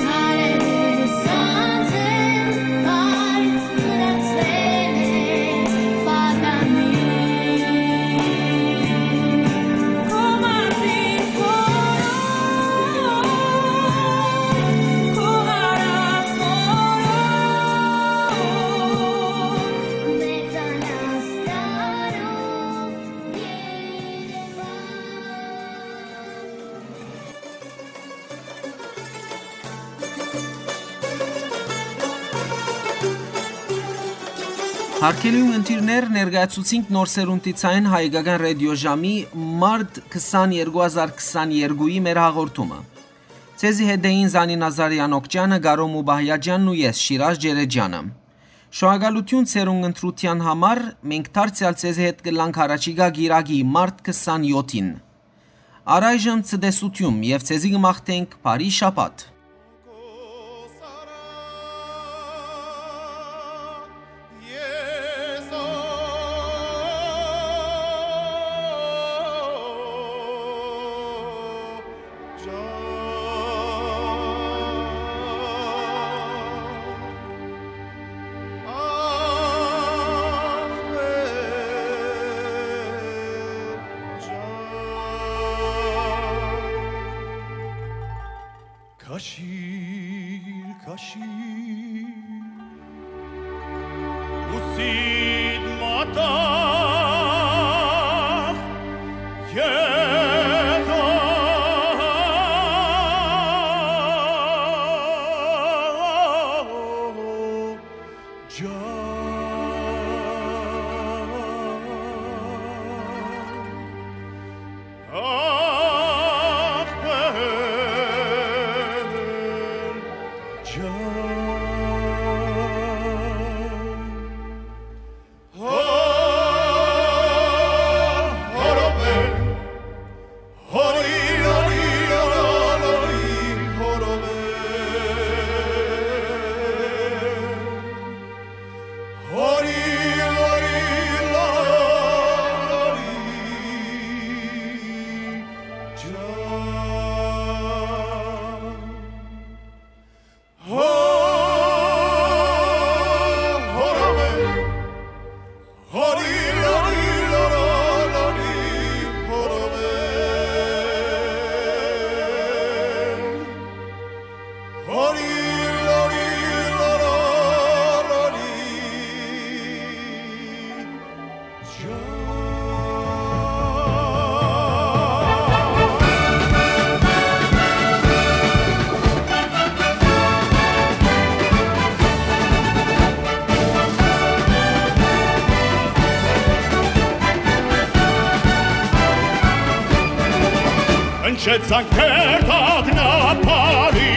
դարեր ես անցել, բայց մնացել է պատանին։ Քո մարտից օրով, քո արած օրով, մեծանաս դարով, Երևան։ Հարգելի ունգընտիրներ, ներկայացուցինք նոր սերունդի ցայն հայկական ռադիոժամի մարտ քսաներկու հազար քսաներկուի մեր հաղորդումը։ Ձեզի հետ էին Զանի Նազարեան Օքճանը, Գարոմ Ուբահյաջյանն ու ես, Շիրազ Ջերեջյանը։ Շնորհակալութիւն ձեր ունգընտրութեան համար, մենք դարձեալ ձեզի հետ կ'ըլլանք յառաջիկայ կիրակի, մարտ քսանեօթին։ Առայժմ ցտեսութիւն եւ ձեզի կը մաղթենք բարի շաբաթ։ Քաշիր, քաշիր, ուսիդ մատաղ, Եզո, ջան։ Հնչեց անկերտ ակնաբարի,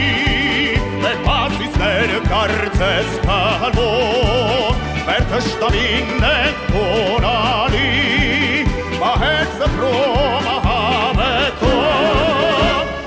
մեր մազիցները կարծես քալոր, մեր թշնամին են խոնարհի, մահեր սփռում ահաբեկով։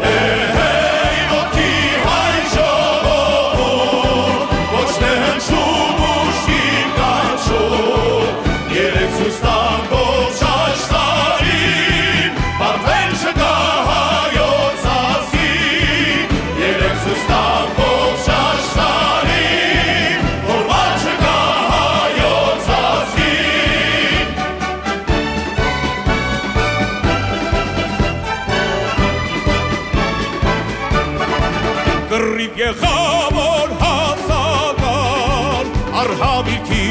Հե, հե, իմ ոտքի հայ ժողովուրդ, ոչ թե հնչում ուժգին կանչում, երեկ ցոյց տանք ողջ աշխարհին, պատվեր չկայ հայոց ազգին, երեկ ցոյց տանք ողջ աշխարհին, որ մար չկայ հայոց ազգին։ Կռիւ եղաւ որ հասական, արհաւիրքի